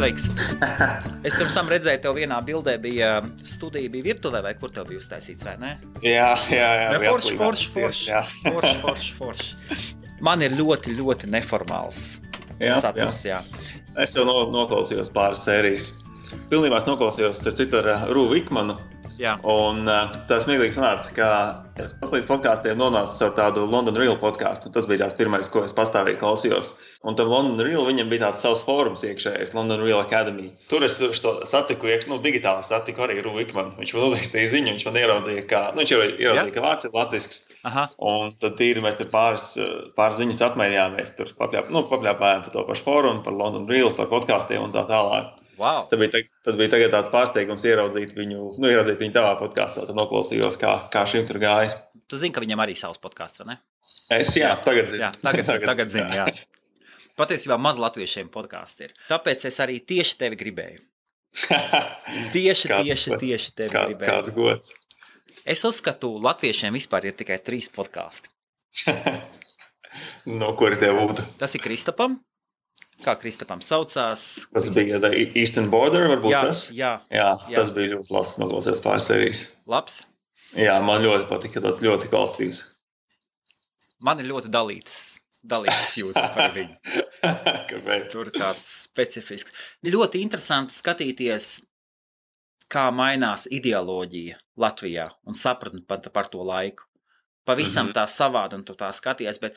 Sveiks. Es pirms tam redzēju, tev vienā bildē bija studija, bija virtuvē, vai kur tev bija uztaisīts, vai ne? Jā. Forši. Man ir ļoti, ļoti neformāls saturs, jā. Es jau noklausījos pāris sērijas. Pilnībā es noklausījos ar Rūvu Ikmanu. Jā. Un tā smieklīgi sanāca, ka es līdz podkāstiem nonācu ar tādu London Real podkāstu. Tas bija tās pirmais, ko es pastāvīgi klausījos. Un tam London Real viņam bija tāds savs fórums iekšējais, London Real Academy. Tur es to satiku, digitāli satiku arī Rūvu Ikmanu. Viņš man uzrakstīja ziņu, viņš man ieraudzīja, ka vārds ir latvisks. Aha. Un tad mēs tur pāris ziņas apmainījāmies. Tur papļāpājām par to pašu fórumu, par London Real, par podkāstiem un tā tālāk. Wow. Tad bija tagad tāds pārsteigums ieraudzīt viņu tavā podkāstā. Tad noklausījos, kā šim tur gājas. Tu zini, ka viņam arī savs podkāsts, vai ne? Tagad zinu. Jā, tagad zinu, jā. Patiesībā maz latviešiem podkāsti ir. Tāpēc es arī tieši tevi gribēju. Tieši tevi gribēju. Kāds gods. Es uzskatu, latviešiem vispār ir tikai 3 podkāsti. No kuri tie būtu? Tas ir Kristapam. Kā Kristapam saucās? Tas bija Eastern Border, varbūt tas? Jā. Tas bija ļoti labs, noklausījos pāris sērijas. Labs? Jā, man ļoti patika, tāds ļoti kvalitatīvs. Man ir ļoti dalītas jūtas par viņu. Kāpēc? Tur tāds specifisks. Ļoti interesanti skatīties, kā mainās ideoloģija Latvijā un sapratni par to laiku. Pavisam tā savādi un tu tā skaties, bet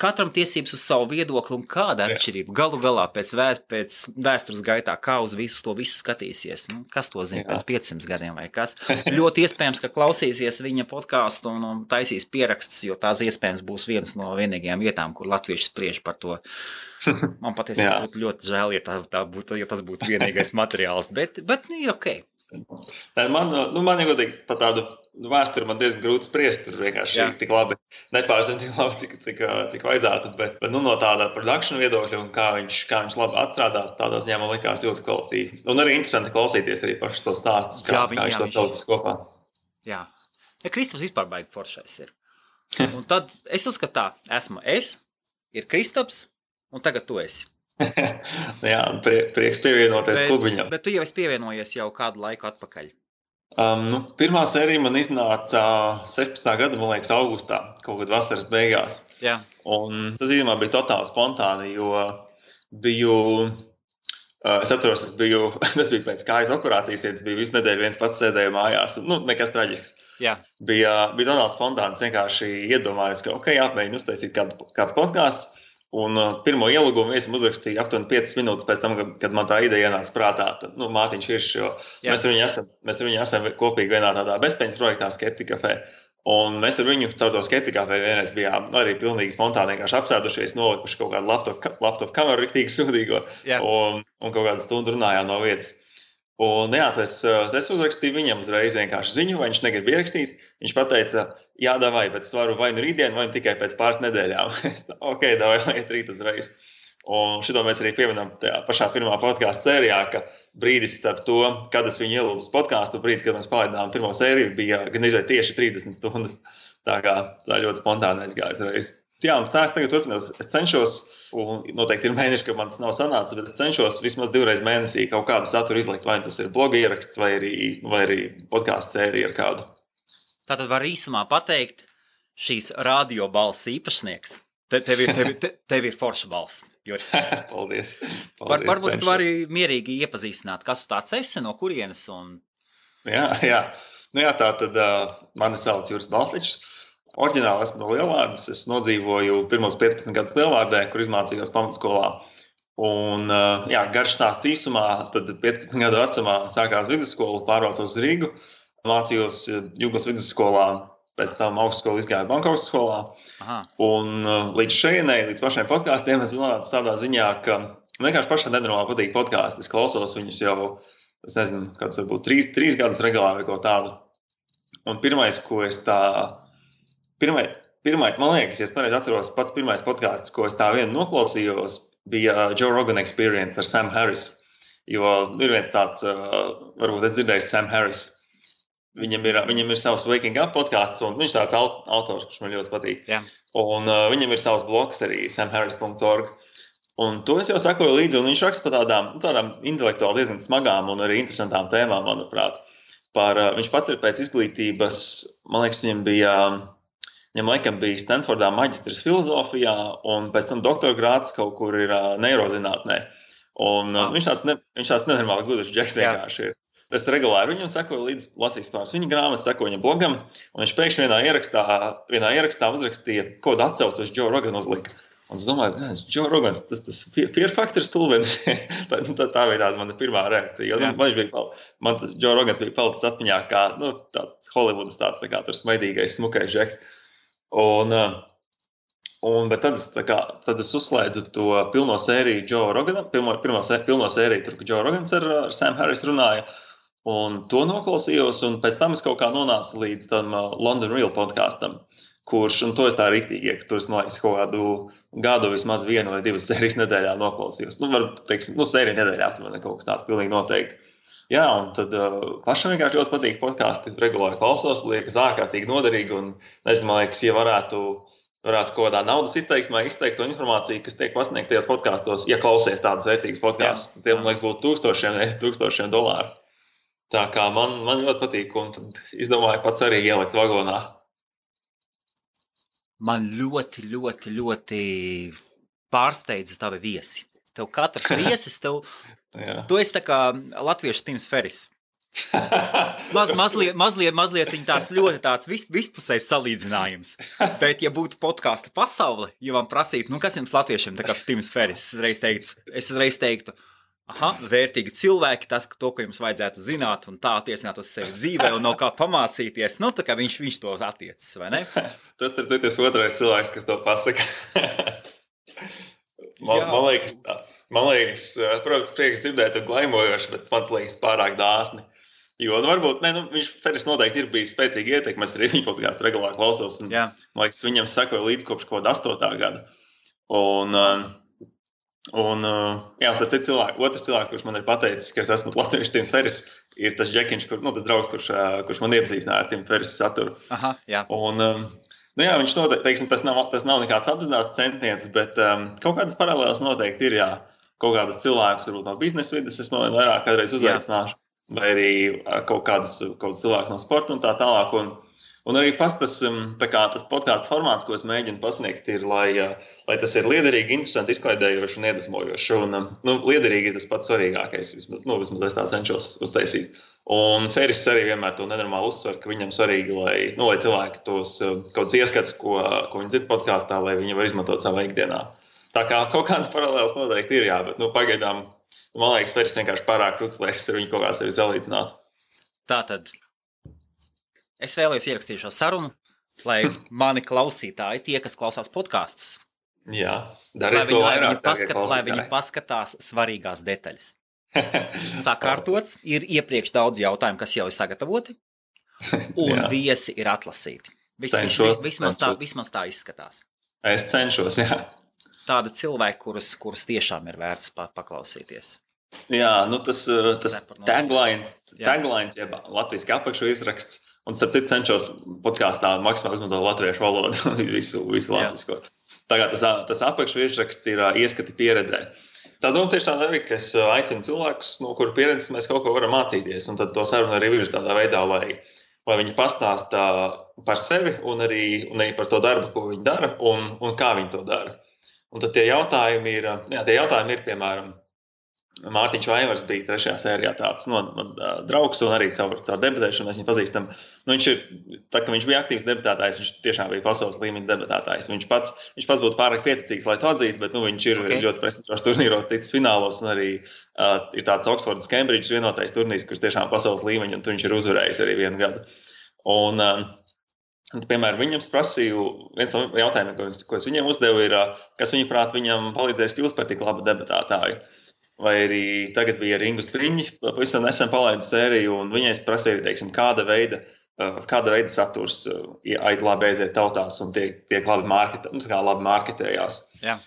katram tiesības uz savu viedokli un kāda atšķirība. Galu galā pēc vēstures gaitā, kā uz visu skatīsies. Kas to zina pēc 500 gadiem vai kas. Ļoti iespējams, ka klausīsies viņa podkāstu un taisīs pierakstus, jo tās iespējams būs viens no vienīgajām vietām, kur latvieši spriež par to. Man patiesībā būtu ļoti žēl, ja tas būtu vienīgais materiāls, bet ir ok. Man ir godīgi par tādu vēsturi man diezgan grūti spriest, tur vienkārši tik labi, nepārzinu tik labi, cik vajadzētu, bet no tāda production viedokļa un kā viņš labi atstrādās, tādā ziņā man likās ļoti kvalitīvi. Un arī interesanti klausīties arī pašus to stāstus, kā viņš to saucis kopā. Jā. Kristaps vispār baigi foršais ir. Un tad es uzskatu tā, ir Kristaps, un tagad tu esi. Jā, prieks pievienoties klubiņam. Bet tu jau esi pievienojies jau kādu laiku atpakaļ. Pirmā sērija man iznāca 17. gada, man liekas, augustā, kaut kad vasaras beigās. Jā. Un tas īstenībā bija totāli spontāni, jo es atceros, tas bija pēc kājas operācijas, ja tas bija visu nedēļu viens pats sēdēju mājās. Nekas traģisks. Jā. Bija totāli spontāns, vienkārši iedomājos, ka jāpmēģina uztaisīt kāds podkāsts. Un pirmo ielūgumu es uzrakstīju aptuveni 5 minūtes pēc tam, kad man tā ideja ienāca prātā. Tad, Mārtiņš Iršs, jo mēs ar viņu esam kopīgi vienā tādā bezpeņas projektā Skeptika Café. Un mēs ar viņu caur to Skeptika Café vienreiz bijām arī pilnīgi spontāni vienkārši apsēdušies, nolikuši kaut kādu laptop kameru riktīgi sūdīgo un kaut kādu stundu runājām no vietas. Un es uzrakstīju viņam uzreiz vienkārši ziņu, vai viņš negrib ierakstīt. Viņš pateica, davai, bet es varu vai nu rītdien, vai nu tikai pēc pāris nedēļām. Ok, davai, iet rīt uzreiz. Un šito mēs arī pieminam tajā pašā pirmā podkāstu sērijā, ka brīdis starp to, kad es viņu ielūdzu uz podkāstu, brīdis, kad mēs palaidām pirmo sēriju, bija gan izvērt tieši 30 stundas. Tā ļoti spontāni aizgājas reiz. Jā, un tā es tagad turpinās. Es cenšos, un noteikti ir mēneši, ka man tas nav sanācis, bet es cenšos vismaz 2 reizes mēnesī kaut kādu saturu izlikt, vai tas ir bloga ieraksts, vai arī podkāstu sērija ar kādu. Tātad var īsumā pateikt, šīs radio balss īpašnieks. Tev ir forša balss. Paldies. Varbūt tu vari mierīgi iepazīstināt, kas tu tāds esi, no kurienes un... Jā. Tā tad mani sauc Juris Baltičs. Oriģināli esmu no Lielvārdas. Es nodzīvoju pirmos 15 gadus Lielvārdē, kur izmācījos pamatskolā. Un, garš stāsts īsumā, tad 15 gadu vecumā sākās vidusskola, pārvācos uz Rīgu. Mācījos Jūglas vidusskolā, pēc tam augstskolu izgāju Bankovas skolā. Aha. Un līdz pašiem podkāstiem es nonācu tādā ziņā, ka vienkārši pašai nenormāli patīk podkāsti. Es klausos viņus jau, es nezinu, kāds varbūt 3 gadus regulāri vai ko tādu. Un pirmais, ko es man liekas, ja es pareizi atceros, pats pirmais podkāsts, ko es tā vien noklausījos, bija Joe Rogan Experience ar Sam Harris. Jo ir viens tāds, varbūt es dzirdēju Sam Harris. Viņam ir savs Waking Up podkāsts, un viņš tāds autors, kurš man ļoti patīk. Jā. Un viņam ir savs blogs arī samharris.org. Un to es jau sakoju līdzi, un viņš raksta par tādām intelektuāli diezgan smagām un arī interesantām tēmām, manuprāt. Viņš pats ir pēc izglītības, man liekas, viņam laikam bija Stanfordā maģistrs filozofijā, un pēc tam doktora grāds kaut kur ir neirozinātnē. Un viņš tāds nenormāli gudrs džeks vienkārši ir. Es regulāri viņam sakoju līdz lasīs pāris viņa grāmatas, sakoju viņam blogam, un viņš pēkšņi vienā ierakstā uzrakstīja, ko atsaucu uz Joe Rogan uzlika. Un es domāju, Joe Rogans, tas fear factor stulbenis. tā bija tāda mana pirmā reakcija. Man tas Joe Rogans bija palicis atmiņā kā tāds Hollywoodas tāds tā kā tur smaidīgais, smukais džeks. Bet tad es uzslēdzu to pilno sēriju Joe Rogana, pilno sēriju, tur, ka Joe Rogans ar Sam Harris runāja. Un to noklausījos, un pēc tam es kaut kā nonācu līdz tam London Real podkastam, kurš, un to es tā riktīgi, ka tur es, man liekas, kaut kādu gadu vismaz 1 vai 2 sērijas nedēļā noklausījos. Sērija nedēļā aptuveni kaut kas tāds pilnīgi noteikti. Jā, un tad pašam vienkārši ļoti patīk podkasti, regulāri klausos, liekas ārkārtīgi noderīgi, un nezinu, man liekas, ja varētu kaut kādā naudas izteiksmē izteikt to informāciju, kas tiek pasniegt tajos podkastos, ja klausies tādas vērtīgas podkastus, tad tiem, man liekas, būtu tūkstošiem dolāru. Tā kā man ļoti patīk, un tad izdomāju pats arī ielikt vagonā. Man ļoti, ļoti, ļoti pārsteidza tavi viesi. Tev katrs viesis, tu esi tā kā latviešu Tims Ferris. Mazliet viņa tāds ļoti tāds vispusējs salīdzinājums. Bet, ja būtu podkasta pasaule, ja man prasītu, kas jums latviešiem tā kā Tims Ferris, es uzreiz teiktu, vērtīgi cilvēki, to, ko jums vajadzētu zināt un tā attiecināt uz sevi dzīvē un no kā pamācīties, tā kā viņš to attiecas, vai ne? Tas ir citas otrais cilvēks, kas to pasaka. Man liekas, protams, prieks dzirdēt un glaimojoši, bet man liekas pārāk dāsni. Jo, varbūt, Ferris noteikti ir bijis spēcīgi ietekme, es arī viņa podcastu regulāri klausos, un, man liekas, viņam sakoja līdz kopš kaut 8. gada. Otrs cilvēks, kurš man ir pateicis, ka es esmu latviešu Tims Ferris, ir tas Džekiņš, tas draugs, kurš man iepazīstināja ar Tims Ferris saturu. Aha, jā. Viņš noteikti, tas nav nekāds apzināts centiens, bet kaut kādas paralēlas noteikti ir, jā. Kaut kādus cilvēkus, varbūt no biznesa vides, es man vairāk kādreiz uzaicināšu, vai arī kaut kādus cilvēkus no sporta un tā tālāk. Un arī tas podkāstu formāts, ko es mēģinu pasniegt, ir, lai tas ir liederīgi, interesanti, izklaidējoši un iedvesmojoši. Liederīgi ir tas pats svarīgākais, vismaz es tā cenšos uztaisīt. Un Ferris arī vienmēr to nenormāli uzsver, ka viņam svarīgi, lai cilvēki tos kaut kāds ieskats, ko viņi dzird podkāstā, lai viņi var izmantot savā ikdienā. Tā kā kaut kādas paralēlas noteikti ir, jā, bet pagaidām, man liekas, Ferris vienkārši pārāk krūts, lai es ar viņu kaut kā sevi salīdzinātu. Tātad. Es vēlējos ierakstīt šo sarunu, lai mani klausītāji, tie, kas klausās podkastus, lai viņi paskatās svarīgās detaļas. Sakārtots, ir iepriekš daudz jautājumu, kas jau ir sagatavoti, un viesi ir atlasīti. Vismaz tā izskatās. Es cenšos, jā. Tāda cilvēka, kurus tiešām ir vērts paklausīties. Jā, tas taglines, jeb latviski apakšu izraksts. Un starp citu cenšos podkāstā maksimāli izmantot latviešu valodu, visu latvisko. Tagad tas apakšu virsraksts ir ieskati pieredzē. Tā doma tieši tāda arī, ka es aicinu cilvēkus, no kuru pieredzes mēs kaut ko varam mācīties. Un tad to sarunu arī virz tādā veidā, lai viņi pastāsta par sevi un arī par to darbu, ko viņi dara un kā viņi to dara. Un tad tie jautājumi ir, piemēram, Mārtiņš Vaivars bija 3. sērijā tāds draugs un arī caur debatēšanu mēs viņu pazīstam. Viņš bija aktīvs debatētājs, viņš tiešām bija pasaules līmeņa debatētājs. Viņš pats būtu pārāk pieticīgs, lai to atzītu, bet viņš ir ļoti prestižos turnīros ticis finālos un arī ir tāds Oxfordas Cambridge vienotais turnīrs, kurš tiešām pasaules līmeņa un viņš ir uzvarējis arī 1 gadu. Un piemēram, viņam prasīju, viens no jautājumiem, ko es viņam uzdevu, ir, kas viņaprāt viņam palīdzēs kļūt par tik labu debatētāju. Vai arī tagad bija ar Ingu Spriņģi, pavisam nesen palaidu sēriju, un viņai es prasīju, kāda veida saturs labi aiziet tautās un tiek labi marketējās. Jā.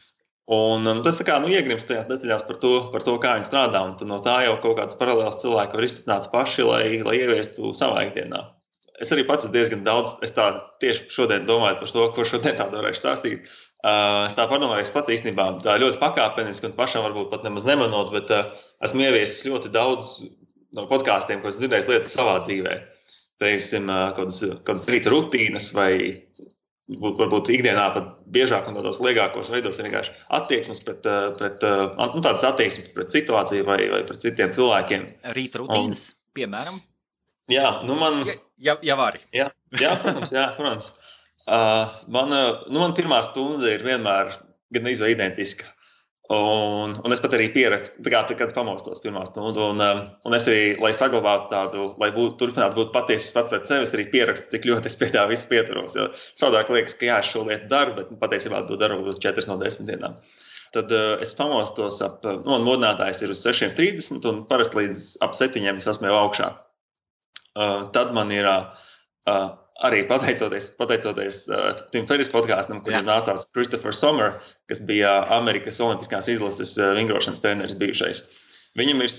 Un tas iegrimst tajās detaļās par to, kā viņi strādā, un no tā jau kaut kāds paralēls cilvēki var izsākt paši, lai ieviestu savā ikdienā. Es arī pats diezgan daudz, es tā tieši šodien domāju par to, ko šodien tādu varēšu stāstīt. Es tā padomāju, es pats īstenībā tā ļoti pakāpeniski un pašam varbūt pat nemaz nemanot, bet esmu ieviesis ļoti daudz no podkāstiem, ko esmu dzirdējis lietas savā dzīvē. Teiksim, kādas rīta rutīnas vai varbūt ikdienā pat biežāk un tādos liegākos veidos ir vienkārši attieksmes tādas attieksmes pret situāciju vai pret citiem cilvēkiem. Rīta rutīnas, piemēram? Jā, man... Ja vari. Jā, protams. Man pirmā stunda ir vienmēr gan izvēl identiska. Un es pat arī pierakstu, kad es pamostos pirmā stundu. Un es arī, lai saglabātu tādu, lai turpinātu būt patiesas pats pret sevi, es arī pierakstu, cik ļoti es pie tā visu pieturos. Jo savādāk liekas, ka es šo lietu daru, bet patiesībā to daru 4 no 10 dienām. Tad es pamostos man modinātājs ir uz 6:30 un parasti līdz ap 7 es esmu jau augšā. Tad man ir arī pateicoties Tim Ferriss podkāstam, kur nācās Christopher Sommer, kas bija Amerikas Olimpiskās izlases vingrošanas treneris bijušais. Viņam ir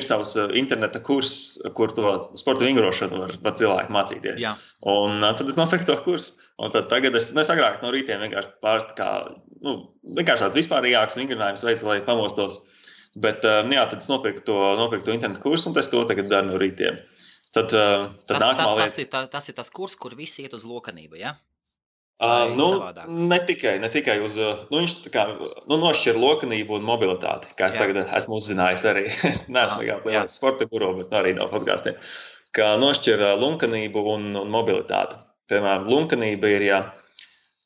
savs interneta kurs, kur to sporta vingrošanu var cilvēki mācīties. Jā. Un tad es nopirku to kursu. Un tad tagad es agrāk no rītiem vienkārši vienkārši tāds vispārīgāks vingrinājums veids, lai pamostos. Bet tad es nopirku to internetu kursu, un es to tagad daru no rītiem. Tad tas ir tas kurs, kur visi iet uz lokanību, ja? Ne tikai uz... viņš nošķir lokanību un mobilitāti, kā es tagad esmu uzzinājis arī. Neesmu lielais sporta guru, bet arī no podkāstiem. Kā nošķir lunkanību un mobilitāti. Piemēram, lunkanība ir,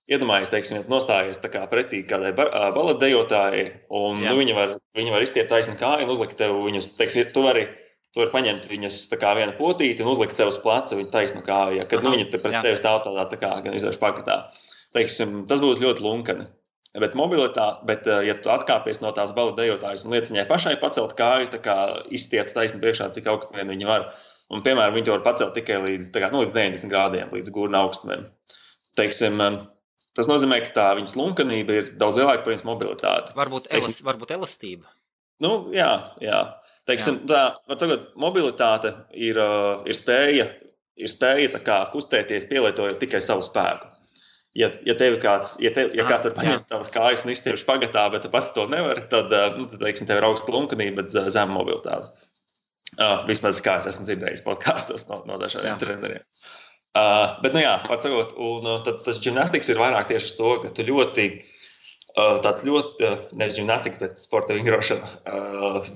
iedomājies, teiksim, nostājies tā kā pretī kādai baletdejotājai, un viņa var izstiept taisni kāju un uzlikt tev viņus, teiksim, tu vari paņemt viņas tā kā viena potīti un uzlikt sev uz pleca viņa taisnu kāju, kad viņa pret tevi stāv tādā tā kā gan izvērš pakatā. Teiksim, tas būtu ļoti lunkani. Bet ja tu atkāpies no tās baletdejotājas un liec viņai pašai pacelt kāju, tā kā izstiept taisni priekšā, cik augstu vien viņa var. Un, piemēram, viņi to var pacelt tikai līdz 90 grādiem, līdz gurna augstumiem. Teiksim, tas nozīmē, ka tā viņas lunkanība ir daudz lielāka par viņas mobilitāti. Varbūt elastība. Jā. Teiksim, mobilitāte ir spēja tā kā kustēties, pielietojot tikai savu spēku. Ja kāds var paņemt tavas kājas un izstiept pagatā, bet tu pats to nevari, tad teiksim, tev ir augsta lunkanība, bet zema mobilitāte. Vismaz kā es esmu dzirdējis podkāstos no dažādiem treneriem. Bet, tad tas gimnastiks ir vairāk tieši uz to, ka tu tāds ļoti, nevis gimnastiks, bet sporta vingrošana,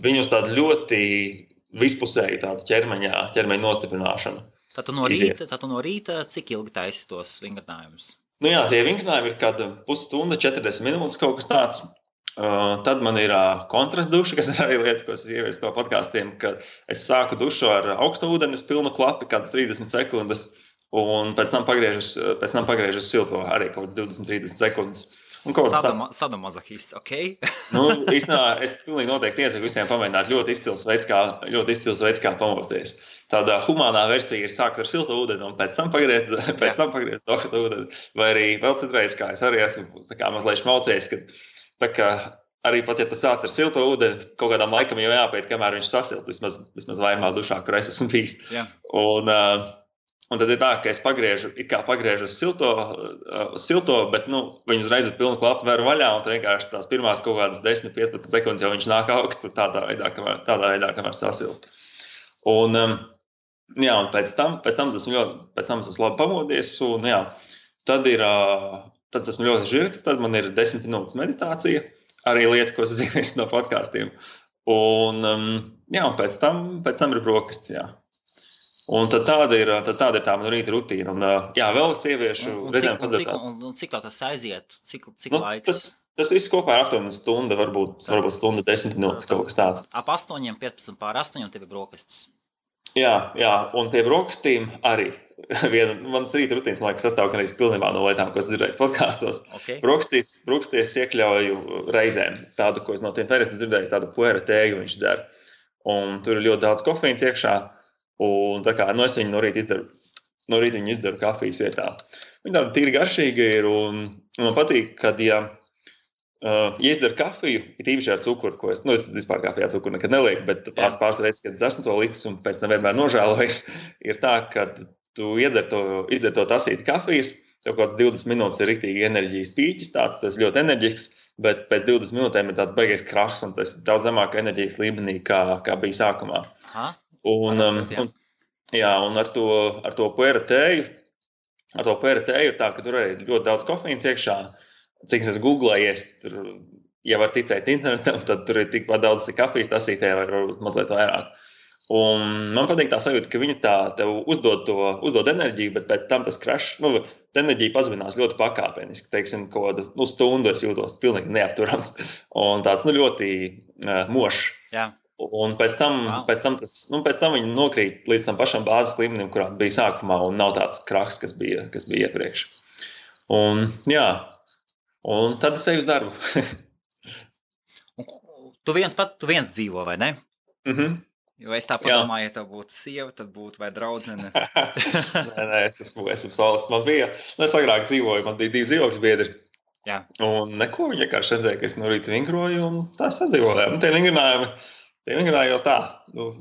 viņus tādu ļoti vispusēju tādu ķermeņa nostiprināšanu. Tad no rīta cik ilgi taisi tos vingrinājumus? Tie vingrinājumi ir kāda pusstunda, 40 minūtes kaut kas tāds. Tad man ir kontrasts duša, kas ir arī lieta, ko es ieviesu no podkāstiem, ka es sāku dušu ar augstu ūdeni, pilnu klapi, kādas 30 sekundes. Un pēc tam pagriežu uz silto arī kaut kāds 20-30 sekundes. Sadomazohists, ok? Īstenībā es pilnīgi noteikti iesaku visiem pamēģināt ļoti izcils veids, kā pamosties. Tāda humānā versija ir sākt ar silto ūdeni un pēc tam pagriezt augstu ūdeni. Vai arī vēl citreiz, kā es arī esmu mazliet šmaucējis, ka arī pat, ja tu sāc ar silto ūdeni, kaut kādām laikam jau jāpēt, kamēr viņš sasilt, vismaz vairumā dušā, kur es esmu bijis. Un tad ir tā, ka es pagriežu uz silto, bet viņu uzreiz ar pilnu klapu veru vaļā, un tad vienkārši tās pirmās kaut kādas 10-15 sekundes jau viņš nāk augstu tādā veidā, kamēr sasilst. Un pēc tam esmu labi pamodies, un tad esmu ļoti žirgts, tad man ir 10 minūtes meditācija, arī lieta, ko es zinu no podkāstiem. Un pēc tam ir brokastis, Un tad tāda ir tā mana rīta rutīna. Un, vēl es ieviešu... Un cik tā tas aiziet? Cik laiks? Tas viss kopā ir aptuveni stunda, varbūt stunda 10 minūtes, kaut kas tāds. Ap 8:15 pār 8 tev ir brokastis. Jā, un pie brokastīm arī. Mans rīta rutīnas, man liekas, sastāv arī pilnībā no lietām, ko es dzirdēju podkāstos. Okay. Brokasties iekļauju reizēm. Tādu, ko es no Tim Ferrissa dzirdēju, tādu puera tēju viņš dzer. Un tur ir ļoti daudz kofeīns iekšā. Un tā kā es viņu no rīta izdaru kafijas vietā. Viņa tāda tīri garšīga ir, un man patīk, kad, ja izdaru kafiju, ir īpaši ar cukuru, ko es vispār kafijā cukuru nekad nelieku, bet pāris reizes, kad es esmu to licis un pēc tam vienmēr nožēlojis, ir tā, ka tu iedzer to tasīti kafijas, tev kaut kāds 20 minūtes ir riktīgi enerģijas pīķis, tas ļoti enerģisks, bet pēc 20 minūtēm ir tāds beigies krahs, un tas ir daudz zemāka enerģijas līmenī, kā bija sākumā. Un ar to puera tēju, ir tā, ka tur arī ļoti daudz kofeīns iekšā. Cik es googlējies, tur, ja var ticēt internetam, tad tur ir tikpat daudz kafijas tasītē, vai varbūt mazliet vairāk. Un man patīk tā sajūta, ka viņi tev uzdod enerģiju, bet pēc tam tas crash, tā enerģija pazeminās ļoti pakāpeniski. Teiksim, kaut kādu stundu es jūtos pilnīgi neapturams un tāds ļoti mošs. Jā. Un pēc tam viņi nokrīt līdz tam pašam bāzes līmenim, kurā bija sākumā, un nav tāds krahs, kas bija iepriekš. Un tad es eju uz darbu. Tu viens dzīvo, vai ne? Mhm. Jo es tā padomāju, ja tev būtu sieva, tad būtu vai draudzene. Nē, es esmu solis. Man bija, es agrāk dzīvoju, man bija 2 dzīvokļu biedri. Jā. Un neko, viņi vienkārši redzēja, ka es no rīta vingroju, un tā sadzīvoju. Un tie vingrinājumi jau tā.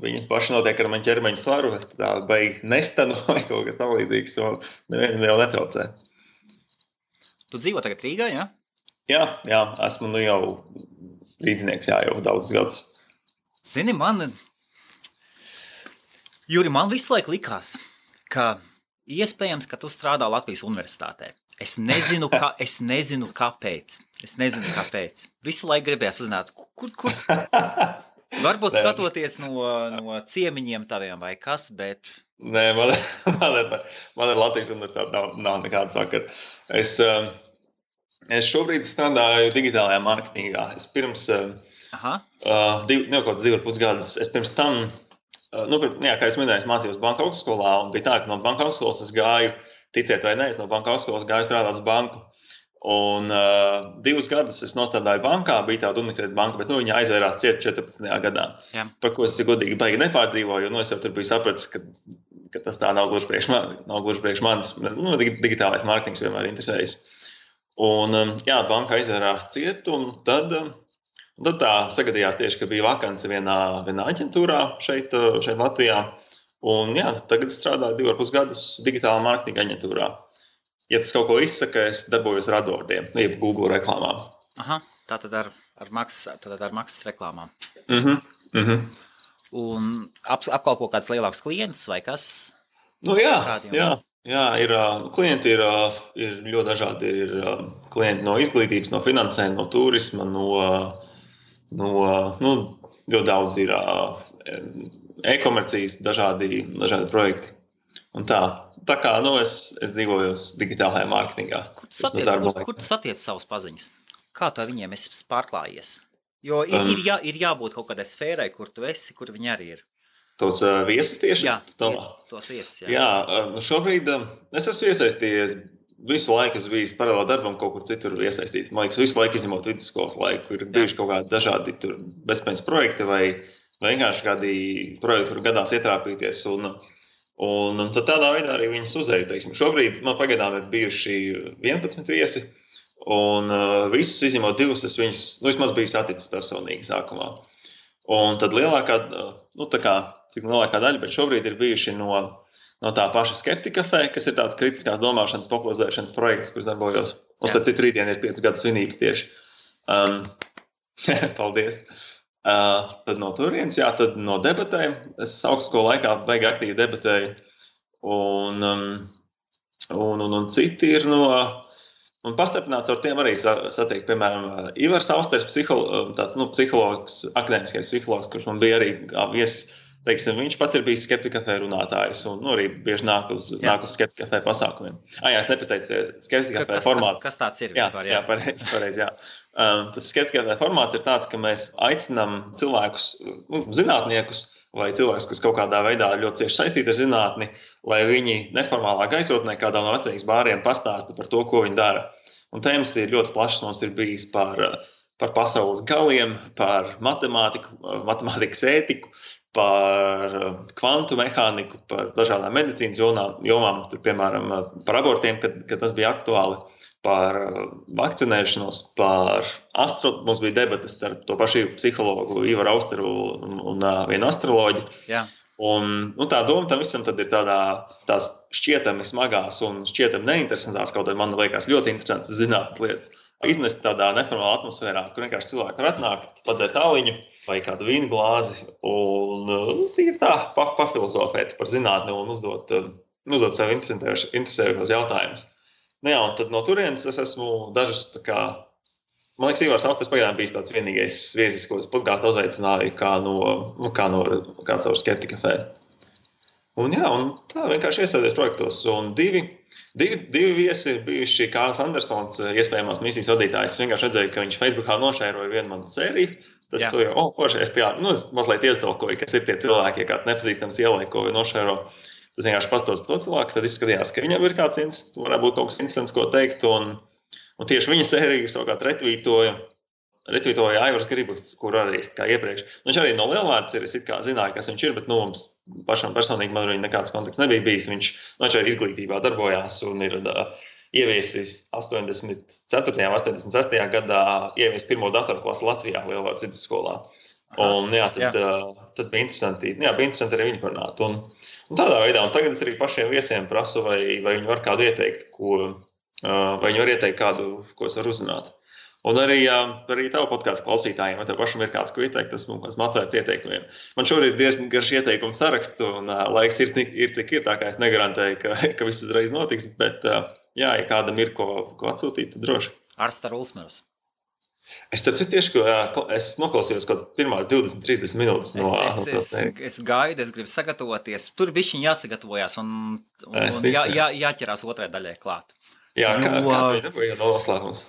Viņi paši notiek ar mani ķermeņa svaru, es tā beigi nestanu vai kaut kas tam līdzīgs, un nevienam jau netraucē. Tu dzīvo tagad Rīgā, jā? Jā, esmu jau līdznieks, jau daudzus gadus. Zini, Juri, man visu laiku likās, ka iespējams, ka tu strādā Latvijas universitātē. Es nezinu, kāpēc. Visu laiku gribējās uzzināt, kur varbūt skatoties no ciemiņiem taviem vai kas, bet... Nē, man ir Latvijas universitāte, nav nekāda sakara. Es šobrīd strādāju digitālajā mārketingā. Es pirms kaut kāds 2,5 gadus, es pirms tam... kā es minēju, es mācījos banka augstskolā, un bija tā, ka no banka augstskolas es gāju, ticiet vai ne, es no banka augstskolas gāju strādāt uz banku. Un 2 gadus es nostādāju bankā, bija tāda Unikredit banka, bet viņa aizvērās ciet 14. gadā. Jā. Par ko es godīgi baigi nepārdzīvoju, jo es jau tur biju sapratis, ka tas tā nav gluži priekš manis. Digitālais mārketings vienmēr interesējas. Un banka aizvērās ciet, un tad tā sagadījās tieši, ka bija vakance vienā aģentūrā šeit Latvijā. Un tagad strādāju 2,5 gadus digitālā mārketinga aģentūrā. Ja tas kaut ko izsaka, es darbojos ar AdWordiem, jeb Google reklāmām. Tātad ar maksas reklāmām. Mhm. Un apkalpo kāds lielāks klients vai kas? Klienti ir ļoti dažādi. Ir klienti no izglītības, no finansēm, no turisma, ļoti daudz ir e-komercijas, dažādi projekti. Un tā kā es dzīvoju digitālajā mārketingā. Kur tu satiec savus paziņas? Kā tu ar viņiem esi pārklājies? Jo ir jābūt kaut kādai sfērai, kur tu esi, kur viņi arī ir. Tos viesus tieši? Jā, tos viesus. Šobrīd es esmu iesaistījies. Visu laiku es biju paralēli darbam kaut kur citur iesaistīts. Man liekas, visu laiku izņemot vidusskolas laiku. Ir bijuši kaut kādi dažādi bezpējas projekti vai vienkārši kādi projekti, kur gadās ietrāpīties. Un tad tādā veidā arī viņus uzēju. Šobrīd man pagaidām ir bijuši 11 viesi. Un visus izņemot 2, es viņus vismaz biju saticis personīgi sākumā. Un tad lielākā daļa, bet šobrīd ir bijuši no tā paša Skeptika Café, kas ir tāds kritiskās domāšanas popularizēšanas projekts, kurš darbojos. Mums ar citu rītdien ir 5 gadu svinības tieši. Paldies. Tad no turienes, tad no debatēm. Es augstskolu laikā baigi aktīvi debatēju. Un citi ir no... Un pastarpināts ar tiem arī satiek, piemēram, Ivars Austers, psihologs, akadēmiskais psihologs, kurš man bija arī viesis. Viņš pats ir bijis Skeptika Café runātājs un arī bieži nāk uz Skeptika Café pasākumiem. Es nepateicu, Skeptika Café formāts. Kas tāds ir vispār? Jā, pareizi. Tas Skeptika Café formāts ir tāds, ka mēs aicinām cilvēkus, zinātniekus vai cilvēkus, kas kaut kādā veidā ļoti cieši saistīti ar zinātni, lai viņi neformālā gaisotnē kādā no vecrīgas bāriem pastāsta par to, ko viņi dara. Un tēmas ir ļoti plašas, mums ir bijis par pasaules galiem, par matemātiku, matemātikas ētiku, par kvantu mehāniku, par dažādām medicīnas jomām, piemēram, par abortiem, kad tas bija aktuāli, par vakcinēšanos, mums bija debates starp to pašu psihologu Ivaru Austeru un vienu astroloģi. Jā. Un tā doma tam visam tad ir tās šķietami smagās un šķietami neinteresantās, kaut arī man liekas ļoti interesants zinātnes lietas. Iznest tādā neformālā atmosfērā, kur vienkārši cilvēki var atnākt, padzert tāliņu vai kādu vīnu glāzi un tīri tā pafilozofēt par zinātni un uzdot sev interesējošos jautājumus. Nu jā, un tad no turienes es esmu dažus man liekas, Ivars Austes pagaidām bijis tāds vienīgais viesis, ko es podkāstu uzaicināju kā caur Skeptika kafē. Un tā vienkārši iesaisties projektos. Un divi viesi ir bijuši Kārlis Andersons, iespējamās misijas vadītājs. Es vienkārši redzēju, ka viņš Facebookā nošēroja vienu manu sēriju. Tas es mazliet iestolkoju, kas ir tie cilvēki, ja kāds nepazīstams ielaiko vai nošēro. Tas vienkārši pastos par to cilvēku, tad izskatījās, ka viņam ir varētu būt kaut kas interesants, ko teikt. Un tieši viņa sēriju savukārt retvītoja Aivars Gribus, kur arī kā iepriekš. Viņš arī no Lielvārds ir, es zināju, kas viņš ir, bet mums pašam personīgi man arī nekāds kontakts nebija bijis. Viņš arī izglītībā darbojās un ir ieviesis 84. un 86. gadā ieviesis pirmo datoru klasi Latvijā Lielvārds vidusskolā. Un tad bija interesanti arī viņu parunāt. Un tādā veidā, un tagad es arī pašiem viesiem prasu, vai viņi var kādu ieteikt, vai viņi var ieteikt kādu, ko es varu uzzināt. Un arī tavu podkāstu klausītājiem, vai tev pašam ir kāds, ko ieteikt, esmu atvērts ieteikumiem. Man šobrīd ir diezgan garš ieteikumu saraksts, un laiks ir cik ir, tā kā es negarantēju, ka viss uzreiz notiks, bet ja kādam ir ko atsūtīt, tad droši. Arsta Ulsmers. Es tieši, es noklausījos kaut pirmās 20-30 minūtes Es gaidu, es gribu sagatavoties. Tur bišķiņ jāsagatavojās un jāķerās otrai daļai klāt. Jā, kā bija noslēgums?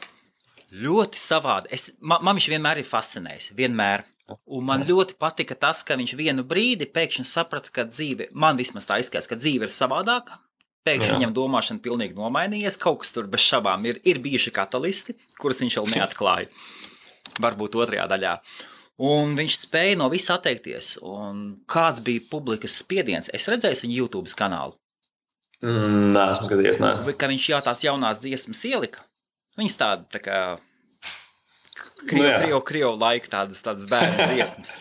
Ļoti savādi. Man viņš vienmēr ir fascinējis. Vienmēr. Un man ļoti patika tas, ka viņš vienu brīdi pēkšņi saprata, ka dzīve, man vismaz tā izskatās, ka dzīve ir savādāka. Pēkšņi viņam domāšana pilnīgi nomainījies. Kaut kas tur bez šabām ir bijuši katalisti, kurus viņš vēl neatklāja. Varbūt otrajā daļā. Un viņš spēja no visa atteikties. Un kāds bija publikas spiediens? Es redzēju viņu YouTube kanālu. Nē, esmu gadījies, nē. Ka viņš tās jaunās dziesmas ielika. Viņas tā kā krievu laika tādas bērnu dziesmas.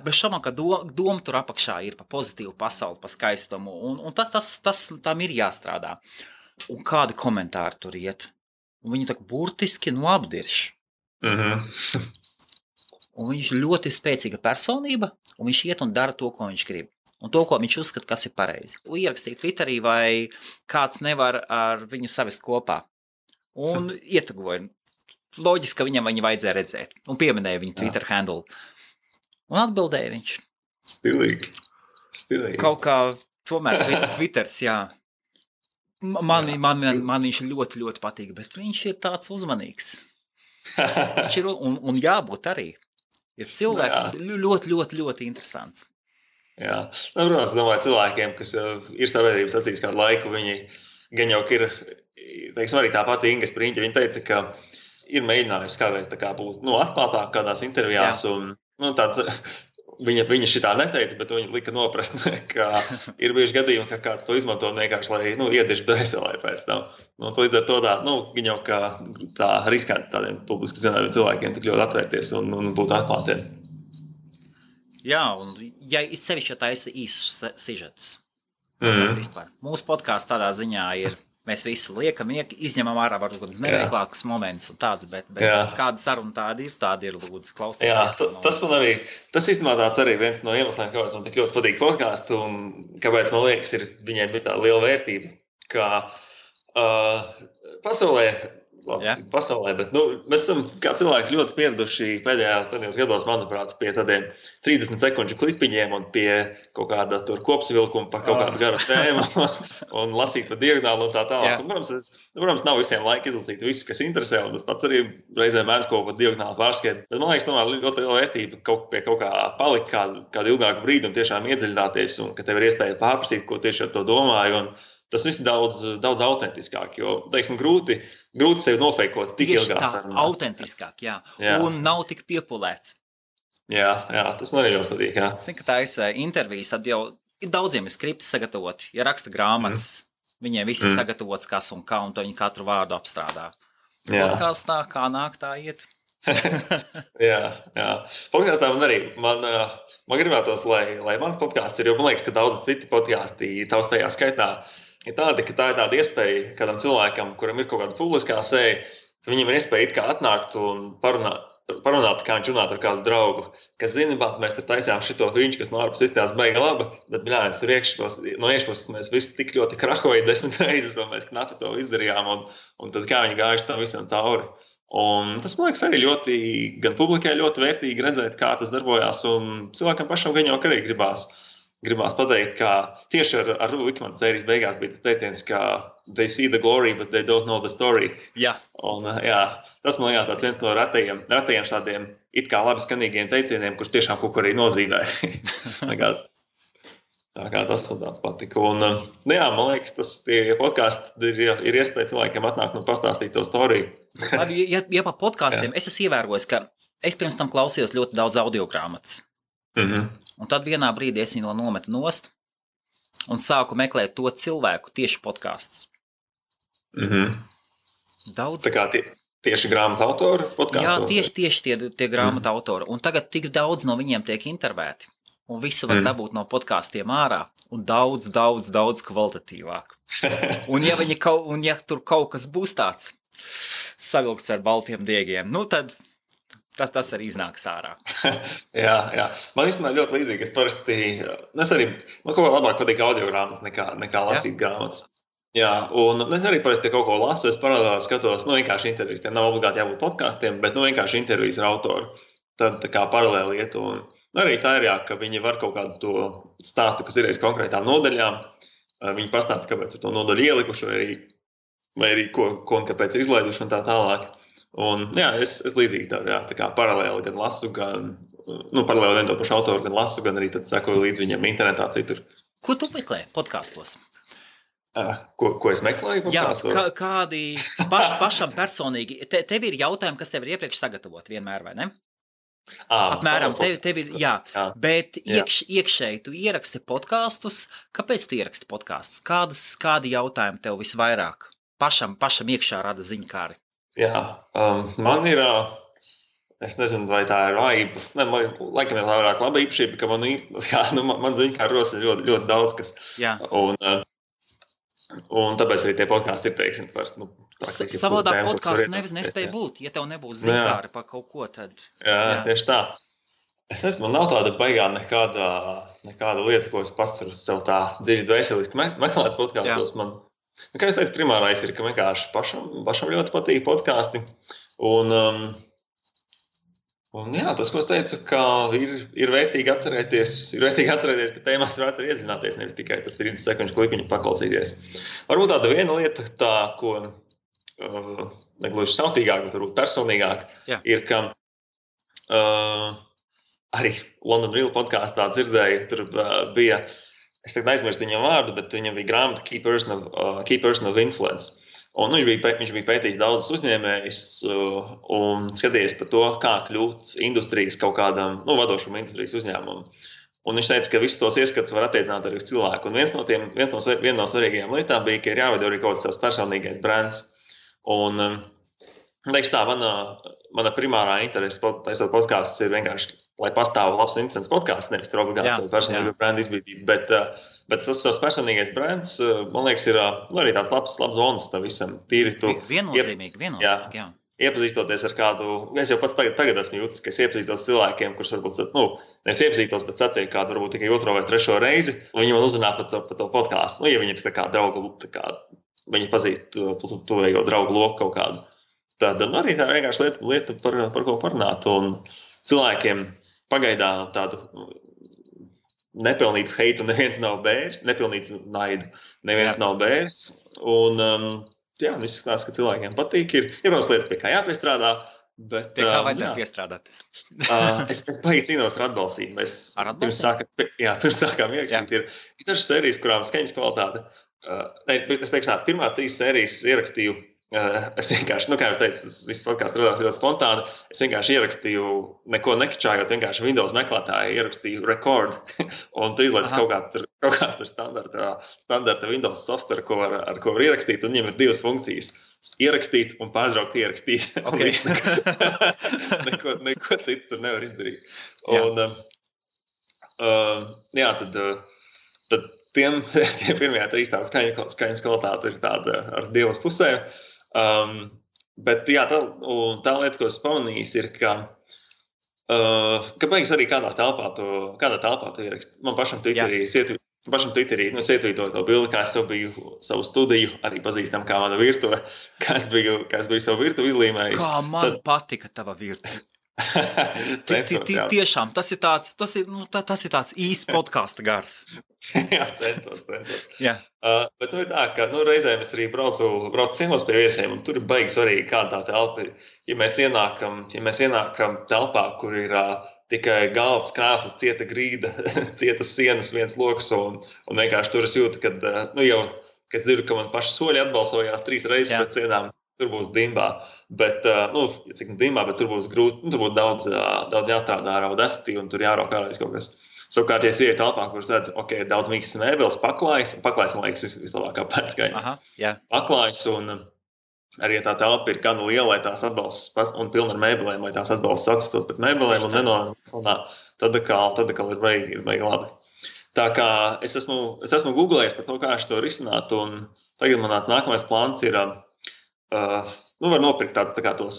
Bez šaubām, ka doma tur apakšā ir pa pozitīvu pasauli, pa skaistumu, un tas tam ir jāstrādā. Un kādi komentāri tur iet. Un viņi tā burtiski apdirš. Un viņš ļoti spēcīga personība, un viņš iet un dara to, ko viņš grib. Un to, ko viņš uzskata, kas ir pareizi. Ierakstīt Twitterī, vai kāds nevar ar viņu savest kopā. Un ietegoja. Loģiski, ka viņam viņu vajadzēja redzēt. Un pieminēja viņu Twitter handle. Un atbildēja viņš. Stilīgi. Kaut kā tomēr Twitters, jā. Man viņš ļoti, ļoti patīk, bet viņš ir tāds uzmanīgs. Viņš ir, un jābūt arī. Ir cilvēks ļoti, ļoti, ļoti interesants. Jā. Protams, es domāju, cilvēkiem, kas ir sabiedrības acīs kādu laiku, viņi gan jau ir, teiksim, arī tā pati Inga Spriņķa, viņa teica, ka ir mēģinājusi kādreiz būt atklātāk kādās intervijās, un tāds, viņa šitā neteica, bet viņa lika noprast, ka ir bijuši gadījumi, ka kāds to izmanto vienkārši, lai iedirž dvēselē pēc tam. Līdz ar to viņa jau kā tā riskanti tādiem publiski zināmiem cilvēkiem tik ļoti atvērties un būt atklātiem. Jā, un ja sevišķi taisa īsus sižetus. Vispār. Mūsu podkāsts tādā ziņā ir, mēs visi liekam, izņemam ārā varbūt neveiklākas moments un tāds, bet kāda saruna tāda ir, lūdzu, klausieties. Jā, tas man arī, tas īstenībā tāds arī viens no iemesliem, kāpēc man tik ļoti patīk podkāstu un kāpēc man liekas, viņai bija tā liela vērtība, ka pasaulē, bet mēs esam kā cilvēki ļoti pieraduši pēdējos gados, manuprāt, pie tādiem 30 sekundžu klipiņiem un pie kaut kāda tur kopsavilkuma par kaut kādu garu tēmu un lasīt pa diagonālu un tā tālāk. Protams, nav visiem laika izlasīt visu, kas interesē, un tas pats arī reizēm mēdz kaut ko pa diagonālu pārskēt. Bet man liekas, tomēr ļoti liela vērtība pie kaut kā palikt kādu ilgāku brīdi un tiešām iedziļināties, un ka tev ir iespēja pārprasīt, ko tieši ar to domāju. Un tas viss daudz autentiskāk, jo, teiksim, grūti sevi nofeikot tik ilgā sarunā. Tieši tā, autentiskāk, jā. Un nav tik piepulēts. Jā, tas man arī ļoti patīk, jā. Es zinu, ka taisa intervijas, tad jau daudziem ir skripti sagatavoti, ja raksta grāmatas, viņiem viss ir sagatavots kas un kā, un to viņi katru vārdu apstrādā. Podkāstā, kā nāk, tā iet. Jā. Podkāstā man gribētos, lai mans podkāsts ir, jo man liekas, ka daudz citi podkāsti tavs tajā skaitā ir tādi, ka tā ir tāda iespēja kādam cilvēkam, kuram ir kaut kāda publiskā seja, ka viņam ir iespēja it kā atnākt un parunāt, kā viņš runāt ar kādu draugu, kas zina, bāc, mēs tur taisījām šito viņš, kas no ārpus izstās beiga laba, bet, bļāņas, tur no iekšpuses mēs visi tik ļoti krahoja 10 reizes, un mēs knapi to izdarījām, un tad kā viņi gājuši tam visam cauri. Un tas, man liekas, arī ļoti, gan publikai ļoti vērtīgi redzēt, kā tas darbojās, un cilvēkam pašam gan jau arī gribās pateikt, ka tieši ar Vikmana sērijas beigās bija tas teiciens, ka they see the glory, but they don't know the story. Jā. Un, tas, man liekas, viens no retajiem tādiem it kā labi skanīgiem teicieniem, kurš tiešām kaut ko arī nozīmē. Tā kā tas man tāds patika. Un, man liekas, tie podkāsti ir iespēja cilvēkiem atnākt un pastāstīt to storiju. Labi, ja pa podkāstiem, es esmu ievērojis, ka es pirms tam klausījos ļoti daudz audiogrāmatas. Un tad vienā brīdī es viņu nometu nost un sāku meklēt to cilvēku tieši podkāstus. Daudz. Tā kā tieši grāmatu autori podkāstos? Jā, tieši tie grāmatu autori. Un tagad tik daudz no viņiem tiek intervēti. Un visu var dabūt no podkāstiem ārā. Un daudz kvalitatīvāk. Un ja tur kaut kas būs tāds savilkts ar baltiem diegiem, nu tad tas arī iznāks ārā. Jā. Man īstenībā ļoti līdzīgi. Man kaut kā labāk patīk audiogrāmatas nekā lasīt grāmatas. Jā, un es arī parasti kaut ko lasu, es paralēli skatos, vienkārši intervijas. Tiem nav obligāti jābūt podkāstiem, bet vienkārši intervijas ar autoru. Tad tā kā paralēli iet. Un arī tā ir, ka viņi var kaut kādu to stāstu, kas ir aiz konkrētām nodaļām. Viņi pastāsta, kāpēc to nodaļu ielikuši, vai arī ko un kāpēc ir izlaiduši un tā tālāk. Un, es līdzīgi tā kā paralēli gan lasu, paralēli vien to pašu autoru gan lasu, gan arī tad sekoju līdz viņam internetā citur. Ko tu meklē podkāstos? Ko es meklēju podkāstos? Jā, kādi pašam personīgi, tev ir jautājumi, kas tev ir iepriekš sagatavot vienmēr, vai ne? Apmēram, tev ir, bet iekšēji tu ieraksti podkāstus. Kāpēc tu ieraksti podkāstus? Kādi jautājumi tev visvairāk pašam iekšā rada ziņkāri? Jā, man ir, es nezinu, vai tā ir vājība. Laikam ir vairāk laba īpašība, ka man ziņkāri rosina ļoti, ļoti daudz kas. Jā. Un tāpēc arī tie podkāsti ir, teiksim, par... Savādāk podkāsts nespēja būt, ja tev nebūs ziņkāri par kaut ko, tad... Jā, tieši tā. Es nezinu, man nav tāda baigā nekāda lieta, ko es pats sev tā dziļi dvēseliski meklēt podkāstos. Kā es teicu, primārais ir, ka vienkārši pašam ļoti patīk podkāsti. Un tas, ko es teicu, ka ir vērtīgi atcerēties, ka tēmās varētu arī iedziļināties, nevis tikai 30 sekundžu klipiņu paklausīties. Varbūt tāda viena lieta, ko negluži sautīgāk, bet varbūt personīgāk, ir, ka arī London Real podkāstā dzirdēju, tur bija... Es tagad aizmirstu viņam vārdu, bet viņam bija grāmata Key Person of Influence. Un viņš bija pētījis daudzus uzņēmējus un skatījies par to, kā kļūt industrijas kaut kādam, vadošam industrijas uzņēmumam. Un viņš teica, ka visus tos ieskatus var attiecināt arī uz cilvēku. Un viena no svarīgajām lietām bija, ka ir jāveido arī kaut kāds tavs personīgais brands. Un, teikšu tā, mana primārā interese taisot podkāstus ir vienkārši, lai pastāv labs un interesants podkāsts, nevis tur obligāti savu personīgo brandu izbīdību. Bet tas savs personīgais brands, man liekas, ir arī tāds labs bonus tam visam. Tīri tu... Viennozīmīgi, jā. Iepazīstoties ar kādu, es jau pats tagad esmu jūtis, ka es iepazīstos cilvēkiem, kurus varbūt, es iepazīstos, bet satieku kādu varbūt tikai 2. vai 3. reizi, un viņi man uzrunā par to podkāstu. Ja viņi ir tā kā draugu, viņi pazīst tuvējo draugu loku kaut kādu. Tad arī tā vienkārši lieta par ko parunāt. Un cilvēkiem pagaidām tādu nepelnītu heitu neviens nav bērs, nepelnītu naidu neviens nav bērs. Un viss izskatās, ka cilvēkiem patīk. Ir protams lietas, pie kā jāpiestrādā. Bet, pie kā vajadzētu piestrādāt? Es baigi cīnos ar atbalstību. Pirms sākām ierakstīt. Ir dažas sērijas, kurām skaņas kvalitāte. Es teikšu tā, pirmās 3 sērijas ierakstīju Es vienkārši, kā jau teicu, tas viss podkāsts radās ļoti spontāni. Es vienkārši ierakstīju, neko nekačājot, vienkārši Windows meklētāju ierakstīju record, un tur izlaiž kaut kāds standarta Windows software, ar ko var ierakstīt, un viņiem ir 2 funkcijas. Ierakstīt un pārtraukt ierakstīt. Okay. neko citu tur nevar izdarīt. Un, tad tiem pirmajā 3 tāda skaņas kvalitāte ir tāda ar 2 pusēm. Bet tā lieta, ko es pamanījis, ir, ka beigas arī kādā telpā to ierakst. Man pašam Twitterī es ietvītoju to bildi, kā es biju savu studiju, arī pazīstam kā mana virtuve, kā es biju savu virtuvi izlīmējis. Kā man patika tava virtuve. Tiešām, tas ir tāds īsts podkāsta gars. Jā, centos. Jā. Bet ir tā, ka reizēm es arī braucu ciemos pie viesiem, un tur ir baigi svarīgi, kāda tā telpa ir. Ja mēs ienākam telpā, kur ir tikai galds, krāsa, cieta grīda, cietas sienas, viens loks, un vienkārši tur es jūtu, kad dzirdu, ka man paši soļi atbalsojās 3 reizes pēc sienām. Tur būs dimbā, bet, cik dimbā, bet tur būs grūti, tur būs daudz jāstrādā ar Audacity, un tur jārok ārreiz kaut kas. Savukārt, ja es ieju telpā, kur es redzu, ir daudz mīkstas mēbeles, paklājas, man liekas, vislabākā pēcskaņas. Paklājas, un arī tā telpa ir gan liela, lai tās atbalstas, un pilna ar mēbelēm, lai tās atbalstas atsistos pret mēbelēm, un nenonāk, tad ir baigi labi. Tā kā es esmu googlējis par to, kā to risināt, un tagad man nākamais plāns ir, var nopirkt tādus tos,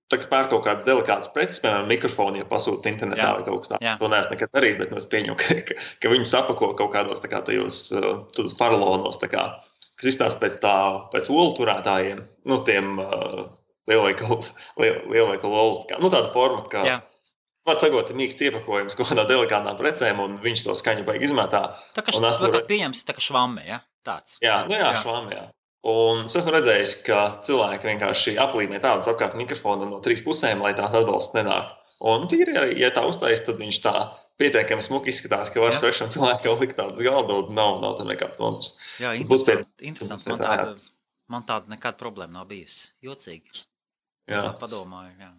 pērk kaut kādas delikātas preces, piemēram, mikrofoni, ja pasūta internetā vai kaut kas tāds. To neesmu nekad darījis, bet es pieņemu, ka viņi sapako kaut kādos tajos paralonos, kas izstāsta pēc olu turētājiem, tiem lielveikalu olu. Tāda forma, ka var sagot mīksts iepakojums kaut kādā delikātām precēm, un viņš to skaņu baigi izmetā. Tā kā pieņems, tā kā švamme, ja? Tāds. Jā, švamme, jā. Un es esmu redzējis, ka cilvēki vienkārši aplīmē tādus apkārt mikrofonu no 3 pusēm, lai tās atbalsts nenāk. Un tīri, ja tā uztais, tad viņš tā pietiekami smuki izskatās, ka var svešam cilvēkam likt tādas galdu, nav tam nekāds nomas. Jā, interesanti. Man tāda nekāda problēma nav bijusi. Jocīgi. Es tā padomāju, jā.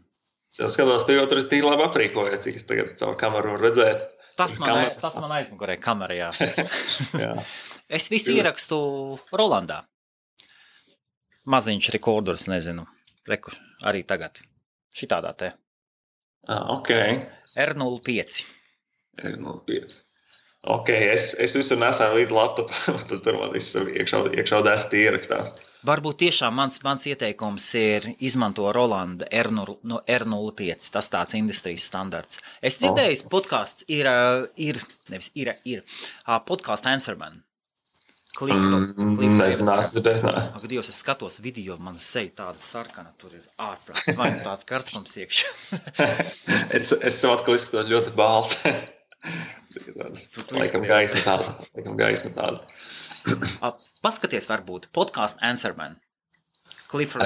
Es skatos, tu jau tur tīri labi aprīkojies, cik es tagad caur kameru varu redzēt. Tas man aizmugurē kamerā, jā. Es visu ierakstu Rolandā. Maziņš rekordors, nezinu. Reku, arī tagad. Šitādā te. Ok. R05. Ok, es visur nesāju līdz laptopu, tad tur man viss iekšā Audacity ierakstās. Varbūt tiešām mans ieteikums ir izmanto Rolanda R05. Tas tāds industrijas standarts. Es dzirdēju, podcasts ir podcasts Answerman. Ak, Dievs, es skatos video, mana seja tāda sarkana, tur ir ārprāts, vai tāds karstums iekšā. es sev atkal izskatos ļoti bāls. Laikam gaisma tāda. Paskaties varbūt, podcasts Answerman. Cliff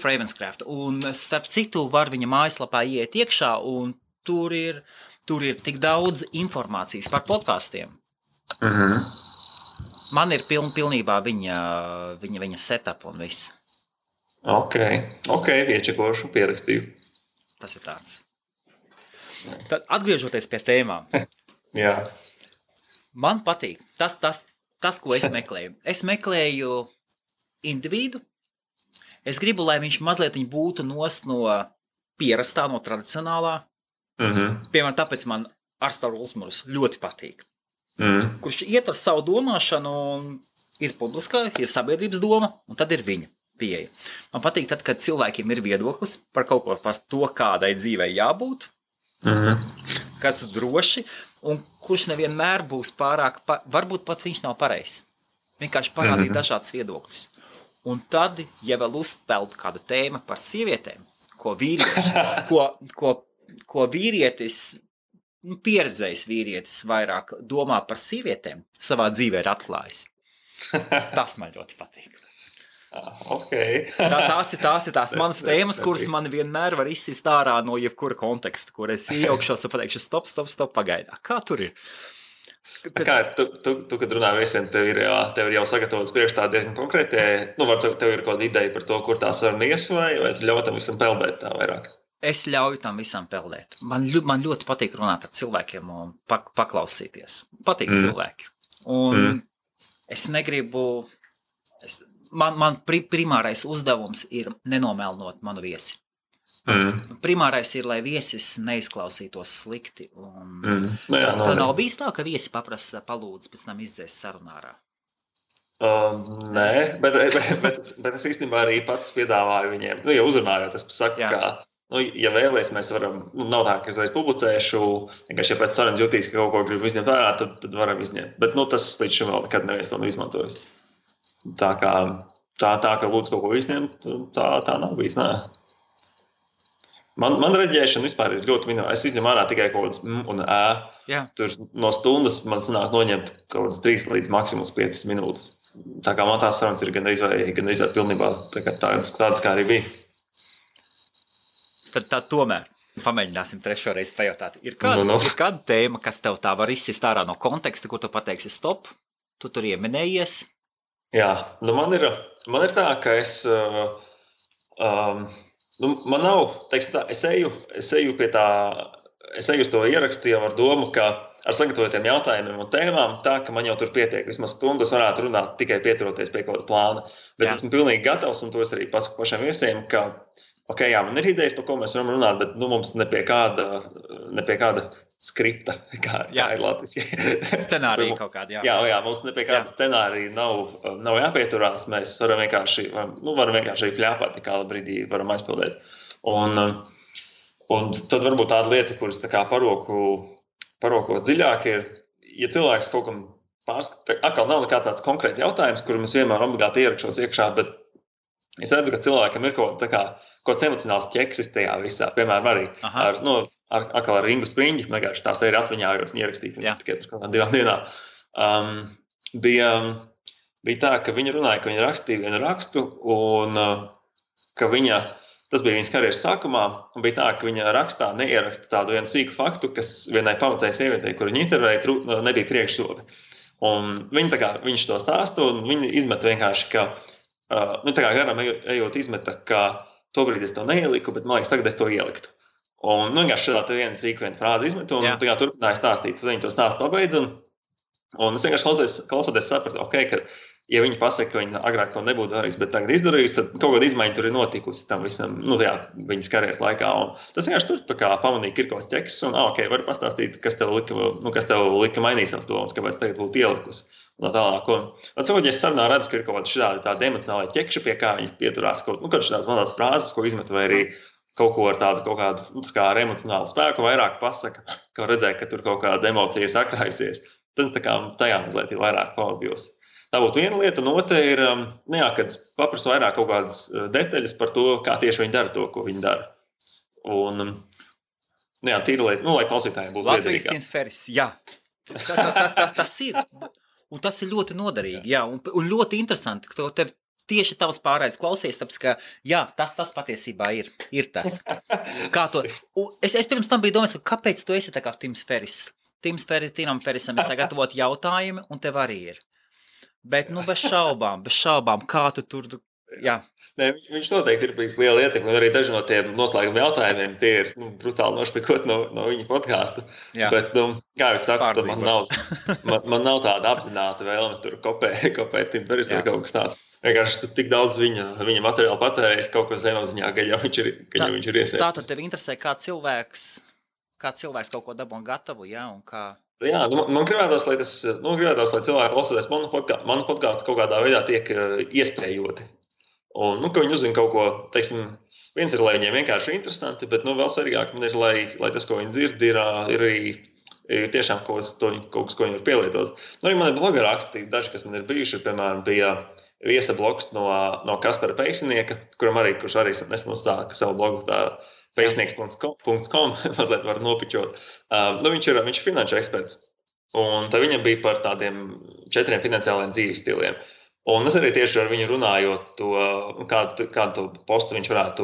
Ravenscraft. Un starp citu var viņa mājaslapā iet iekšā, un tur ir tik daudz informācijas par podkastiem. Man ir pilnībā viņa setup un viss. Ok, iečekošu, pierakstīju. Tas ir tāds. Tad atgriežoties pie tēmām. Jā. Man patīk tas, ko es meklēju. Es meklēju individu. Es gribu, lai viņš mazliet būtu nost no pierastā, no tradicionālā. Piemēram, tāpēc man Arstars Ulsmurs ļoti patīk. Kurš iet ar savu domāšanu un ir publiskā, ir sabiedrības doma, un tad ir viņa pieeja. Man patīk tad, kad cilvēkiem ir viedoklis par kaut ko, par to, kādai dzīvei jābūt, kas droši, un kurš nevienmēr būs pārāk, varbūt pat viņš nav pareizs. Vienkārši parādīt dažādas viedokļus. Un tad, ja vēl uzspēltu kādu tēmu par sievietēm, ko vīrietis, pieredzējis vīrietis vairāk domā par sievietēm, savā dzīvē ir atklājis. Tas man ļoti patīk. Okay. Tās ir tās manas tēmas, kuras man vienmēr var izsist ārā no jebkura konteksta, kur es iejaukšos un pateikšu stop, pagaidā. Kā tur ir? Kā ir, tu kad runā viesiem, tev ir jau sagatavots priekšā diezgan konkrēti, varbūt tev ir kaut kāda ideja par to, kur tā saruna ies, vai tu ļauj tam visam peldēt tā vairāk? Es ļauju tam visam peldēt. Man ļoti patīk runāt ar cilvēkiem un paklausīties. Patīk cilvēki. Un es negribu... Man primārais uzdevums ir nenomēlnot manu viesi. Primārais ir, lai viesis neizklausītos slikti. Tā nav bijis tā, ka viesi paprasa palūdz pēc tam izdzēst sarunā ārā? Nē, bet es īstenībā arī pats piedāvāju viņiem, ja uzrunājot, es pasaku, ka, ja vēlies, mēs varam, nav tā, ka es reiz publicēšu, vienkārši, ja pēc sarunas jutīs, ka kaut ko gribu izņemt vērā, tad varam izņemt. Bet, tas līdz šim vēl nekad neviens to nav izmantojis. Tā kā lūdzu kaut ko izņemt, tā nav bijis, nē. Man reģēšana vispār ir ļoti minimāla. Es izņemu ārā tikai kaut kādas un ē. Tur no stundas man sanāk noņemt kaut kādas 3 līdz maksimums 5 minūtes. Tā kā man tās sarunas ir gan izvērt pilnībā tādas, kā arī bija. Tad tomēr pamēģināsim trešo reizi pajautāt. Ir kāda tēma, kas tev tā var izsist ārā no konteksta, kur tu pateiksi stop, tu tur ieminējies? Jā, man ir tā, ka es, man nav, teiksim tā, es eju pie tā, es eju uz to ierakstu jau ar domu, ka ar sagatavotiem jautājumiem un tēmām tā, ka man jau tur pietiek, vismaz stundas varētu runāt tikai pieturoties pie kaut kāda plāna, bet esmu pilnīgi gatavs, un to es arī pasaku pašiem viesiem, ka, man ir idejas, par ko mēs varam runāt, bet mums ne pie kāda skripta, kā ir latviski. Scenārija kaut kāda, jā, mums ne pie kāda scenārija nav jāpieturās, mēs varam vienkārši pļāpāt, kā brīdī varam aizpildēt. Un tad varbūt tāda lieta, kuras tā kā parokos dziļāk ir, ja cilvēks kaut kam atkal nav nekā tāds konkrēts jautājums, kuru mēs vienmēr obligāti ierakšos iekšā, bet es redzu, ka cilvēkam ir kaut kāds emocionāls ķeksis tajā visā, piemēram, arī ar Ringu Spriņģi, vienkārši tās ir atmiņājos un ierakstīti tikai par kādām 2 dienām. Bija tā, ka viņa runāja, ka viņa rakstīja vienu rakstu un ka tas bija viņas karjeras sākumā, un bija tā, ka viņa rakstā neieraksta tādu vienu sīku faktu, kas vienai pavacēja sievietei, kur viņa intervēja, nebija priekšsobi. Un viņš to stāstu, un viņa izmet vienkārši, ka, tā kā garam ejot izmeta, ka tobrīd es to neieliku, bet man liekas, tagad es to ieliktu. Un vienkārši šādā viena sīkviena frāze izmetu, un turpināja stāstīt, tad viņi to stāstu pabeidz, un es vienkārši klausoties sapratu, ka ja viņi pasaka, ka viņi agrāk to nebūtu darījis, bet tagad izdarījis, tad kaut kāda izmaiņa tur ir notikusi tam visam, viņas karjeras laikā. Un tas vienkārši tur tā kā pamanīja Kirkovs ķeksis, un var pastāstīt, kas tev lika mainīt savas domas, kāpēc tagad būtu ielikusi. Un tā tālāk. Un cilvēki, ja es sarunā redzu, ka ir kaut kāda tāda emocionāla ķekša, pie kā viņi pieturās kaut šādās mazās frāzes, ko izmet, vai arī kaut ko ar kādu ar emocionālu spēku vairāk pasaka, ka redzēja, ka tur kaut kāda emocija ir sakrājusies. Tad tajā mazliet ir vairāk paudījos. Tā būtu viena lieta, un otra ir, kad paprasu vairāk kaut kādas detaļas par to, kā tieši viņi dara to, ko viņi dara. Un, tīra lieta, lai klausītājiem būtu liederīgāk. Latvijas Tinsferis, jā. Tas ir. Un tas ir ļoti noderīgi, jā. Un ļoti interesanti, ka tev tieši tavs pārējais klausies, tāpēc, ka, jā, tas patiesībā ir tas. Kā to? Es pirms tam biju domājis, kāpēc tu esi tā kā Tims Feris? Tinam Ferisam ir sagatavot jautājumi, un tev arī ir. Bet, bez šaubām, kā tu tur, jā. Nē, viņš noteikti ir bijis liela ietekme, un arī daži no tiem noslēguma jautājumiem, tie ir brutāli nošpikot no viņa podkāsta. Bet, kā es saku, man nav tāda apzināta vēlme tur kopēt Tim Feris vai kaut kas tāds. Vienkārši esmu tik daudz viņa materiālu patērējis kaut ko zemapziņā, ka jau viņš ir iesēdis. Tātad tev interesē, kā cilvēks kaut ko dabū gatavu, jā, un kā... Jā, man gribētos, lai cilvēki klausoties manu podkāstu kaut kādā veidā tiek iespējoti. Un, ka viņi uzzina kaut ko, teiksim, viens ir, lai viņiem vienkārši interesanti, bet, vēl svarīgāk man ir, lai tas, ko viņi dzird, ir arī tiešām kaut kas, ko viņi var pielietot. Arī man ir bloga raksti, daži, kas man ir bijuši, piemēram, bija viesa blogs no Kaspara Peiksnieka, kurš arī nesen uzsāka savu blogu tā peisnieks.com, mazliet var nopičot. Viņš ir finanšu eksperts, un tā viņam bija par tādiem 4 finansiāliem dzīves stiliem. Un es arī tieši ar viņu runājot, kādu postu viņš varētu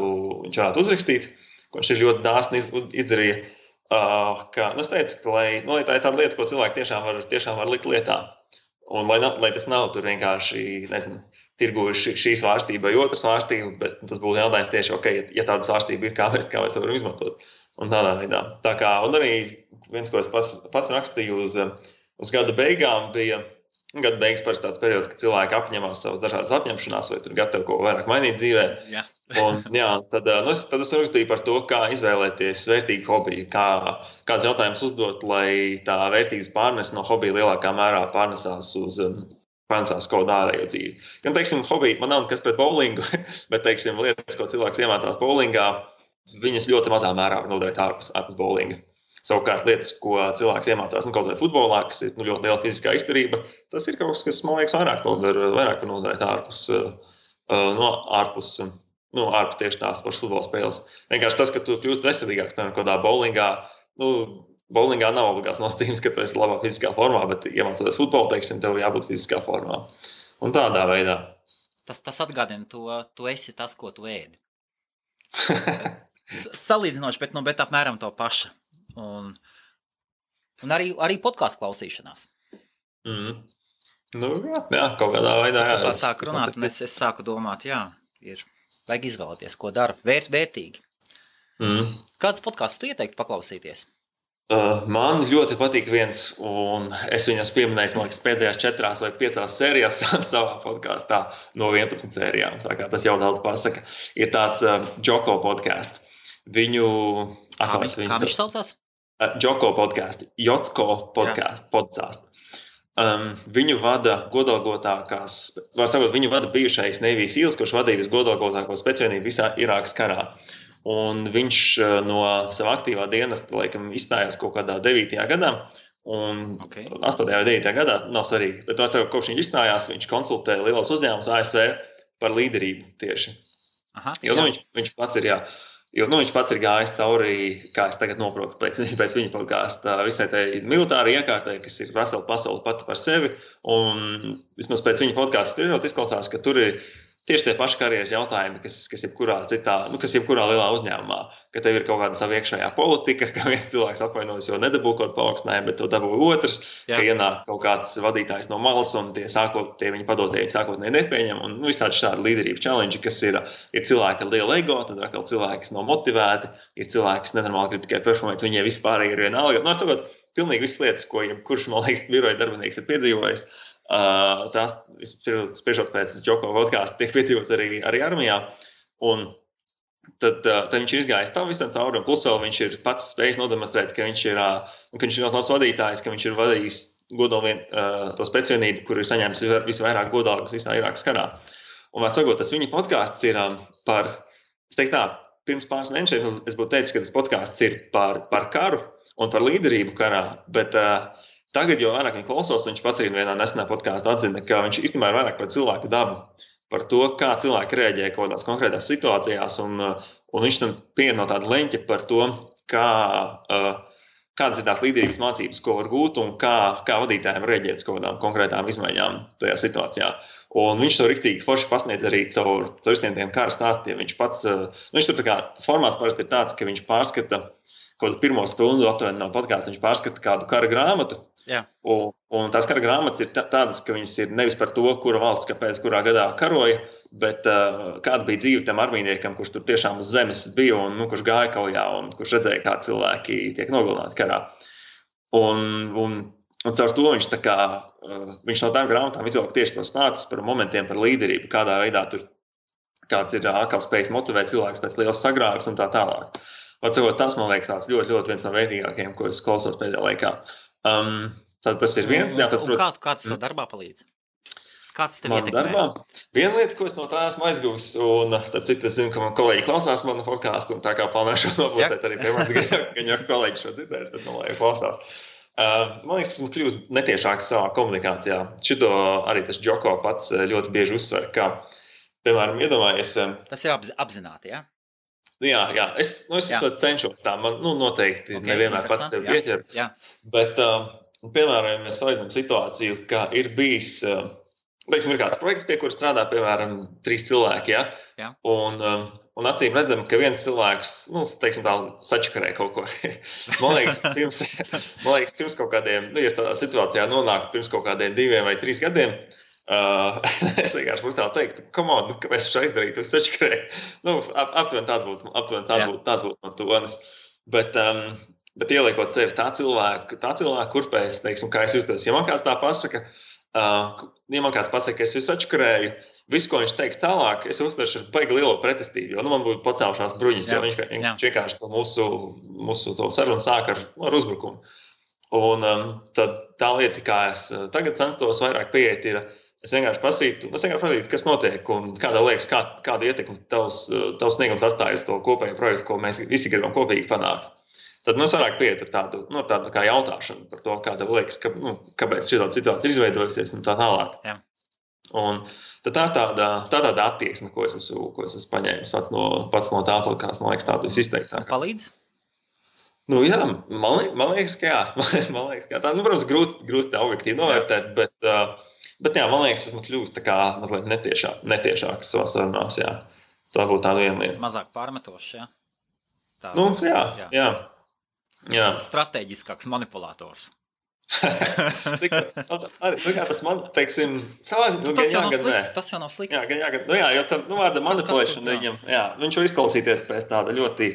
uzrakstīt, ko viņš ir ļoti dāsni izdarīja. Es teicu, ka lai tā ir tāda lieta, ko cilvēki tiešām var likt lietā. Un lai tas nav tur vienkārši, nezinu, tirgu šī svārstība vai otra svārstība, bet tas būtu jautājums tieši, okay, ja tāda svārstība ir, kā mēs varam izmantot. Un tādā veidā. Un arī viens, ko es pats rakstīju uz gada beigām, bija gada beigas parasti tāds periods, kad cilvēki apņemās savas dažādas apņemšanās vai tur gatavi ko vairāk mainīt dzīvē. Tad es rakstīju par to, kā izvēlēties vērtīgu hobiju, kāds jautājums uzdot, lai tā vērtības pārnes no hobija lielākā mērā pārnesās pārnesās kaut kādā ārējo dzīvi. Gan, teiksim, hobija, man nav nekas pret bowlingu, bet, teiksim, lietas, ko cilvēks iemācās bowlingā, viņas ļoti mazā mērā var noderēt ārpus bowlinga. Savukārt lietas, ko cilvēks iemācās kaut vai futbolā, kas ir ļoti liela fiziskā izturība, tas ir kaut kas, man liekas, vairāk noderēt ārpus tieši tās pašas futbola spēles. Vienkārši tas, ka tu kļūst veselīgāks, piemēram, kādā bowlingā, bowlingā nav obligāts nosacījums, ka tu esi labā fiziskā formā, bet iemācoties futbolu, teiksim, tev jābūt fiziskā formā. Un tādā veidā. Tas atgādina tu esi tas, ko tu ēdi. Salīdzinoši, bet apmēram to paša. Un arī podkāstu klausīšanās. Jā, kaut kādā veidā. Tā sāku runāt, un es sāku domāt, vajag izvēlēties, ko dara. Vērtīgi. Kāds podkāsts tu ieteiktu paklausīties? Man ļoti patīk viens, un es viņus pieminēju, man liekas, pēdējās 4 vai 5 sērijās savā podkāstā no 11 sērijām. Tā kā tas jau daudz pasaka. Ir tāds Joko podkāsts. Kā viņš saucās? Joko podkāsti, Jotko podkāstu. Viņu vada godalgotākās, var sakot, viņu vada bijušais Navy Seals, kurš vadīja visgodalgotāko spēcvienību visā Irākas karā. Un viņš no sava aktīvā dienesta, laikam, izstājās kaut kādā 9. gadā, un 8. vai 9. gadā, nav svarīgi, bet kopš viņš izstājās, viņš konsultē lielos uzņēmumus ASV par līderību tieši. Viņš pats ir, viņš pats ir gājis cauri, kā es tagad noprotu, pēc viņa podkāsta visai tai militāri iekārtai, kas ir vesela pasaule pati par sevi. Un vismaz pēc viņa podkāsta spriežot izklausās, ka tur ir tieši tie paši karjeras jautājumi, kas jebkurā lielā uzņēmumā. Ka tev ir kaut kāda sava iekšējā politika, ka viens cilvēks apvainojas, jo nedabū kaut kādu paaugstinājumu, bet to dabū otrs, ka ienāk kaut kāds vadītājs no malas un tie viņa padotēji sākotnēji nepieņem. Un visādi šādi līderību challenge, kas ir cilvēki ar lielu ego, tad atkal cilvēki, kas nav motivēti, ir cilvēki, kas nenormāli grib tikai performēt, viņiem vispār ir vienalga. Sakot, pilnīgi visas lietas, ko jebkurš, man liekas, biroja darbinieks ir piedzīvojis. Tās, spriežot pēc Joko podkāsta, tiek piedzīvots arī armijā. Un tad viņš ir izgājis tam visam cauri, un plus vēl viņš ir pats spējis nodemonstrēt, ka viņš ir ļoti labs vadītājs, ka viņš ir vadījis to spēcvienību, kur ir saņēmis visvairāk godalgas visā Irākas karā. Un var sakot, tas viņa podkāsts ir par, es teiktu tā, pirms pāris mēnešiem es būtu teicis, ka tas podkāsts ir par karu un par līderību karā, bet tagad jau vairāk viņa klausos, viņš pats arī vienā nesenā podkāstā atzina, ka viņš īstenībā ir vairāk par cilvēku dabu, par to, kā cilvēki reaģē kaut kādās konkrētās situācijās, un viņš tam pieņem no tāda leņķa par to, kādas ir tās līderības mācības, ko var gūt, un kā vadītājiem reaģēt uz kaut kādām konkrētām izmaiņām tajā situācijā. Un viņš to riktīgi forši pasniedz arī caur visiem tiem kara stāstiem. Viņš tur tas formāts parasti ir tāds, ka viņš pārskata kaut kādu pirmo stundu aptuveni no podkāsta, viņš pārskata kādu kara grāmatu. Un tās kara grāmatas ir tādas, ka viņas ir nevis par to, kura valsts kāpēc kurā gadā karoja, bet kāda bija dzīve tam armijniekam, kurš tur tiešām uz zemes bija un kurš gāja kaujā un kurš redzēja, kā cilvēki tiek nogalināti karā. Un caur to viņš viņš no tām grāmatām izvelk tieši tos stāstus par momentiem, par līderību, kādā veidā tur kāds ir atkal spējis motivēt cilvēks pēc lielas sagrāves un tā tālāk. Tas, man liekas, tāds ļoti, ļoti viens no vērtīgākajiem, ko es klausos pēdējā laikā. Tad tas ir viens. Kāds tev darbā palīdz? Kāds tev ietekmē? Darbā? Viena lieta, ko es no tā esmu aizguvis, un starp citu, es zinu, ka man kolēģi klausās manu podkāstu, un tā kā plānošu nopublicēt arī pie manis, gan jau kolēģi šo dzirdēs, bet man lai klausās. Man liekas, esmu kļūst netiešāks savā komunikācijā. Šito arī tas Joko pats ļoti bieži uzsver, ka, piemēram, iedomājies... Tas ir apzināti, jā? Jā, es cenšos tā, man noteikti nevienmēr pats sev pieķer, bet, piemēram, mēs salīdzinām situāciju, ka ir bijis teiksim, ir kāds projekts, pie kura strādā, piemēram, 3 cilvēki, ja? Jā. Un acīm redzam, ka viens cilvēks, teiksim tā, sačakarē kaut ko. Man liekas, pirms kaut kādiem, ja tādā situācijā nonāk pirms kaut kādiem 2 vai 3 gadiem, es vienkārši būtu tā teiktu, kāpēc šeit izdarītu, es sačakarēju. Aptuveni tāds būtu no tonis. Bet ieliekot sevi tā cilvēka kurpēs, teiksim, kā es justos, ja man kāds tā pasaka, ja man kāds pasaka, ka es visu atškarēju, visu, ko viņš teiks tālāk, es uztveršu ar baigi lielu pretestību, jo man būtu pacēlušās bruņas, jo viņš vienkārši to mūsu to sarunu sāk ar uzbrukumu. Un tad tā lieta, kā es tagad censtos vairāk pieiet, ir, es vienkārši prasītu, kas notiek un kādā liekas, kādu ietekmi tavs sniegums atstāja uz to kopējo projektu, ko mēs visi gribam kopīgi panākt. Tad mēs vairāk pieiet ar tādu kā jautāšanu par to, kā tev liekas, kāpēc šī situācija ir izveidojusies un tā tālāk. Jā. Un tad tā tāda attieksme, ko es esmu paņēmis pats no tā podkāsta, man liekas, tādu visizteiktāk. Palīdz? Jā, man liekas, ka jā. Man liekas, ka tā, protams, grūti objektīvi novērtēt, bet jā, man liekas, esmu kļūst tā kā mazliet netiešāks savā sarunās, jā. Tā būtu tāda viena lieta. Mazāk pārmetošs, jā? Jā. Stratēģiskāks manipulators. Tas man, teiksim, savā ziņā, tas jau nav slikti. Jā, jo tam vārda manipulēšana viņam, viņš var izklausīties pēc tāda ļoti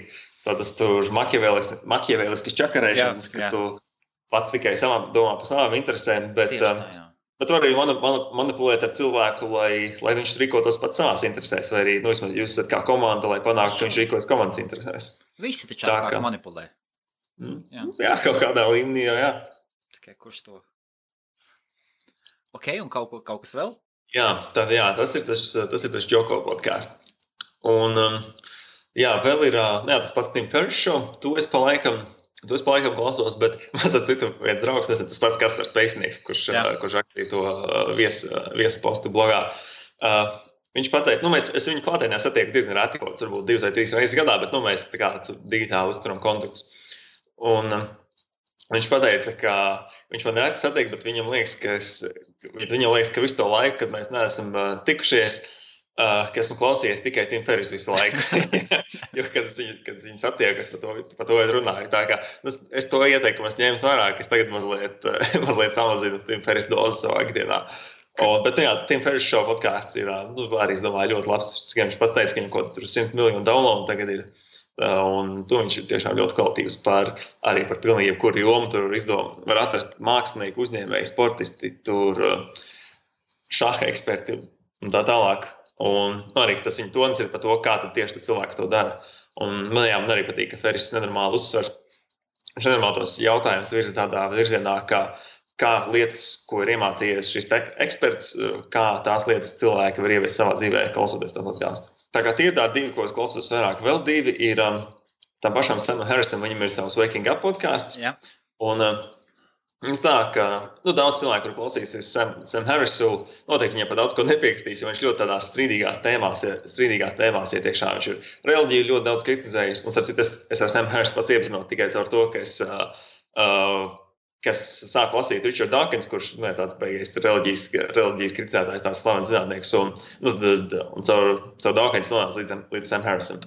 tādas tur maķievēliskas čakarēšanas, ka tu pats tikai domā par savām interesēm, bet var arī manipulēt ar cilvēku, lai viņš rīkotos pats savās interesēs, vai arī, vismaz jūs esat kā komanda, lai panāktu, ka viņš rīkojas komandas interesēs. Visi taču kā manipulē. Jā, kaut kādā līmenī, jā. Tikai kurš to? Ok, un kaut kas vēl? Jā, tas ir tas Joko podcasts. Un, vēl ir tas pats Tim Ferriss show, to es pa laikam klausos, bet man citu viens draugs, tas pats Kaspars Pēcnieks, kurš rakstīja to viesu postu blogā. Viņš pateica, es viņu klātienē satieku diezgan reti, varbūt 2 vai 3 reizes gadā, bet mēs tā kā digitāli uzturam kontaktus. Un viņš pateica, ka viņš man reti satiek, bet viņam liekas, ka visu to laiku, kad mēs neesam tikušies, ka esmu klausījies tikai Tim Ferriss visu laiku. Jo, kad viņi satiek, es par to runāju. Tā kā es to ieteikumu ņēmu vērā, ka es tagad mazliet samazinu Tim Ferriss dozi savā ikdienā. Bet Tim Ferriss show podcasts ir arī, es domāju, ļoti labs. Viņš pats teica, ka viņam kaut tur 100 miljonu downloadu tagad ir. Un to viņš ir tiešām ļoti kvalitīvs arī par pilnīgi jebkuru jomu. Tur var atrast mākslinieku, uzņēmēju, sportisti, tur šaha eksperti un tā tālāk. Un arī tas viņa tonis ir par to, kā tad tieši cilvēks to dara. Un man arī patīk, ka Ferriss nenormāli uzsver. Viņš nenormāli tos jautājumus virza tādā virzienā, kā lietas, ko ir iemācījies šis eksperts, kā tās lietas cilvēki var ieviest savā dzīvē, klausoties to podcastu. Tā kā tie ir tādi 2, ko es klausos vairāk. Vēl 2 ir tam pašam Samam Harrisam, viņam ir savs Waking Up podcasts. Jā. Un tā, ka daudz cilvēku, kur klausīsies Sam Harrisu, noteikti viņam par daudz ko nepiekritīs, jo viņš ļoti tādās strīdīgās tēmās iet iekšā. Viņš ir reliģiju ļoti daudz kritizējis. Un es ar Sam Harrisu pats iepazinos tikai caur to, ka es sāku lasīt Richard Dawkins, kurš tāds beigies reliģijas kritizētājs, tāds slavens zinātnieks, un caur Dawkins nonāca līdz Sam Harrisam.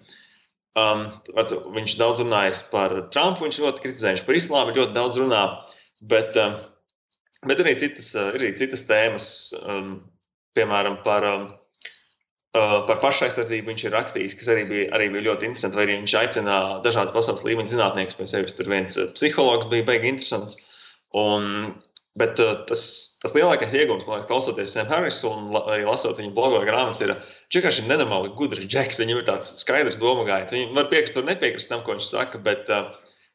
Viņš daudz runājis par Trumpu, viņš ļoti kritizēja, viņš par islāmu ļoti daudz runā, bet ir arī citas tēmas, piemēram, par pašaizsardzību viņš ir rakstījis, kas arī bija ļoti interesanti, vai arī viņš aicina dažādas pasaules līmeņa zinātniekus pie sevis. Tur viens psihologs bija baigi interesants. Bet tas lielākais iegūms, man liekas, klausoties Sam Harrisu un arī lasot viņa blogu vai grāmatas, ir vienkārši nenormāli gudrs džeks. Viņam ir tāds skaidrs domagājiens. Viņi var piekrist un nepiekrist tam, ko viņš saka, bet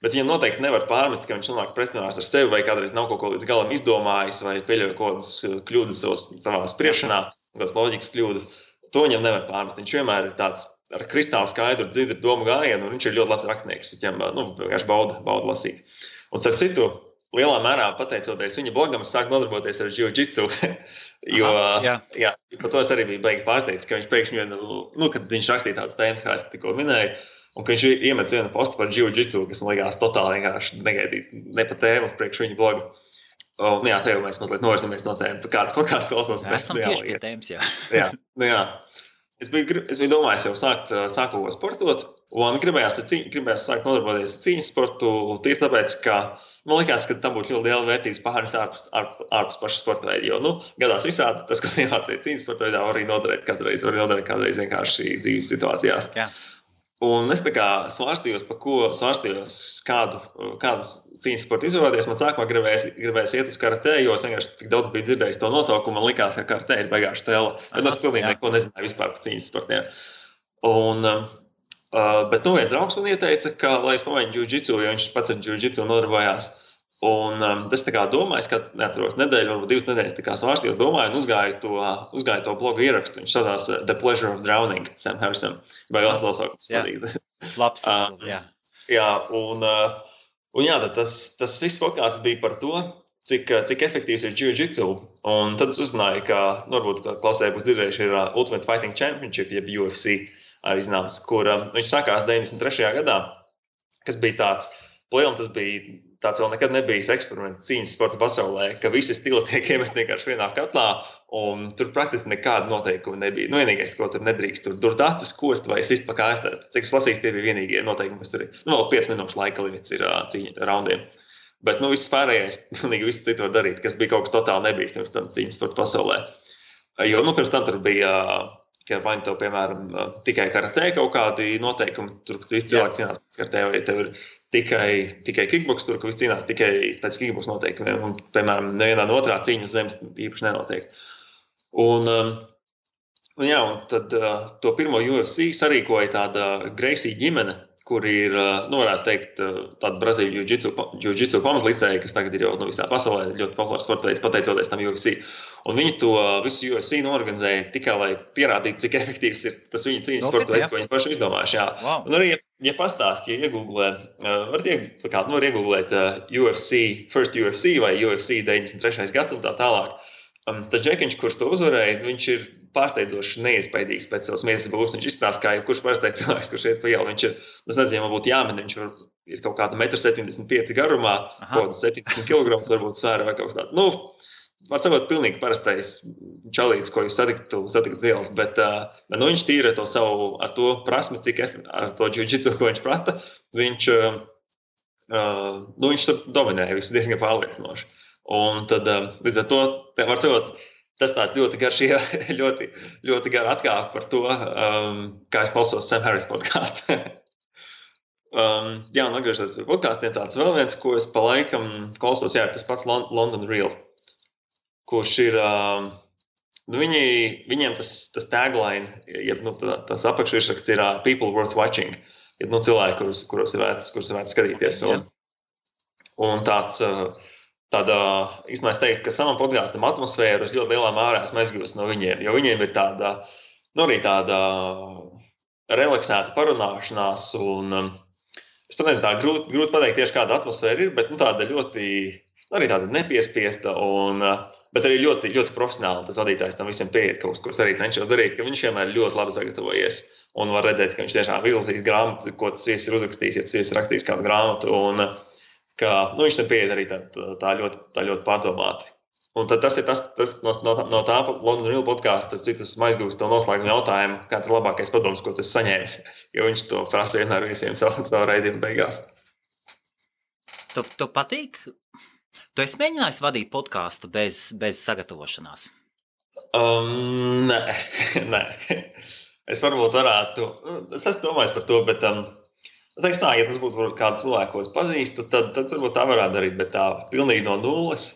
viņam noteikti nevar pārmest, ka viņš nonāk pretrunās ar sevi vai kādreiz nav kaut ko līdz galam izdomājis vai pieļauj kaut kādas kļūdas savā spriešanā, kādas loģikas kļūdas. To viņam nevar pārmest. Viņš vienmēr ir tāds ar kristāli skaidru, dzidru domu gājienu, un viņš ir ļoti labs rakstnieks. Viņam vienkārši bauda lasīt. Un starp citu, lielā mērā pateicoties viņa blogam, es sāku nodarboties ar jiu-jitsu, jo par to es arī biju baigi pārsteigts, ka viņš pēkšņi, kad viņš rakstīja tādu tēmu, kā es tikko minēju, un ka viņš iemet vienu postu par jiu-jitsu, kas man likās totāli vienkārši negaidīt, ne pa tēmu priekš viņa blogu. Jā, te jau mēs mazliet novirzamies no tēmas, kāds podkāsts klausos. Esam tieši pie tēmas, jā. jā. Es biju domājis jau sākt sportot, un gribējās sākt nodarboties ar cīņas sportu. Tīri tāpēc, ka man likās, ka tam būtu ļoti liela vērtības pārnes ārpus paša sporta veida. Jo gadās visādi tas, ko iemācījies cīņas sporta veidā, var arī noderēt kādreiz vienkārši dzīves situācijās. Jā. Un es tā kā svārstījos, kādu cīņas sportu izvēlēties. Man sākumā gribējās iet uz karatē, jo es vienkārši tik daudz biju dzirdējis to nosaukumu. Man likās, ka karatē ir baigāša tēla. Bet es pilnīgi neko nezināju vispār par cīņas sportiem. Bet viens draugs man ieteica, ka, lai es pamēģinu jiu-jitsu, jo viņš pats ar jiu-jitsu nodarbojās. Un es tā kā domāju, ka neatceros nedēļu, varbūt 2 nedēļas tā kā svārstījos, domāju un uzgāju to blogu ierakstu. Viņš sadās The Pleasure of Drowning, Sam Harrison. Vai vēl nosaukums patīk. Labs, jā. Jā, un jā, tas viss podkāsts bija par to, cik efektīvs ir jiu-jitsu. Un tad es uzzināju, ka, varbūt klausēji būs dzirdējuši, ir Ultimate Fighting Championship, jeb UFC, arī zināms, kur viņš sākās 93. gadā, kas bija tāds, tas bija tāds vēl nekad nebijis eksperiments cīņas sporta pasaulē, ka visi stili tiek iemest vienkārši vienā katlā, un tur praktiski nekāda noteikuma nebija. Vienīgais, ko tur nedrīkst, tur durt acis, kost vai sist pa kājas. Cik es lasīju, tie bija vienīgie noteikumi, kas tur ir. Vēl 5 minūšu laika limits ir cīņa raundiem. Bet viss pārējais, pilnīgi viss citu var darīt, kas bija kaut kas totāli nebijis pirms tam cīņas sporta pasaulē. Jo pirms tam tur bija, vai to, piemēram, tikai karatē kaut kādi noteikumi, tur visi cilvēki cīnās pēc karatē, vai tev ir tikai kickboks, tur, ka viss cīnās tikai pēc kickboks noteikumiem, un, piemēram, nevienā no otrā cīņa uz zemes īpaši nenotiek. Un tad to pirmo UFC sarīkoja tāda Gracie ģimene, kur ir, varētu teikt, tāda Brazīļu jiu-jitsu pamatlicēja, kas tagad ir jau visā pasaulē ļoti populārs sporta veids, pateicoties tam UFC. Un viņi to visu UFC norganizēja tikai, lai pierādītu, cik efektīvs ir tas viņu cīņas sporta veids, ko viņi paši izdomājuši. Wow. Un arī, ja pastāst, ja iegooglē, var iegooglēt First UFC vai UFC 93. gads un tā tālāk. Tad Džekiņš, kurš to uzvarēja, viņš ir pārsteidzoši neiespaidīgs pēc savas miesas būs. Viņš izstāsta, kā jebkurš parastais cilvēks, kurš iet pa ielu. Viņš ir, es nezinu, man būtu jāmin, viņš ir kaut kāda 1,75 m garumā, kaut kāds 70 kg varbūt svēra vai kaut kas tāds. Var sakot, pilnīgi parastais čalīts, ko jūs satikat ielas, bet viņš tīra to savu ar to prasmi, cik ar to jiu-jitsu, ko viņš prata, viņš tur dominēja visu diezgan pārliecinoši. Un tad, līdz ar to, var sakot, tas tāds ļoti garš, ļoti gara atkāpe par to, kā es klausos Sam Harris podkāstu. Un atgriežoties pie podkāstiem, tāds vēl viens, ko es pa laikam klausos, ir tas pats London Real, kurš ir, viņiem tas tagline, tas apakšvirsraksts ir People Worth Watching, cilvēki, kuros ir vērts skatīties. Un tāda, īstenībā es teiktu, ka savam podkāstam atmosfēru es ļoti lielā mērā esmu aizgūst no viņiem, jo viņiem ir tāda, arī tāda relaksēta parunāšanās, un es pat nezinu, tā grūti pateikt tieši kāda atmosfēra ir, bet tāda ļoti, arī tāda nepiespiesta, bet arī ļoti, ļoti profesionāli tas vadītājs tam visiem pieiet kaut ko es arī cenšos darīt, ka viņš vienmēr ļoti labi sagatavojies, un var redzēt, ka viņš tiešām izlasīs grāmatu, ko tas viesis ir uzrakstījis, ja tas viesis ir rakstījis kādu grāmatu, un ka viņš tam pieiet arī tā ļoti pārdomāti. Un tad tas ir tas no tā London Real podkāsta, cik tas aizgūst to noslēgumu jautājumu, kāds ir labākais padoms, ko tas saņēmis, jo viņš to prasa vienmēr visiem savu raidījumu beigās. Tu patīk? Tu esi mēģinājis vadīt podkāstu bez sagatavošanās? Nē. Es varbūt varētu, es esmu domājis par to, bet teiks tā, ja tas būtu kādu cilvēku, ko es pazīstu, tad varbūt tā varētu darīt, bet tā pilnīgi no nulles,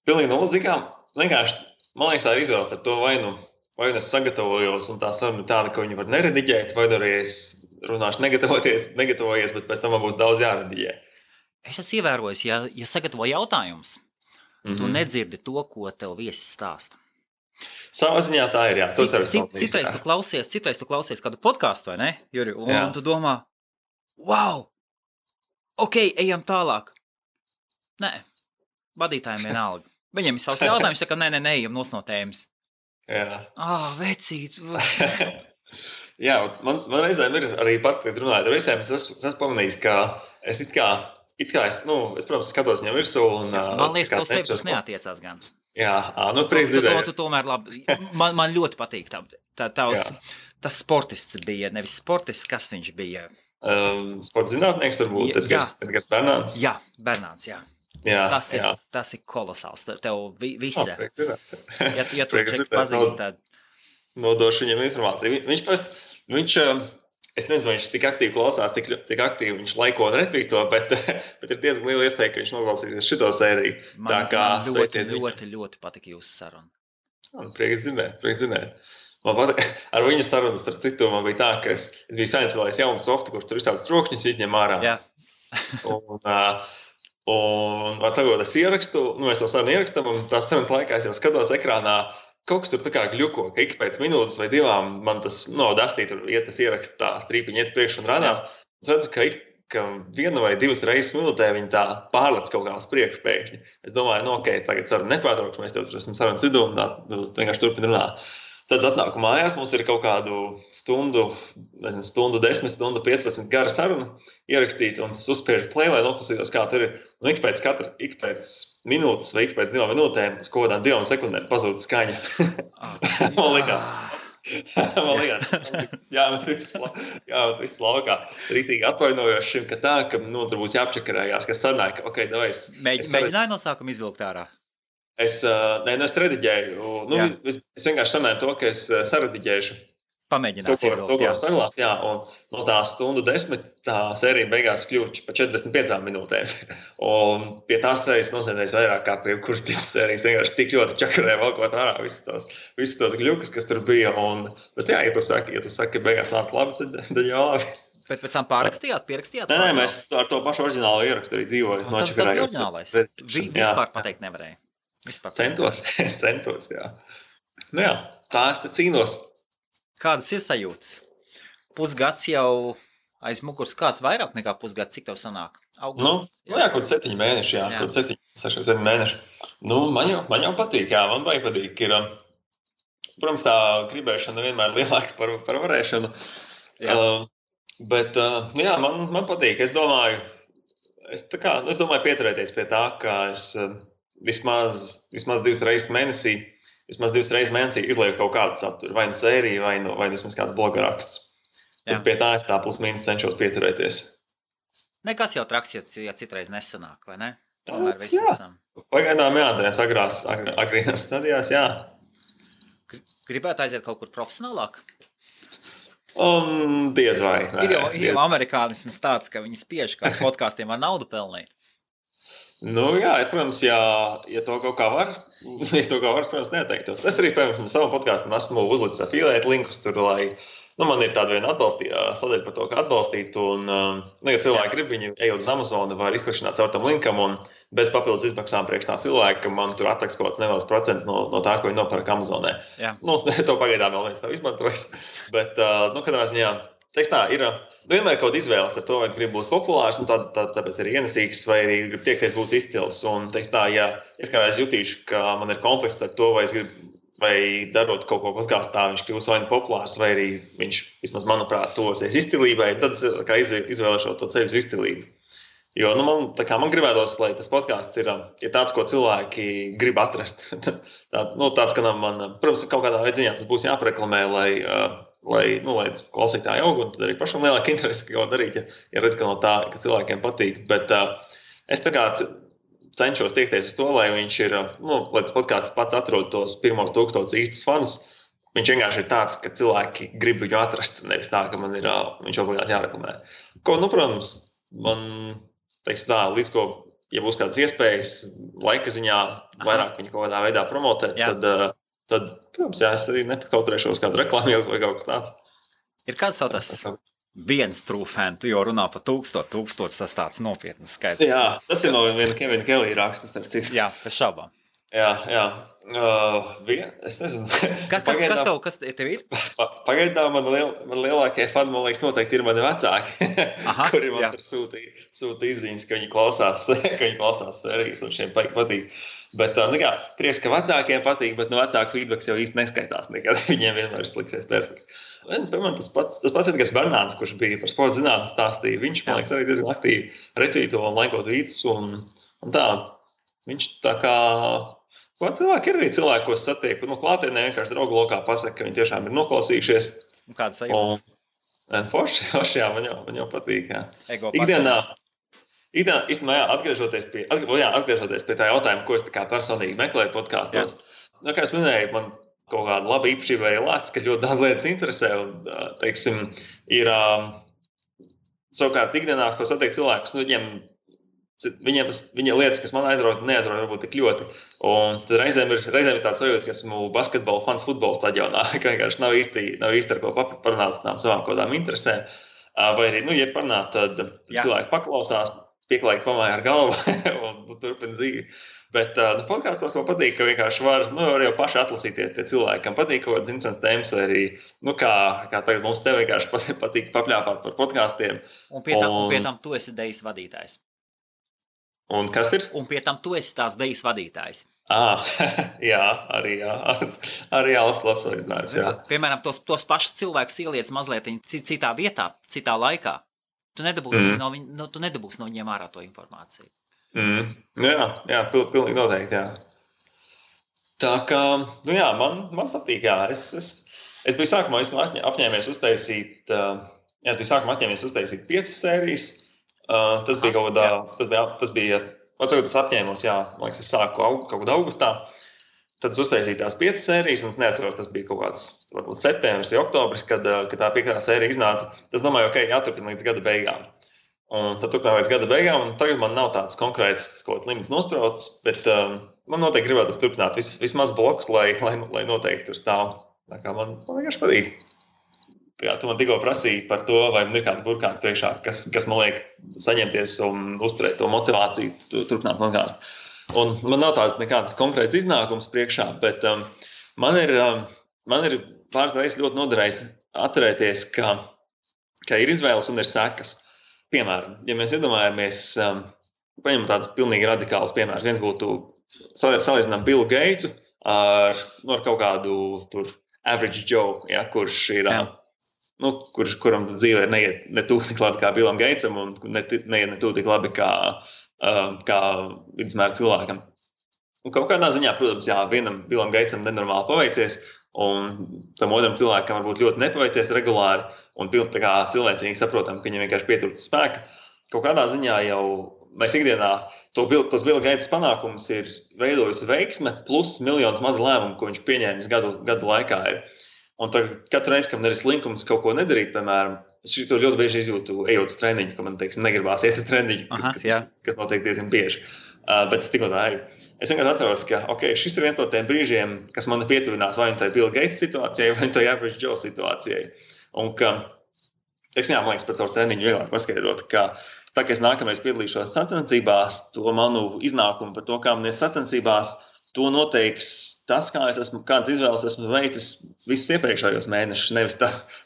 zīkām, vienkārši, man liekas, tā ir izvēles ar to, vai nu es sagatavojos, un tā saruna tāda, ka viņi var nerediģēt, vai arī es runāšu negatavojies, bet pēc tam man būs daudz jārediģē. Es esmu ievērojis, ja sagatavo jautājumus, tu nedzirdi to, ko tev viesis stāsta. Savā ziņā tā ir, jā. Citreiz tu klausies kādu podkāstu, vai ne, Juri? Un tu domā, wow, ok, ejam tālāk. Nē, vadītājiem vienalga. Viņiem ir savs jautājums, saka, nē, ejam nos no tēmas. Jā. Vecīt. Jā, man reizēm ir arī pats, kad runājot ar visiem, es esmu pamanījis, ka es it kā it kā es, protams, skatos viņam virsū. Un, man liekas, ka uz tevi tas neatiecās gan. Jā, prieks dzirdēt. Tu tomēr labi. Man ļoti patīk tas sportists bija, nevis sportists, kas viņš bija. Sporta zinātnieks varbūt, Edgars Bernāns. Jā, Bernāns, jā. Tas ir kolosāls. Tev visa. Ja tu čeku pazīst, tad... Nodošu viņam informāciju. Viņš es nezinu, vai viņš tik aktīvi klausās, cik aktīvi viņš laiko un retvīto, bet ir diezgan liela iespēja, ka viņš noklausīsies šito sēriju. Man ļoti patika jūsu saruna. Prieks zināt. Man patīk, ar viņu sarunu starp citu man bija tā, ka es biju sainsvēlējis jaunu softu, kurš tur visādus trokšņus izņem ārā. Jā. Un var sakot, es ierakstu, mēs to sarunu ierakstam, un tās sarunas laikā es jau skatos ekrānā, kaut kas tur tā kā gļuko, ka ik pēc minūtes vai divām man tas, dastī tur iet tas ierakst tā strīpiņi iet priekš un rādās. Es redzu, ka viena vai divas reizes minūtē viņi tā pārlec kaut kā uz priekšu pēkšņi. Es domāju, tagad saruna nepārtraukšu, mēs tev tur esam sarunas vidū un tā vienkārši turpin runāt. Tad atnāku mājās, mums ir kaut kādu stundu 10, stundu 15 gara saruna ierakstīta un es uzspiežu play, lai noklausītos, kā tur ir. Un ik pēc minūtes vai ik pēc 2 minūtēm uz kaut kādām 2 sekundēm pazūd skaņa. Man likās, jāmet viss laukā. Rītīgi atvainojoši šim, ka tur būs jāapčakarējās, kas sanāk, Mēģināju no sākuma izvilkt ārā? Es rediģēju. Es vienkārši sanāju to, ka es sarediģēšu. Pamēģinās izvilkt, to, ko saglābt, jā. Un no tā stundu 10 tā sērija beigās kļūst pa 45 minūtēm. Un pie tās sērijas nosēdēs vairāk kā pie kuras citas sērijas. Vienkārši tik ļoti čakarē valkot ārā visus tos gļukus, kas tur bija. Bet jā, ja tu saki, ka beigās nāc labi, tad jau labi. Bet pēc tam pierakstījāt? Nē, mēs ar to pašu oriģinālu ierakstu arī dzīvoju. Tas bija oriģinālais. Vispār pateikt nevarēja. Centos, jā. Jā, tā es te cīnos. Kādas ir sajūtas? Pusgads jau aiz muguras, kāds vairāk nekā pusgads, cik tev sanāk? Kaut 7 mēneši, jā. Kaut 7 mēneši. Man jau patīk, jā, man baigi patīk. Protams, tā gribēšana vienmēr lielāka par varēšanu. Bet, man patīk. Es domāju pieturēties pie tā, ka es vismaz 2 reizes mēnesī izlieku kaut kādu saturu, vai nu sēriju, vai nu vismaz kāds bloga raksts. Pie tā es tā plus-mínus cenšos pieturēties. Nekas jau traks, ja citreiz nesanāk, vai ne? Tomēr visi esam. Pagaidām tajās agrīnās stadijās, jā. Gribētu aiziet kaut kur profesionālāk? Diez vai. Ir jau amerikānisms tāds, ka viņi spiež, ka ar podkāstiem var naudu pelnīt. Jā, protams, ja to kaut kā var, protams, neteiktos. Es arī, piemēram, savu podkāstu esmu uzlicis afiliēt linkus tur, lai, man ir tāda viena sadaļa par to, kā atbalstīt, un, ja cilvēki grib, viņi ejot uz Amazonu, var izklikšķināt caur tam linkam, un bez papildus izmaksām priekš tā cilvēka, ka man tur atliks kaut kāds neliels procents no tā, ko viņi nopērk Amazonē. To pagaidām vēl neviens nav izmantojis, bet, katrā ziņā, teiks tā, ir vienmēr kaut izvēles ar to, vai grib būt populārs, un tāpēc arī ienesīgs, vai arī grib tiekties būt izcils. Un, teiks tā, ja es kādreiz jutīšu, ka man ir konflikts ar to, vai es gribu, vai darot kaut ko podkāstā, viņš kļūs vai nu populārs, vai arī viņš, vismaz manuprāt, tuvosies izcilībai, tad kā izvēlēšot to ceļu uz izcilību. Jo, man gribētos, lai tas podkāsts ir tāds, ko cilvēki grib atrast. Tāds, ka man, protams, kaut kādā veidā tas būs jāpareklamē, lai klausītāji aug, un tad arī pašam lielāka interese, ko darīt, ja redz, ka no tā, ka cilvēkiem patīk. Bet es tā kā cenšos tiekties uz to, lai viņš ir, lai tas podkāsts pats atrod tos pirmos 1000 īstus fanus. Viņš vienkārši ir tāds, ka cilvēki grib viņu atrast, nevis tā, ka man ir, viņš obligāti jāreklamē. Protams, man, teiksim tā, līdz ko, ja būs kādas iespējas, laika ziņā vairāk viņu kaut kādā veidā promotēt, tad, protams, es arī nepakautrēšos kādu reklāmu vai kaut kā tāds. Ir kāds savu tas viens true fan, tu jau runā par 1000, tas tāds nopietnas skaits. Jā, tas ir no viena Kevina Kelly rakstas ar citu. Jā, bez šaubām. Jā. Es nezinu. Kas tev ir? Pagaidām man lielākie fani, man liekas, noteikti ir mani vecāki, kuri man sūta izziņas, ka viņi klausās sērijas un šiem patīk. Bet, prieks, ka vecākiem patīk, bet no vecāku feedbacks jau īsti neskaitās nekad. Viņiem vienmēr sliksies perfekti. Piemēram, tas pats Edgars Bernāns, kurš bija par sporta zinātni stāstīja, viņš, man liekas, arī diezgan aktīvi retvīto un laikot vītus un tā. Viņš tā kā... Cilvēki ir arī cilvēki, ko satieku. Klātienē vienkārši draugu lokā pasaka, ka viņi tiešām ir noklausījušies. Un kāda sajūta? Forši, jā, man jau patīk. Jā. Ikdienā, īstenībā, atgriežoties pie tā jautājuma, ko es tā kā personīgi meklēju podkāstos. Kā es minēju, man kaut kāda laba īpašība arī lēts, ka ļoti daudz lietas interesē. Un, teiksim, ir savukārt ikdienā, ko satiek cilvēkus, Viņiem lietas, kas man aizrauja, neaizrauja varbūt tik ļoti. Un tad reizēm ir tāds sajūta, ka esmu basketbola fans futbola stadionā, ka vienkārši nav īsti ar ko parunāt tām savām kaut kādām interesēm. Vai arī, ja parunāt, tad cilvēki paklausās, pieklājīgi pamāja ar galvu un turpina dzīvi. Bet podkāstos man patīk, ka vienkārši var jau paši atlasīties tie cilvēki, kam patīk kaut kādas interesantas tēmas, vai arī, kā tagad mums te vienkārši patīk papļāpāt par podkāstiem. Un pie tam tu esi dejas vadītājs. Un kas ir? Un pie tam tu esi tās dejas vadītājs. Jā, arī labs salīdzinājums. Piemēram, tos pašus cilvēkus ieliec mazliet citā vietā, citā laikā. Tu nedabūsi no viņiem ārā to informāciju. Jā, pilnīgi noteikti, jā. Tā kā, man patīk, jā. Es biju sākumā apņēmies uztaisīt 5 sērijas. Tas bija kaut kādā, tas apņēmos, jā, man liekas, es sāku kaut kādā augustā. Tad es uztaisīju tās 5 sērijas, un es neatceros, tas bija kaut kāds, varbūt septembris vai oktobris, kad tā 5. sērija iznāca. Tas domāju, jāturpina līdz gada beigām. Un tad turpināju līdz gada beigām, un tagad man nav tāds konkrēts kaut limits nosprauts, bet man noteikti gribētu turpināt vismaz blokus, lai noteikti tur stāv. Tā kā man vienkārši patīk. Tu man tikko prasīji par to, vai man ir kāds burkāns priekšā, kas man liek saņemties un uzturēt to motivāciju turpināt podkāstu. Un man nav tāds nekāds konkrēts iznākums priekšā, bet man ir pāris reizes ļoti noderējis atcerēties, ka ir izvēles un ir sekas. Piemēram, ja mēs iedomājamies, paņemam tādus pilnīgi radikālus piemērus. Viens būtu salīdzinām Billu Gatesu ar kaut kādu tur average Joe, kurš ir... kuram dzīvē neiet ne tuvu tik labi kā Billam Gatesam un neiet ne tuvu tik labi kā vidusmēra cilvēkam. Un kaut kādā ziņā, protams, vienam Billam Gatesam nenormāli paveicies, un tam otram cilvēkam varbūt ļoti nepaveicies regulāri, un pilnīgi tā kā cilvēcīgi saprotam, ka viņam vienkārši pietrūkst spēka. Kaut kādā ziņā jau mēs ikdienā tos Billa Gates panākumus ir veidojusi veiksme, plus miljonus mazu lēmumu, ko viņš pieņēmis gadu laikā ir. Un katru reizi, kad man ir slinkums kaut ko nedarīt, piemēram, es to ļoti bieži izjūtu, ejot uz treniņu, ka man, negribās iet uz treniņu, kas notiek diezgan bieži. Bet es tikko tā eju. Es vienkārši atceros, ka šis ir viens no tiem brīžiem, kas man pietuvinās vai nu tai Billa Gates situācijai, vai nu tai Average Joe situācijai. Un ka, man liekas, pēc savu treniņu vieglāk paskaidrot, ka tā, ka es nākamreiz piedalīšos sacensībās, to manu iznākumu par to, kā man ir sacensībās, to noteiks tas, kādas izvēles esmu veicis visus iepriekšējos mēnešus,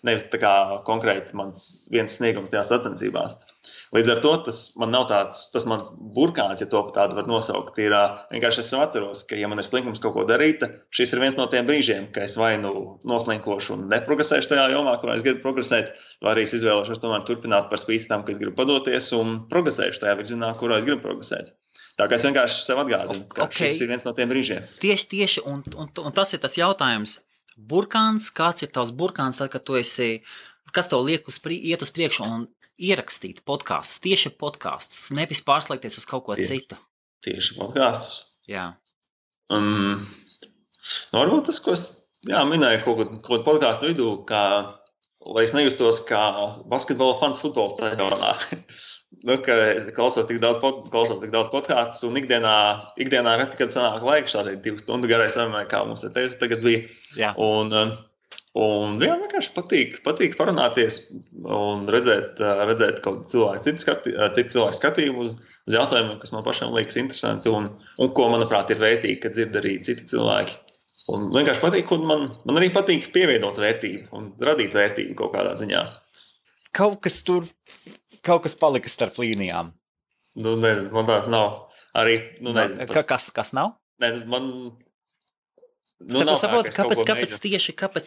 nevis tā kā konkrēti mans viens sniegums tajās sacensībās. Līdz ar to tas man nav tas mans burkāns, ja to tādu var nosaukt. Ir vienkārši es atceros, ka ja man ir slinkums kaut ko darīt, šis ir viens no tiem brīžiem, ka es vai noslinkošu un neprogresēšu tajā jomā, kurā es gribu progresēt, vai arī es izvēlēšos tomēr turpināt par spīti tam, ka es gribu padoties un progresēšu tajā virzienā, kurā es gribu progresēt. Tā kā es vienkārši sev atgādinu, ka šis ir viens no tiem brīžiem. Tieši, un tas ir tas jautājums. Burkāns, kāds ir tavs burkāns, tad, kad tu esi, kas tev liek iet uz priekšu un ierakstīt podkastus, tieši podkastus, nevis pārslēgties uz kaut ko citu? Tieši podkastus. Jā. Varbūt tas, ko es minēju kaut ko podkastu vidū, lai es nejustos kā basketbola fans futbola stadionā. Ka klausos tik daudz podkāstus un ikdienā reti, kad sanāk laiks šādai 2 stundu garai sarunai, kā mums tagad bija. Jā. Un Un vienkārši patīk parunāties un redzēt kaut cilvēku citu cilvēku skatījumu uz jautājumiem, kas man pašam liekas interesanti un ko, manuprāt, ir vērtīgi, kad dzird arī citi cilvēki. Un vienkārši patīk, un man arī patīk pievienot vērtību un radīt vērtību kaut kādā ziņā. Kaut kas palika starp līnijām. Nezinu, man tāds nav. Arī, kas nav? Saprotu, kāpēc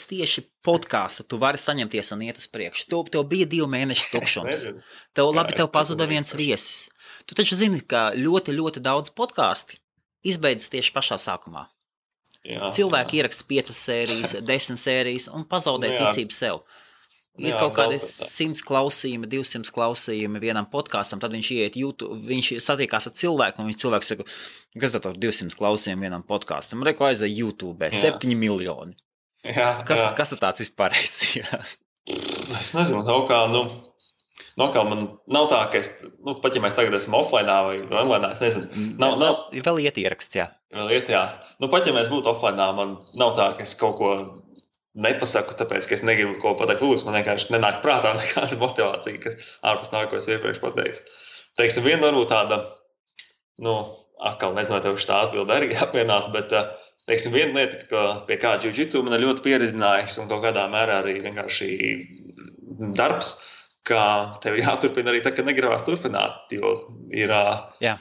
tieši podkāstu tu vari saņemties un iet uz priekšu? Tev bija 2 mēneši tukšums. Tev pazuda viens viesis. Tu taču zini, ka ļoti, ļoti daudz podkāsti izbeidzas tieši pašā sākumā. Cilvēki ieraksta 5 sērijas, 10 sērijas un pazaudē ticību sev. Ir kaut kādi 100 klausījumi, 200 klausījumi vienam podkāstam, tad viņš iet YouTube, viņš satiekās ar cilvēku, un viņš cilvēks saka, kas tad 200 klausījumi vienam podkāstam? Reku aizēja YouTube, 7 miljoni. Kas tāds vispārējais? Es nezinu, kaut kā man nav tā, ka pat ja mēs tagad esam offline vai online, es nezinu. Vēl iet ieraksts, jā. Vēl iet, jā. Pat ja mēs būtu offline, man nav tā, ka es kaut ko nepasaku, tāpēc, ka es negribu ko pateikt publiski, man vienkārši nenāk prātā nekāda motivācija, kas ārpus nāk, ko es iepriekš pateicu. Teiksim, viena varbūt tāda, atkal nezinu, tev šitā atbilde arī apmierinās, bet, teiksim, viena lieta, ka pie kā jiu-jitsu man ir ļoti pieredzinājis un kaut kādā mērā arī vienkārši darbs, ka tev ir jāturpina arī tā, ka negribās turpināt, jo ir... Jā.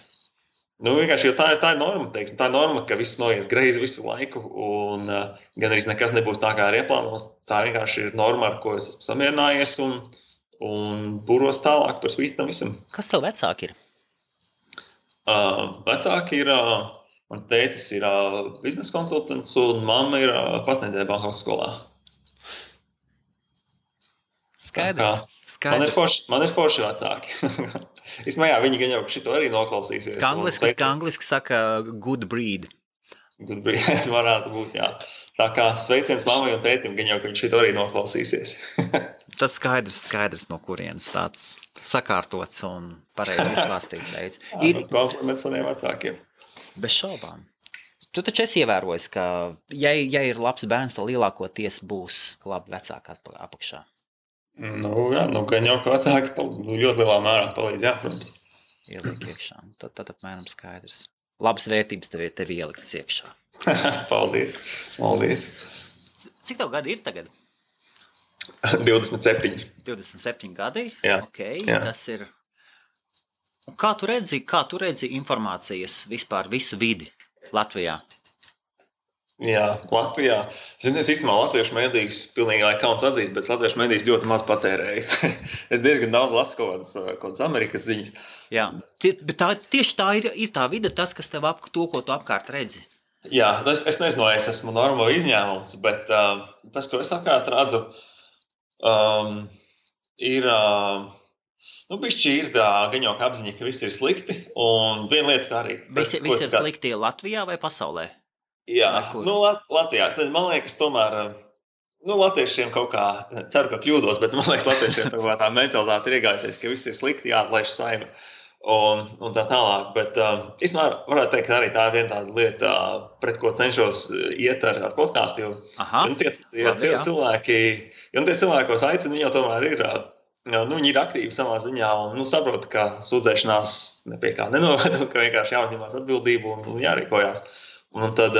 Vienkārši, jo tā ir norma, teiksim, tā ir norma, ka viss noies greizi visu laiku un gan arī nekas nebūs tā, kā ir ieplānots. Tā vienkārši ir norma, ar ko es esmu samierinājies un pūros tālāk par spīti tam visam. Kas tev vecāki ir? Vecāki ir, man tētis ir biznesa konsultants un mamma ir pasniedzēja Bankovas skolā. Skaidrs. Man ir forši vecāki. Īstenībā, viņi gan jau šito arī noklausīsies. Angliski saka good breed. Good breed varētu būt, jā. Tā kā sveiciens mammai un tētim, gan jau, ka viņi šito arī noklausīsies. Tas skaidrs, no kurienes tāds sakārtots un pareizi izklāstīts veids. Kompliments maniem vecākiem. Bez šaubām. Tu taču esi ievērojis, ka ja ir labs bērns, tad lielākoties būs labi vecāki apakšā. Gan jau, ka vecāki ļoti lielā mērā palīdz, jā, protams. Ieliek iekšā. Tad apmēram skaidrs. Labas vērtības tev ieliktas iekšā. Paldies. Cik tev gadi ir tagad? 27. 27 gadi? Jā. Okay, jā. Tas ir... Un kā tu redzi informācijas vispār visu vidi Latvijā? Jā, Latvijā. Es īstenībā latviešu medijas pilnīgi kauns atzīt, bet latviešu medijas ļoti maz patērēju. Es diezgan daudz lasu kaut kādas Amerikas ziņas. Jā, bet tieši tā ir tā vide, tas, kas tev to, ko tu apkārt redzi. Jā, es nezinu, es esmu normāli izņēmums, bet tas, ko es apkārt redzu, ir... bišķi ir gan jau apziņa, ka viss ir slikti, un viena lieta, kā arī... Viss ir slikti Latvijā vai pasaulē? Jā, Latvijā. Man liekas, tomēr, latviešiem kaut kā, ceru, ka kļūdos, bet man liekas, latviešiem tā mentalitāte ir iegājusies, ka viss ir slikti, jāatlaiž saime un tā tālāk. Bet, īstenībā, varētu teikt, ka arī tā ir viena tāda lieta, pret ko cenšos iet ar podkāstu, jo tie cilvēki, ko es aicinu, viņi jau tomēr ir... viņi ir aktīvi savā ziņā un saprot, ka sūdzēšanās nepie kā nenoved, ka vienkārši jāuzņemās atbildību un jārīkojās. Un tad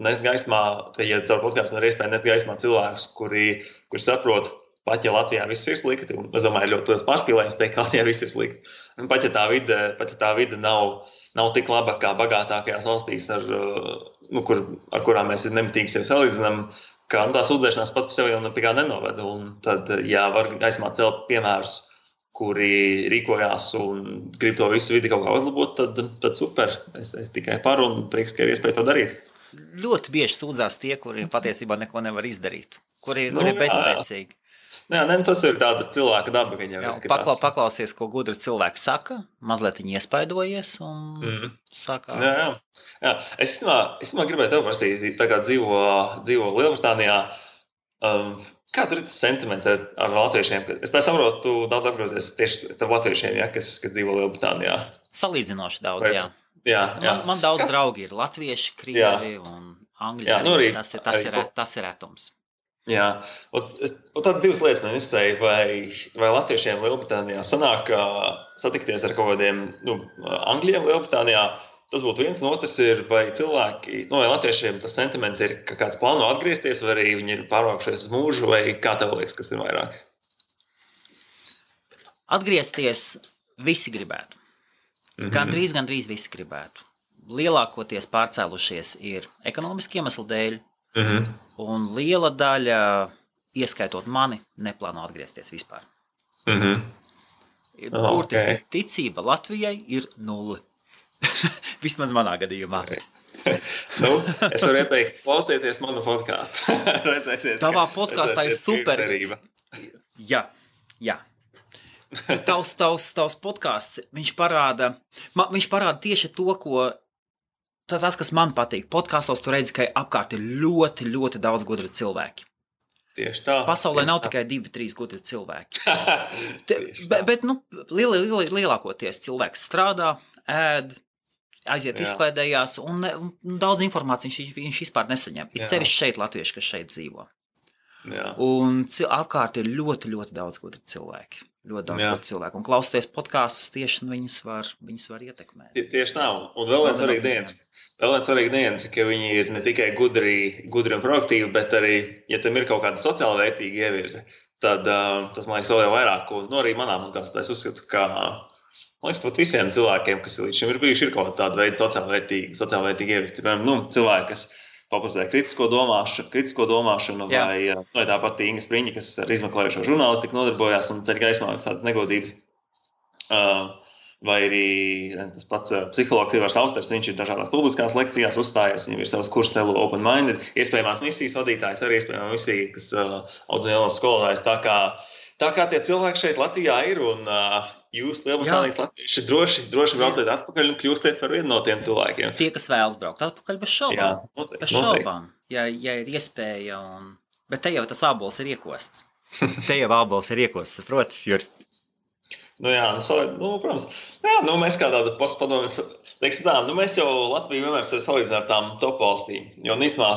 nest gaismā, ja caur podkāstu man ir iespēja nest gaismā cilvēkus, kuri saprot, pat ja Latvijā viss ir slikti, un es domāju, ļoti liels pārspīlējums teikt, ka Latvijā viss ir slikti. Un pat ja tā vide nav tik laba kā bagātākajās valstīs, ar kurām mēs nemitīgi sevi salīdzinām, ka tā sūdzēšanās pat par sevi jau nepie kā nenoved. Un tad, ja var gaismā celt piemērus, kuri rīkojās un grib to visu vidi kaut kā uzlabot, tad super. Es tikai par un prieks, ka ir iespēja to darīt. Ļoti bieži sūdzās tie, kuri patiesībā neko nevar izdarīt, kuri ir bezspēcīgi. Jā, tas ir tāda cilvēka daba. Paklausies, ko gudri cilvēki saka, mazliet viņi iespaidojies un sākās. Jā. Es gribēju tev prasīt, tā kā dzīvo Lielbritānijā, kā tur ir tas sentiments ar latviešiem? Es tā saprotu, tu daudz apgrozies tieši ar latviešiem, kas dzīvo Lielbritānijā. Salīdzinoši daudz, jā. Man daudz draugi ir latvieši, krievi un angļi. Tas ir retums. Jā, un tad divas lietas man izsēja, vai latviešiem Lielbritānijā sanāk satikties ar kaut kādiem angļiem Lielbritānijā. Tas būtu viens, un otrs ir, vai cilvēki, vai latviešiem tas sentiments ir, ka kāds plāno atgriezties, vai arī viņi ir pārvākušies uz mūžu, vai kā tev liekas, kas ir vairāk? Atgriezties visi gribētu. Gandrīz visi gribētu. Lielākoties pārcēlušies ir ekonomiski iemesli dēļ, un liela daļa, ieskaitot mani, neplāno atgriezties vispār. Burtiski ticība Latvijai ir 0. Vismaz manā gadījumā. Es varu ieteikt, klausieties manu podkāstu. Tavā podkāstā ir super. Jā. Tavs podkāsts, viņš parāda tieši to, tas, kas man patīk. Podkāstos tu redzi, ka apkārt ir ļoti, ļoti daudz gudri cilvēki. Tieši tā. Pasaulē nav tikai 2-3 gudri cilvēki. bet lielākoties cilvēks strādā, ēd, aiziet izklaidējās, un daudz informācijas viņš vispār nesaņem. Ir sevišķi šeit latvieši, kas šeit dzīvo. Jā. Un apkārt ir ļoti, ļoti daudz gudri cilvēki. Un klausoties podkāstus, tieši viņus var ietekmēt. Tieši tā. Un vēl viens svarīgs nianses, ka viņi ir ne tikai gudri un proaktīvi, bet arī, ja tam ir kaut kāda sociāla vērtīga ievirze, tad tas, man liekas, vēl jau vairāk. Un arī manā podkāstā es uzskatu, ka man liekas, pat visiem cilvēkiem, kas līdz šim ir bijuši, ir kaut kāda veida sociāla vērtīga ievirze. Cilvēki, kas popularizē kritisko domāšanu, vai tāpat Inga Spriņa, kas ar izmeklējošo žurnālistiku nodarbojās un ceļ gaismā tādas negodības. Vai arī tas pats psihologs Ivars Austers, viņš ir dažādās publiskās lekcijās uzstājies, viņam ir savs kurs Hello Open Minded, iespējamās misijas vadītājs, arī iespējamā misija, kas audzina jaunos skolotājus. Tā kā tie cilvēki šeit Latvijā ir, un jūs, Lielbritānijas latvieši, droši brauciet atpakaļ un kļūstiet par vienu no tiem cilvēkiem. Tie, kas vēlas braukt atpakaļ, bez šaubām. Bez šaubām, ja ir iespēja. Bet te jau tas ābols ir iekosts. Saproti, Juri? Protams. Mēs kā tāda postpadomes, teiksim tā, mēs jau Latviju vienmēr sevi salīdzinām ar tām top valstīm. Jo nīstumā,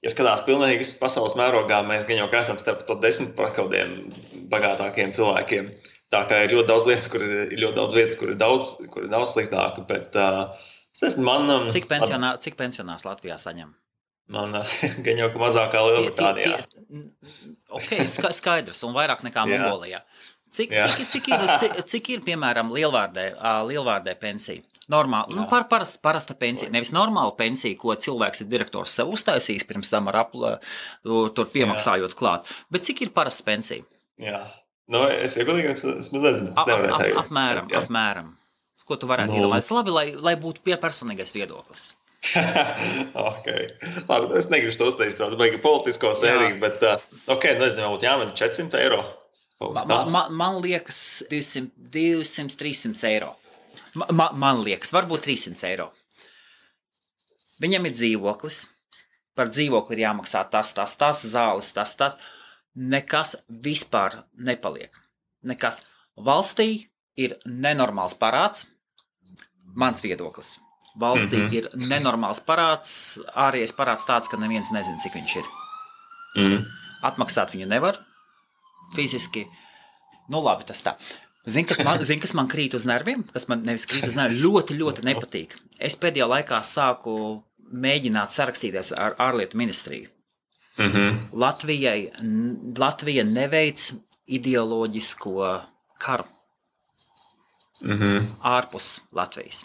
ja skatās pilnīgi visas pasaules mērogā, mēs gan jau esam starp to 10 kādiem bagātākiem cilvēkiem. Tā kā ir ļoti daudz lietas, kur ir ļoti daudz vietas, kur ir daudz sliktāka. Bet, Cik pensionārs Latvijā saņem? Man gan jau mazākā Lielbritānijā. Skaidrs, un vairāk nekā Mongolijā. Cik ir, piemēram, lielvārdē pensija? Normāli, parasta pensija. Nevis normāla pensija, ko cilvēks ir direktors sev uztaisījis pirms tam tur piemaksājot klāt. Bet cik ir parasta pensija? Jā. Es godīgi nezinu. Apmēram. Ko tu varētu iedomāties? Labi, lai būtu personīgais viedoklis. Labi, es negribu to uztaisīt, protams, baigi politisko sēriju, bet nezinu, būtu jāmen 400 eiro. Man liekas 200-300 eiro. Man liekas, varbūt 300 eiro. Viņam ir dzīvoklis. Par dzīvokli ir jāmaksā tas, zāles, tas. Nekas vispār nepaliek. Nekas. Valstī ir nenormāls parāds. Mans viedoklis. Valstī ir nenormāls parāds. Ārējais parāds tāds, ka neviens nezina, cik viņš ir. Atmaksāt viņu nevar. Fiziski, labi, tas tā. Zini, kas man krīt uz nerviem? Kas man nevis krīt uz nerviem, ļoti, ļoti nepatīk. Es pēdējā laikā sāku mēģināt sarakstīties ar ārlietu ministriju. Latvija neveic ideoloģisko karu ārpus Latvijas.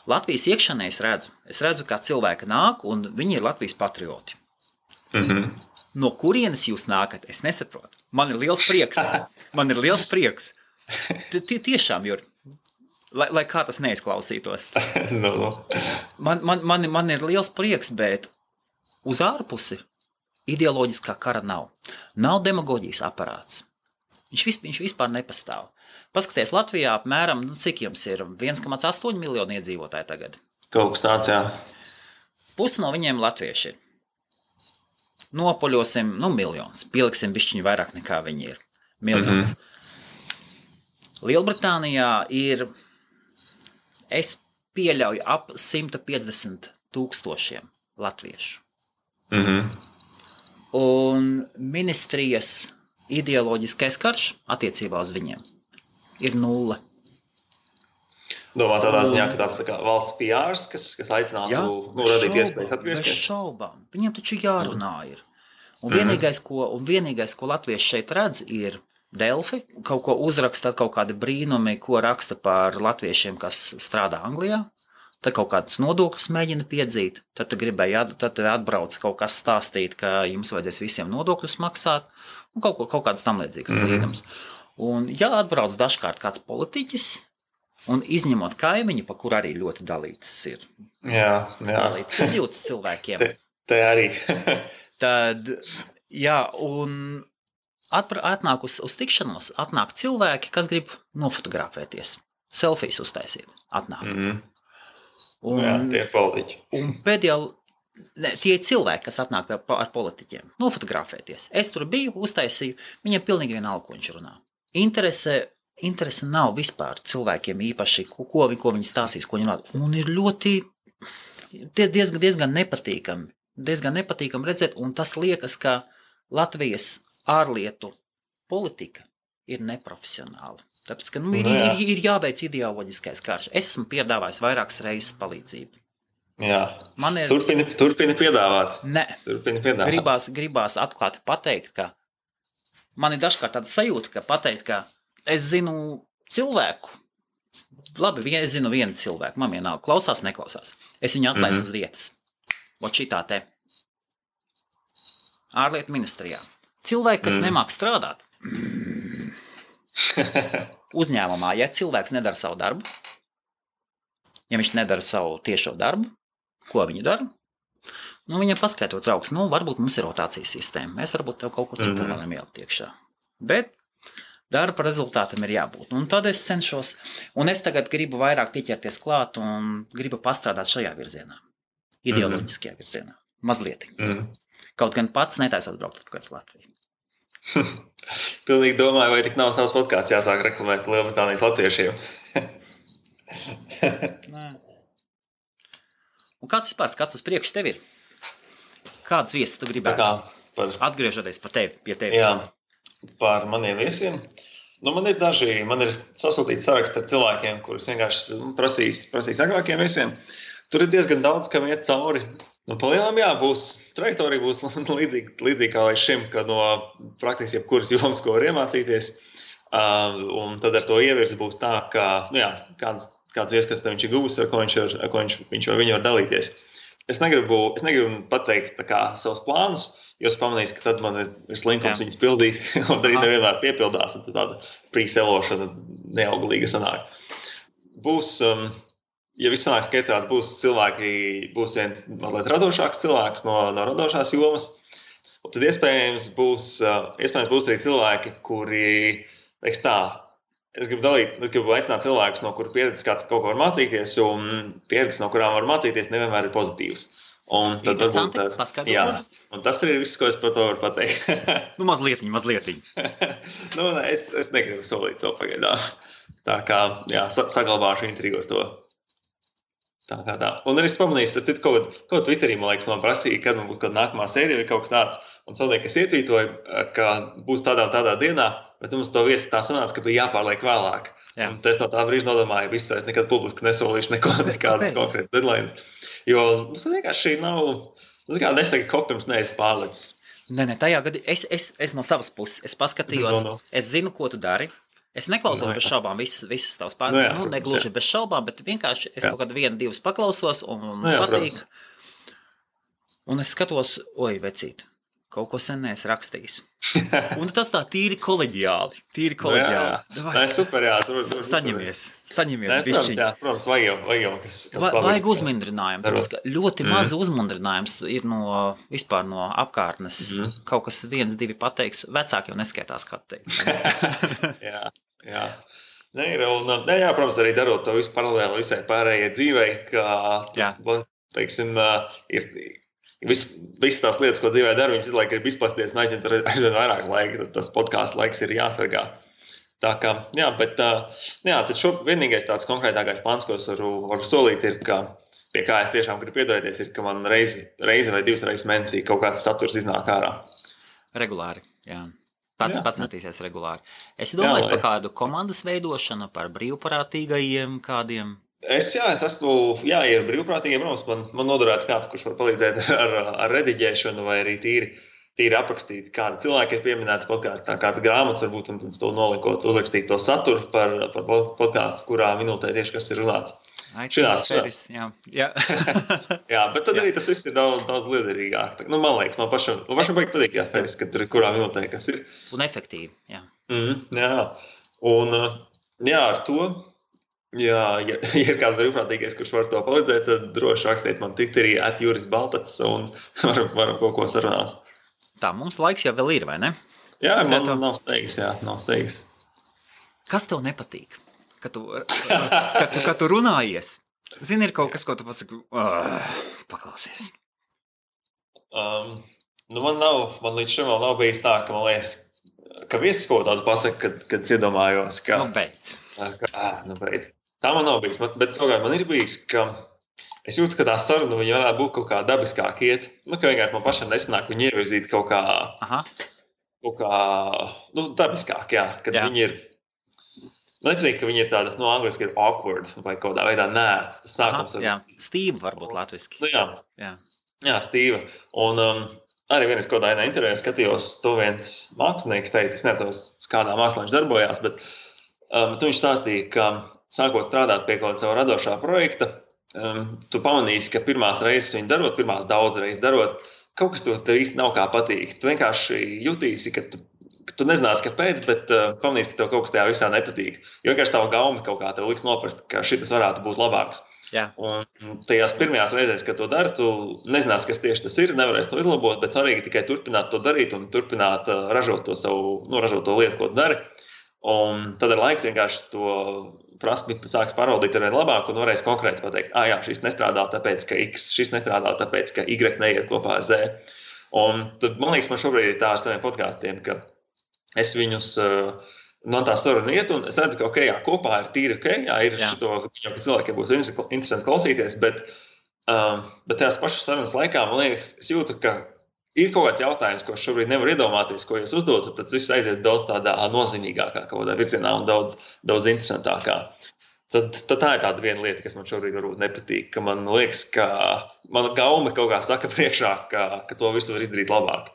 Latvijas iekšanē es redzu, kā cilvēki nāk, un viņi ir Latvijas patrioti. No kurienes jūs nākat, es nesaprotu. Man ir liels prieks. Tiešām, Juri, lai kā tas neizklausītos. Man ir liels prieks, bet uz ārpusi ideoloģiskā kara nav. Nav demagoģijas aparāts. Viņš vispār nepastāv. Paskaties, Latvijā apmēram, cik jums ir 1,8 miljoni iedzīvotāji tagad? Kaut kas tāds, jā. Pusi no viņiem latvieši ir. Nopoļosim, miljons. Pieliksim bišķiņu vairāk nekā viņi ir. Miljons. Lielbritānijā ir, es pieļauju, ap 150 000 latviešu. Un ministrijas ideoloģiskais karš attiecībā uz viņiem ir 0. Domā tādā ziņā, ka tāds tā kā valsts PRs, kas aicinātu radīt iespējas atgriezties? Bez šaubām. Viņiem taču jārunā ir. Un vienīgais, ko latvieši šeit redz, ir Delfi. Kaut ko uzraksta, kaut kādi brīnumi, ko raksta par latviešiem, kas strādā Anglijā. Tad kaut kādas nodokļus mēģina piedzīt. Tad atbrauc kaut kas stāstīt, ka jums vajadzēs visiem nodokļus maksāt. Un kaut kādas tam līdzīgas brīnums. Un ja atbrauc dažkārt kāds politiķis, un izņemot kaimiņu, pa kur arī ļoti dalītas ir. Jā. Dalītas izjūtas cilvēkiem. Te arī. Tad, un atnāk uz tikšanos, atnāk cilvēki, kas grib nofotografēties, selfijas uztaisīt. Atnāk. Tie ir politiķi. Un tie ir cilvēki, kas atnāk ar politiķiem, nofotografēties. Es tur biju, uztaisīju, viņam pilnīgi vienalga, ko viņš runā. Interese nav vispār cilvēkiem īpaši, ko viņi stāstīs, ko viņi runā. Un ir diezgan nepatīkami redzēt, un tas liekas, ka Latvijas ārlietu politika ir neprofesionāla. Tāpēc, ka ir jābeidz ideoloģiskais karš. Es esmu piedāvājis vairākas reizes palīdzību. Jā. Turpini piedāvāt. Ne. Gribās atklāti pateikt, ka man ir dažkārt tāda sajūta, ka es zinu cilvēku. Labi, es zinu vienu cilvēku. Man vienalga klausās, neklausās. Es viņu atlaistu uz vietas. Vot šitā te. Ārlietu ministrijā. Cilvēki, kas nemāk strādāt. Uzņēmumā, ja cilvēks nedara savu darbu, ja viņš nedara savu tiešo darbu, ko viņi dara? Viņam paskaidrot trauks, varbūt mums ir rotācijas sistēma. Mēs varbūt tev kaut ko citu varam ielikt iekšā. Bet darba rezultātam ir jābūt. Un tad es cenšos, un es tagad gribu vairāk pieķerties klāt un gribu pastrādāt šajā virzienā. Ideoloģiskajā virzienā. Mazliet. Kaut gan pats netaisot braukt atpakaļ uz Latviju. Pilnīgi domāju, vai tik nav savs podkāsts jāsāk reklamēt Lielbritānijas latviešiem. Nē. Un kāds uz priekšu tev ir? Kādas viesas tu gribētu? Atgriežoties pie tevis. Jā, par maniem viesiem. Man ir sasūtīts saraksts ar cilvēkiem, kurus vienkārši prasīs agrākiem viesiem. Tur ir diezgan daudz, kam iet cauri. Palielam, trajektorija būs līdzīga kā līdz šim, ka no praktiski jebkuras jomas, ko var iemācīties. Un tad ar to ievirzi būs tā, ka, kāds vieskats viņš ir guvis, ar ko viņš vai viņa var dalīties. Es negribu pateikt savus plānus, jo es pamanīju, ka tad man ir slinkums viņas pildīt, un arī nevienmēr piepildās, un tad tāda prīkselošana neauglīga sanāk. Būs, ja viss sanāks skaitās, būs viens mazliet radošāks cilvēks no radošās jomas, un tad iespējams būs arī cilvēki, kuri, es gribu aicināt cilvēkus, no kuru pieredzes kāds kaut ko var mācīties, un pieredzes, no kurām var mācīties, nevienmēr ir pozitīvas. Un tad varbūt, un tas arī ir viss, ko es par to varu pateikt. Mazlietiņ. Es negribu solīt to pagaidām. Tā kā, saglabāšu intrigu ar to. Tā. Un arī es pamanīju, kaut ko Twitterī, man liekas, man prasīja, kad man būs kāda nākamā sērija vai kaut kas tāds. Un es kas ietvītoju, ka būs tādā dienā, bet mums to viesi tā sanāca, ka bija jāpārliek vēlāk. Jā. Un es no tā brīža nodomāju, visu es nekad publiski nesolīšu nekādas konkrētas deadlines. Jo tas vienkārši nav, nesaka, kaut pirms neesi pārlicis. Nē, tajā gadā es no savas puses, es paskatījos, Es zinu, ko tu dari. Es neklausos bez šaubām visas tavas pārstāvības, negluži bez šaubām, bet vienkārši es kaut kādu 1-2 paklausos un patīk. Un es skatos, vecīt, kaut ko sen neesi rakstījis. Un tas tā tīri koleģiāli. Jā, super, jā. Saņemies bišķiņ. Protams, vajag kas vajag uzmundrinājumu. Tāpēc, ka ļoti maz uzmundrinājums ir vispār no apkārtnes. Kaut kas 1-2 pateiks, vecāki jau neskaitās, kā teiks. Jā. Protams, arī darot to visu paralēli visai pārējai dzīvei, ka tas, teiksim, ir visas tās lietas, ko dzīvē dara, viņas izlaik grib izplasties un aizņemt aizvien vairāk laika, tad tas podkāstu laiks ir jāsargā. Tā kā, tad vienīgais tāds konkrētākais plāns, ko es varu solīt, ir, ka pie kā es tiešām gribu piedarēties, ir, ka man reizi vai 2 reizes mēnesī kaut kāds saturs iznāk ārā. Regulāri, jā. Pats centīsies regulāri. Es domāju par kādu komandas veidošanu, par brīvprātīgajiem kādiem. Es esmu, ir brīvprātīgiem, man noderētu kāds, kurš var palīdzēt ar rediģēšanu vai arī tīri aprakstīt, kādi cilvēki ir pieminēti podkāstā, kāds grāmatas varbūt, un to nolikot, uzrakstīt to saturu par podkāstu, kurā minūtē tieši kas ir runāts. Jā. Jā, bet tad arī tas viss ir daudz liederīgāk. Man liekas, man pašam patīk, ka tur ir kurā minūtē kas ir. Un efektīvi, jā. Jā, un ar to, ja ir kāds brīvprātīgais, kurš var to palīdzēt, tad droši rakstiet man Twitterī @jurisbaltacs un varam kaut ko sarunāt. Tā, mums laiks jau vēl ir, vai ne? Jā, man nav steigas. Kas tev nepatīk? Kad tu runājies, zini, ir kaut kas, ko tu pasaki, paklausies. Man līdz šim vēl nav bijis tā, ka man liekas, ka viesis kaut tādu pasaka, kad es iedomājos, ka... beidz. Beidz. Tā man nav bijis, bet savukārt man ir bijis, ka es jūtu, ka tā saruna viņa varētu būt kaut kā dabiskāk iet. Ka vienkārši man pašam nesanāk viņu ievirzīt kaut kā dabiskāk, kad viņi ir... Man nepatīk, ka viņi ir tāda, angliski ir awkward vai kaut kādā veidā nērts. Tas sākums stīva varbūt latviski. Jā, stīva. Un arī vienas kaut kādā intervijā skatījos, to viens mākslinieks teica, es nezinu, kādā mākslā viņš darbojās, bet viņš stāstīja, ka sākot strādāt pie kaut kāda savu radošā projekta, tu pamanīsi, ka pirmās reizes viņu darot, pirmās daudz reizes darot, kaut kas tev īsti nav kā patīk. Tu vienkārši jutīsi, ka tu nezināsi, kāpēc, bet pamanīsi, ka tev kaut kas tajā visā nepatīk. Jo vienkārši tava gauma kaut kā tev liks noprast, ka šitas varētu būt labāks. Jā. Un tajās pirmajās reizēs, kad to dari, tu nezināsi, kas tieši tas ir, nevarēsi to izlabot, bet svarīgi tikai turpināt to darīt un turpināt ražot to lietu, ko tu dari. Un tad ar laiku vienkārši to prasmi sāks pārvaldīt ar vien labāk un varēs konkrēti pateikt, šis nestrādā tāpēc, ka X, šis nestrādā tāpēc, ka Y neiet kopā ar Z. Un tad, man liekas, man šobrīd ir tā ar saviem podkāstiem, ka es viņus, man tā saruna iet, un es redzu, ka kopā ir tīri ir šito, ka cilvēkiem būs interesanti klausīties, bet tajās pašas sarunas laikā, man liekas, es jūtu, ka ir kaut kāds jautājums, ko es šobrīd nevaru iedomāties, ko jūs uzdotu, tad viss aiziet daudz tādā nozīmīgākā kaut kādā virzienā un daudz interesantākā. Tad tā ir tāda viena lieta, kas man šobrīd varbūt nepatīk, ka man liekas, ka mana gauma kaut kā saka priekšā, ka to visu var izdarīt labāk.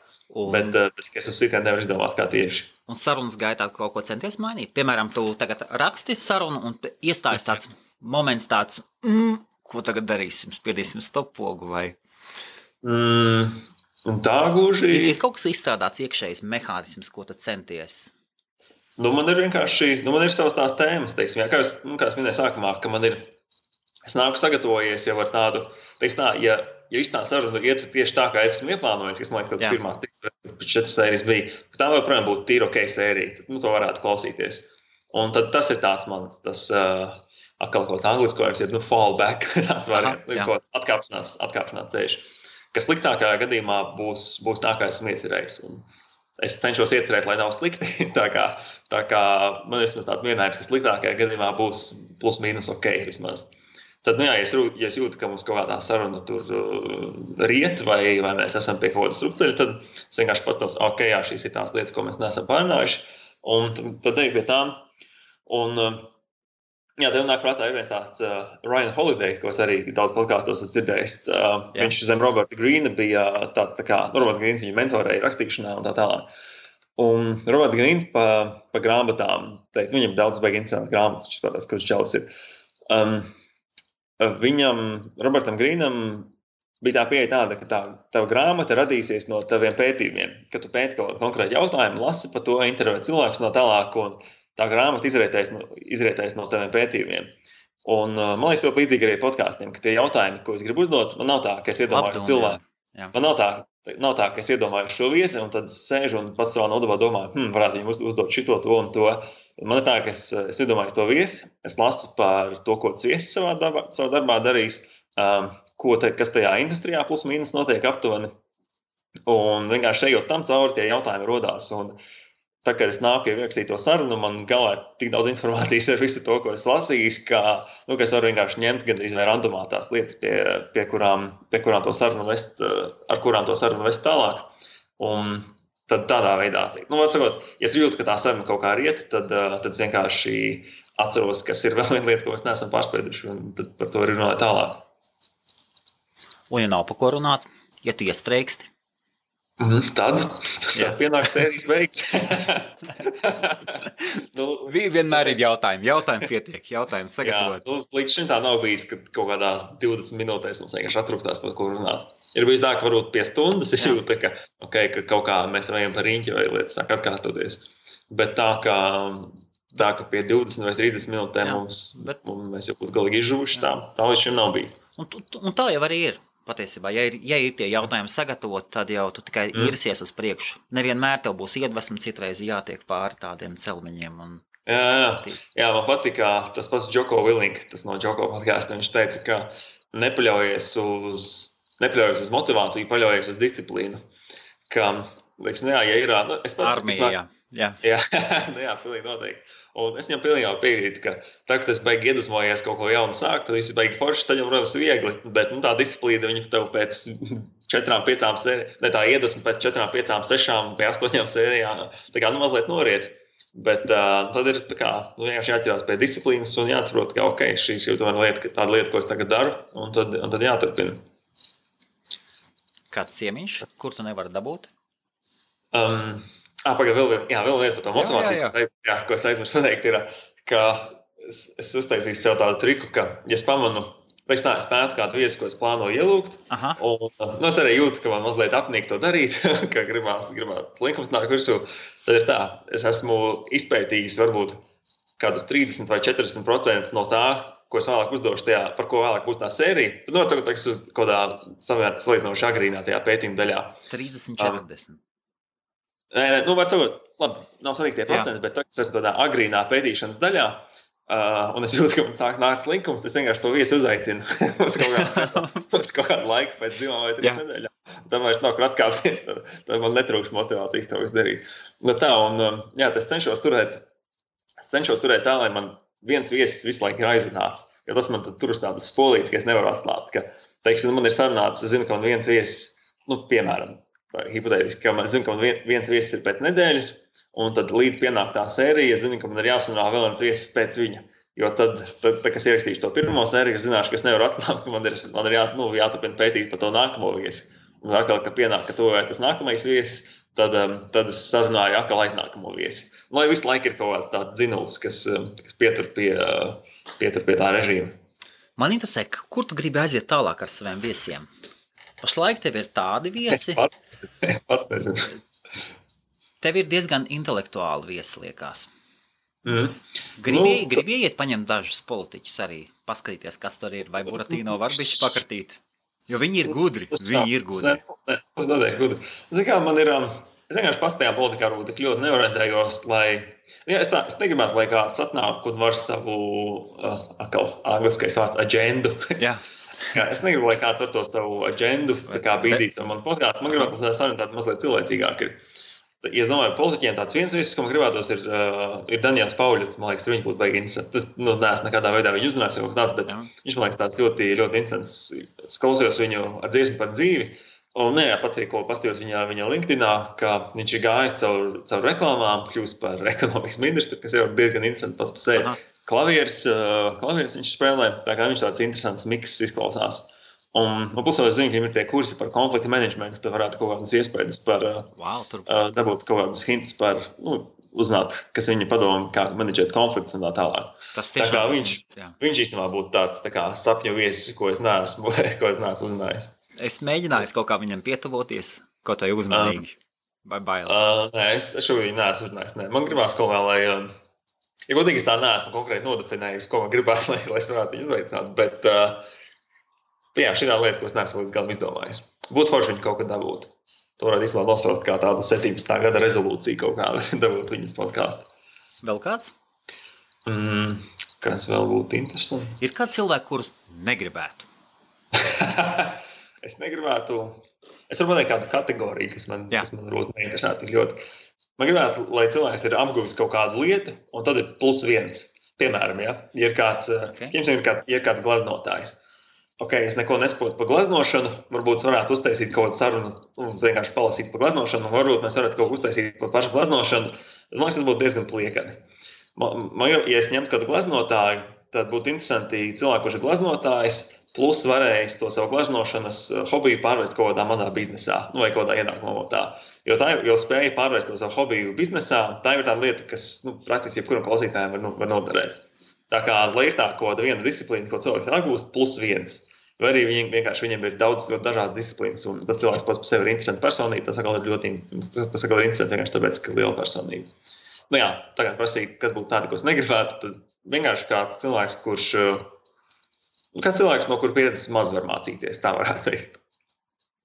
Bet es uz citiem nevaru izdomāt, kā tieši. Un sarunas gaitā kaut ko centies mainīt? Piemēram, tu tagad raksti sarunu un iestājas tāds moments tāds, ko tagad darīsim? Spiedīsim stoppogu vai? Tā gluži... Ir kaut kas izstrādāts iekšējs mehānisms, ko tu centies? Man ir vienkārši, man ir savas tās tēmas, teiksim, kā es minēju sākumā, ka es nāku sagatavojies jau ar tādu, teiksim tā, ja īstā saruna iet tieši tā, kā es esmu ieplānojis, kas man liekas, ka pirmā 4 sērijas bija, ka tā joprojām būtu tīra sērija, tad to varētu klausīties. Un tad tas ir tāds mans, atkal kaut kāds angliskojums ir, fallback, tāds variants, kaut kāds atkāpšanās ceļš, kas sliktākajā gadījumā būs tā, kā esmu iecerējis. Un es cenšos iecerēt, lai nav slikti, tā kā man ir vismaz tāds mierinājums, ka sliktākajā gadījumā būs plus mīnus vismaz. Tad, ja es jūtu, ka mums kaut kādā saruna tur riet, vai mēs esam pie kaut kāda strupceļa, tad es vienkārši pastāvs, šīs ir tās lietas, ko mēs neesam pārunājuši, un tad eju pie tām. Un, tev nāk prātā ir viens tāds Ryan Holiday, ko es arī daudz podkāstos esmu dzirdējis. Viņš zem Roberta Greena bija tāds Roberts Greens viņa mentorēja rakstīšanā un tā tālāk. Un Roberts Greens pa grāmatām teica, viņam daudz baigi interesanti grāmatas, viņš skatās, ka viņš čalis ir. Robertam Greenam bija tā pieeja tāda, ka tava grāmata radīsies no taviem pētījumiem, ka tu pēti kaut kādu konkrētu jautājumu, lasi par to, intervē cilvēkus no tālāk, un tā grāmata izrietēs no taviem pētījumiem. Un man liekas, ļoti līdzīgi arī podkāstiem, ka tie jautājumi, ko es gribu uzdot, man nav tā, ka es iedomāju cilvēku. Man nav tā, ka es iedomāju šo viesi, un tad sēžu un pats savā nodabā domāju, varētu viņam uzdot šito, to un to. Man ir tā, ka es iedomāju to viesi, es lasu par to, ko tas viesis savā darbā darīs, kas tajā industrijā plus mīnus notiek aptuveni. Un vienkārši ejot tam cauri, tie jautājumi rodās. Un tā, kad es nāku ierakstīt to sarunu, man galvā ir tik daudz informācijas ar visu to, ko es lasījis, ka es varu vienkārši ņemt gandrīz vai randomā tās lietas, pie kurām to sarunu vest, ar kurām to sarunu vest tālāk. Un tad tādā veidā. Nu, var sakot, ja es jūtu, ka tā saruna kaut kā riet, tad es vienkārši atceros, kas ir vēl viena lieta, ko mēs neesam pārspēduši, un tad par to arī runāju tālāk. Un ja nav pa ko runāt, ja tu iestreiksti? Tad pienāk sērijas beigas. Vienmēr ir jautājumi. Jautājumi pietiek. Jautājumi sagatavot. Līdz šim tā nav bijis, ka kaut kādās 20 minūtēs mums vienkārši atrūktās par ko runāt. Ir bijis tā, ka varbūt pie stundas es jūtu, ka kaut kā mēs vajam par riņķi vai lietas sāk atkārtoties. Bet tā, ka pie 20 vai 30 minūtēm mēs jau būtu galīgi izžuvuši, tā līdz šim nav bijis. Un tā jau arī ir. Patiesībā, ja ir tie jautājumi sagatavot, tad jau tu tikai irsies uz priekšu. Nevienmēr tev būs iedvesma, citreiz jātiek pāri tādiem celmeņiem. Jā, man patika tas pats Joko Willink, tas no Joko podcaста. Viņš teica, ka nepaļaujies uz motivāciju, paļaujies uz disciplīnu. Ka, liekas, ja ir... Armija, jā. Jā, pilnīgi noteikti. Un es viņam pilnībā piekrītu, ka tā, kad es beigi iedvesmojies kaut ko jaunu sākt, tad viss beigi forši, tad jau, protams, viegli. Bet tā disciplīna, viņa tev pēc 4-5 sērijām, ne tā iedvesma pēc 4-5, 6 vai 8 sērijām, tā kā mazliet noriet. Bet tad ir vienkārši jāķerās pie disciplīnas un jāatsaprot, ka šī ir tāda lieta, ko es tagad daru, un tad jāturpina. Kāds ciemiņš, kur tu nevari dabūt? Pagaid, vēl lieta par to motivāciju, ko es aizmirsu pateikt, ir, ka es uztaisīju sev tādu triku, ka, ja es pamanu, es spētu kādu viesu, ko es plānoju ielūgt, un es arī jūtu, ka man mazliet apnīk to darīt, ka gribās linkums nāk virsū, tad ir tā, es esmu izpētījis varbūt kādus 30 vai 40% no tā, ko es vēlāk uzdošu tajā, par ko vēlāk būs tā sērija. Tad nocakot, ka es uz kādā salīdzinoši agrīnā tajā pētījuma daļā. 30-40. Var sakot, labi, nav svarīgi tie procenti, bet es esmu tādā agrīnā pētīšanas daļā, un es jūtu, ka man sāk nākt linkums, es vienkārši to viesu uzaicinu uz kaut kādu laiku pēc 2 vai 3 nedēļām. Tad vairs nav kur atkāpties, tad man netrūks motivācijas to visu darīt. Es cenšos turēt tā, lai man viens viesis visu laiku ir aizrunāts, jo tas man tur uz tādas spolītes, ka es nevaru atslāpt, ka, teiksim, man ir sarunāts, es zinu, ka man viens viesis, piemēram, hipotētiski, ka man zinu, ka man viens viesis ir pēc nedēļas, un tad līdz pienāk tā sērija, es zinu, ka man ir jāsunā vēl viens viesis pēc viņa. Jo tad kad es ierakstīšu to pirmo sēriju, es zināšu, ka es nevaru atklāt, ka man ir jāturpina pētīt par to nākamo viesi. Un atkal, ka pienāk, ka to vairs tas nākamais viesis, tad es sarunāju atkal aiznākamo viesi. Lai visu laiku ir kaut kāds tāds dzinulis, kas pietur pie tā režīma. Man interesē, kur tu gribi aiziet tālāk ar saviem viesiem? Pašlaik tev ir tādi viesi. Es pats nezinu. Tev ir diezgan intelektuāli viesi, liekas. Gribi iet paņemt dažus politiķus arī, paskatīties, kas tur ir, vai Buratīno var bišķi pakartīt? Jo viņi ir gudri. Gudri. Zini kā, man ir, es vienkārši pats tajā politikā varbūt tik ļoti neorientējos, es negribētu, lai kāds atnāk un var savu, angliskais vārds, agendu. Jā. Es negribu, lai kāds var to savu agendu bīdīt ar manu podcastu. Man gribētu, lai tā saruna mazliet cilvēcīgāk ir. Ja es domāju, politiķiem tāds viens viesis, ko man gribētos, ir Daniels Pauļots. Man liekas, viņš būtu baigi interesants. Tas neesmu nekādā veidā viņu uzrunājis kaut tāds, bet viņš man liekas tāds ļoti, ļoti interesants. Es klausījos viņu ar dziesmu par dzīvi. Un pats arī, ko pastījos viņa LinkedInā, ka viņš ir gājis caur reklāmām, kļūst par ekonomikas ministru, kas jau ir diezgan interesanti pats par sevi. Klavieris viņš spēlē, tā kā viņš tāds interesants miks izklausās. Un pusē es zinu, ka viņam ir tie kursi par konflikta menedžmentu, tu varētu kaut kādas iespējas par dabūt kaut kādus hintus par, uzzināt, kas viņa padoma, kā menedžēt konfliktus un tā tālāk. Tā kā viņš īstenībā būtu tāds tā kā sapņu viesis, ko es neesmu uzzinājis. Es mēģināju kaut kā viņam pietuvoties, kaut vai uzmanīgi, vai baili. Nē, es šobrīd neesmu uzzinājis. Man gribās kaut kā, lai, ja godīgi es tā neesmu konkrēti nodefinējis, ko man gribētu, lai es varētu viņu uzveicināt, bet šī tā lieta, ko es neesmu līdz galam izdomājis. Būtu forši viņu kaut kad dabūt. To varētu īstenībā nospraukt kā tādu 17. gada rezolūciju kaut kādu dabūt viņas podcastu. Vēl kāds? Kas vēl būtu interesanti? Ir kāds cilvēki, kurus negribētu? Es negribētu. Es varu pateikt kādu kategoriju, kas man ļoti neinteresētu ļoti. Man gribētu, lai cilvēks ir apguvis kaut kādu lietu, un tad ir +1. Piemēram, ja ir kāds, ir kāds glaznotājs. es neko nesaprotu par gleznošanu, varbūt varētu uztaisīt kaut kādu sarunu un vienkārši palasīt par gleznošanu, un varbūt mēs varētu kaut ko uztaisīt par pašu gleznošanu. Man liekas, tas būtu diezgan pliekani. Ja es ņemtu kādu gleznotāju, tad būtu interesanti cilvēki, kurš ir gleznotājs, plus varējis to savu gleznošanas hobiju pārvērst kaut kādā mazā biznesā, vai kaut kādā ienākuma avotā. Jo spēja pārvērst to savu hobiju biznesā, tā ir tāda lieta, kas praktiski jebkuram klausītājam var noderēt. Tā kā, lai ir tā kaut kāda viena disciplīna, ko cilvēks apgūst, plus viens. Vai arī viņam ir daudz ļoti dažādas disciplīnas, un tas cilvēks pats par sevi ir interesants personība, tas atkal ir interesanti vienkārši tāpēc, ka ir liela personība. Nu jā, tā kā prasīt, kas būtu tādi, ko es negribētu, tad vienkārši kāds cilvēks, no kura pieredzes maz var mācīties, tā varētu teikt.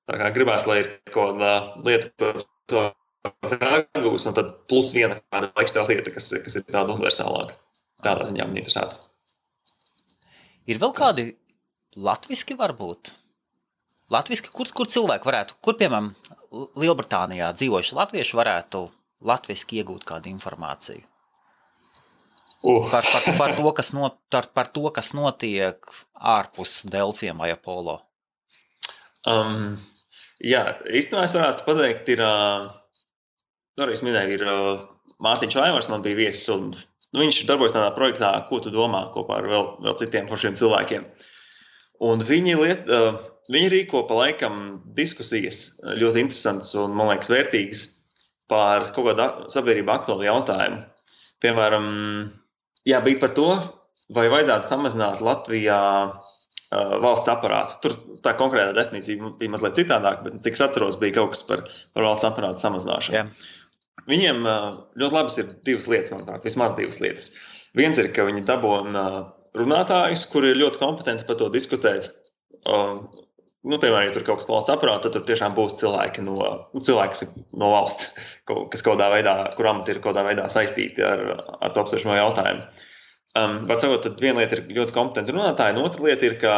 Tā kā gribās, lai ir kaut kāda lieta, ko cilvēks apgūst, un tad plus viena kāda laikstēla lieta, kas ir tāda universālāka. Tādā ziņā man interesētu. Ir vēl kādi latviski varbūt? Latviski, kur cilvēki varētu, kur, piemēram, Lielbritānijā dzīvojuši latvieši varētu latviski iegūt kādu informāciju? Par to, kas notiek ārpus Delfiem vai Apollo? Jā, īstenībā es varētu pateikt, arī es minēju, ir Mārtiņš Vaivars, man bija viesis, un viņš darbojas tādā projektā, ko tu domā, kopā ar vēl citiem foršiem cilvēkiem. Un viņi rīko pa laikam diskusijas ļoti interesantas un, man liekas, vērtīgas par kaut kādu sabiedrību aktuālu jautājumu. Piemēram, bija par to, vai vajadzētu samazināt Latvijā valsts aparātu. Tur tā konkrētā definīcija bija mazliet citādāk, bet cik es atceros, bija kaut kas par valsts aparātu samazināšanu. Yeah. Viņiem ļoti labas ir divas lietas, manuprāt, vismaz divas lietas. Viens ir, ka viņi dabūna runātājus, kuri ir ļoti kompetenti par to diskutēt. Piemēram, ja tur kaut kas valsts aparāta, tad tur tiešām būs cilvēki, kas ir no valsts, kas kaut kādā veidā, kur amati ir kaut kādā veidā saistīti ar to apsvēršamo jautājumu. Var sakot, tad viena lieta ir ļoti kompetenti runātāji, un otra lieta ir, ka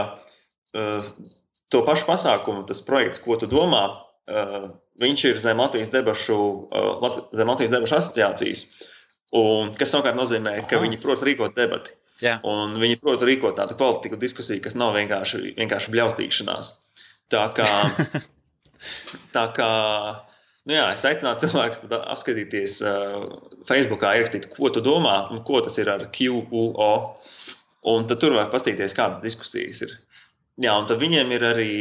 to pašu pasākumu, tas projekts, ko tu domā, viņš ir zem Latvijas debašu asociācijas, un kas savukārt nozīmē, ka viņi prot rīkot debati. Yeah. Un viņi prot rīkot tādu kvalitīgu diskusiju, kas nav vienkārši bļaustīšanās. Tā kā es aicinātu cilvēkus apskatīties Facebookā, ierakstīt, ko tu domā un ko tas ir ar QUO, un tad tur var pastīties, kāda diskusijas ir. Jā, un tad viņiem ir arī,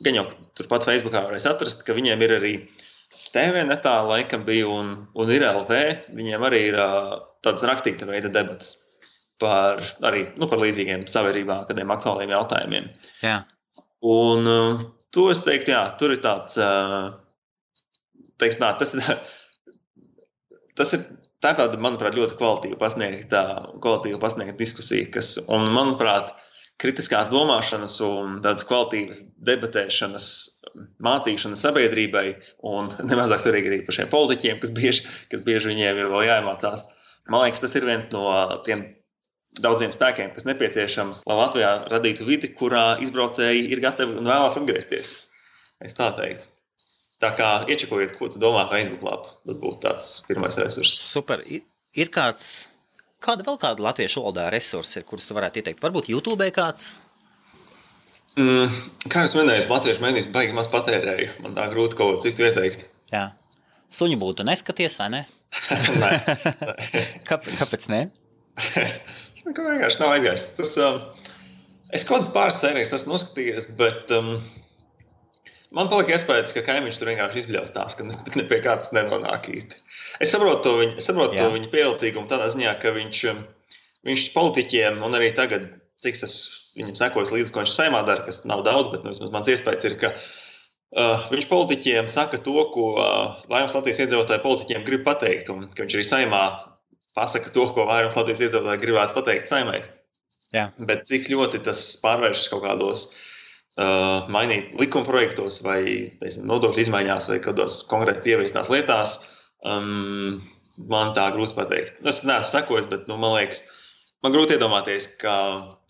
gan jau turpat Facebookā varēs atrast, ka viņiem ir arī TV netā laikam bija un ir LV, viņiem arī ir tādas rakstīta veida debatas par līdzīgiem sabiedrībā, kādiem aktuāliem jautājumiem. Jā. Un to es teiktu, jā, tur ir tāds, tā ir tāda, manuprāt, ļoti kvalitīva pasniegta diskusija, un, manuprāt, kritiskās domāšanas un tādas kvalitīvas debatēšanas, mācīšanas sabiedrībai un nemazāk svarīgi arī par šiem politiķiem, kas bieži viņiem ir vēl jāiemācās. Man liekas, tas ir viens no tiem daudziem spēkiem, kas nepieciešams, lai Latvijā radītu vidi, kurā izbraucēji ir gatavi un vēlās atgriezties. Es tā teiktu. Tā kā iečekojiet, ko tu domā Facebook lapu. Tas būtu tāds pirmais resurss. Super. Ir kāda latviešu valodā resursi, kurus tu varētu ieteikt? Varbūt YouTube kāds? Kā jūs minējāt, latviešu mēdīs baigi maz patērēju. Man tā grūti kaut ko citu ieteikt. Jā. Suņu būtu neskaties, vai ne? Nē. Kāpēc ne? Vienkārši nav aizgājis. Es kaut kādas pāris sērijas esmu noskatījies, bet man palika iespējas, ka kaimiņš tur vienkārši izbļaustās, ka ne pie kā tas nenonāk īsti. Es saprotu to viņa pielicīgumu tādā ziņā, ka viņš politiķiem, un arī tagad, cik es viņam sekojas līdzi, ko viņš saimā dara, kas nav daudz, bet vismaz mans iespējas ir, ka viņš politiķiem saka to, ko vairums Latvijas iedzīvotāji politiķiem grib pateikt, un ka viņš arī saimā pasaka to, ko vairums Latvijas iedzīvotāji gribētu pateikt saimai. Jā. Bet cik ļoti tas pārvēršas kaut kādos mainīt likumprojektos vai nodokļu izmaiņās vai kādos konkrēti ieviestās lietās, man tā grūti pateikt. Es neesmu sekojis, bet man liekas, man grūti iedomāties, ka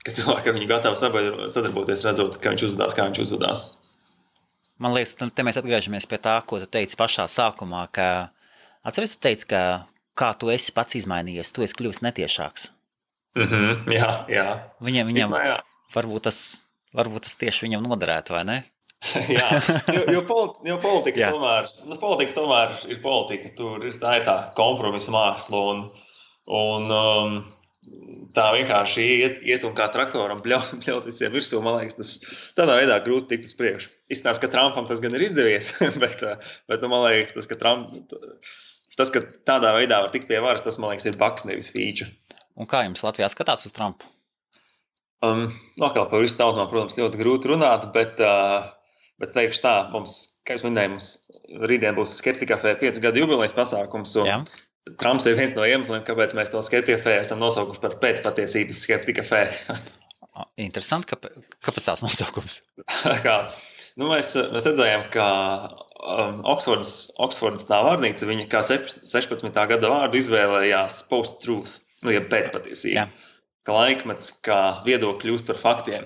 cilvēki ar viņu gatavi sadarboties, redzot, kā viņš uzvedās. Man liekas, te mēs atgriežamies pie tā, ko tu teici pašā sākumā, ka atceries, tu teici, ka kā tu esi pats izmainījies, tu esi kļuvis netiešāks. Jā. Viņam varbūt tas Varbūt tas tieši viņam noderētu, vai ne? Jā, jo politika tomēr ir politika. Tur ir tā kompromisa māksla. Un tā vienkārši iet un kā traktoram bļaut visiem virsū. Man liekas, tas tādā veidā grūti tikt uz priekšu. Izstāsta, ka Trumpam tas gan ir izdevies, bet man liekas, tas, ka tādā veidā var tikt pie varas, tas, man liekas, ir baks, nevis fīča. Un kā jums Latvijā skatās uz Trumpu? Atkal par visu tautu, protams, ļoti grūti runāt, bet teikšu tā, kā jūs minējāt, rītdien būs Skeptika kafē 5 gadu jubilejas pasākums. Trumps ir viens no iemesliem, kāpēc mēs to Skeptika kafē esam nosaukuši par pēcpatiesības Skeptika kafē. Interesanti, kāpēc tās nosaukums? Mēs redzējām, ka Oksfordas tā vārnīca, viņa kā 16. gada vārdu izvēlējās post-truth, jeb pēcpatiesība. Ka laikmets, kā viedokļi kļūst par faktiem,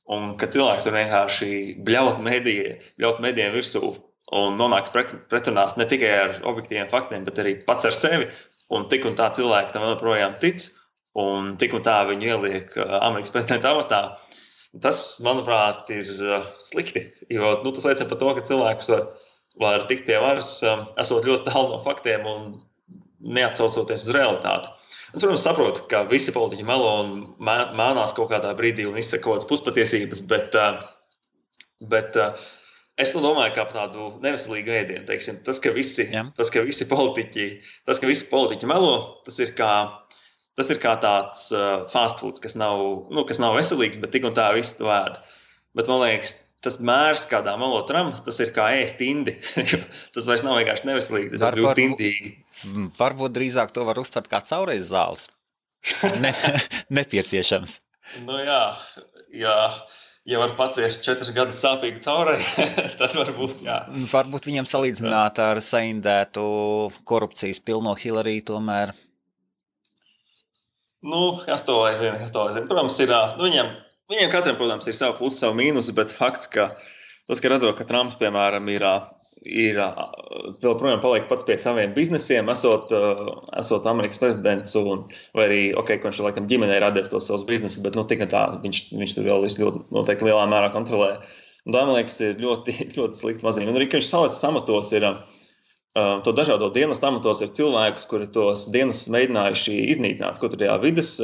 un ka cilvēks var vienkārši bļaut medijiem virsū un nonākt pretrunās ne tikai ar objektīviem faktiem, bet arī pats ar sevi. Un tik un tā cilvēki tam joprojām tic, un tik un tā viņu ieliek Amerikas prezidenta amatā. Tas, manuprāt, ir slikti, jo tas liecina par to, ka cilvēks var tikt pie varas, esot ļoti tālu no faktiem un neatsaucoties uz realitāti. Es, protams, saprotu, ka visi politiķi melo un mānās kaut kādā brīdī un izsaka kaut kādas puspatiesības, bet es domāju, ka par tādu neveselīgu ēdienu, teiksim, tas, ka visi politiķi melo, tas ir kā tāds fast foods, kas nav veselīgs, bet tik un tā visi to ēd. Bet man liekas, tas mērs, kādā melo Trumps, tas ir kā ēst indi. Tas vairs nav vienkārši neveselīgi, tas ir ļoti indīgi. Varbūt drīzāk to var uztvert kā caureiz zāles. Nepieciešams. Ja var paciest 4 gadus sāpīgu caurei, tad varbūt, jā. Varbūt viņam salīdzināt ar saindētu korupcijas pilno Hillary tomēr. Kas to lai zina. Protams, ir, viņiem katram, protams, ir savu plusu, savu mīnusu, bet fakts, ka tas, ka redzot, ka Trumps, piemēram, ir vēl projām paliek pats pie saviem biznesiem, esot Amerikas prezidents, vai arī, ka viņš laikam ģimenei radies tos savus biznesus, bet tik tā, viņš tur vēl visu ļoti noteikti lielā mērā kontrolē. Un tā, man liekas, ir ļoti, ļoti slikti mazīm. Un arī, ka viņš salicis amatos ir, to dažādo dienestu amatos ir cilvēkus, kuri tos dienestus mēģinājuši iznīcināt, kaut arī vides,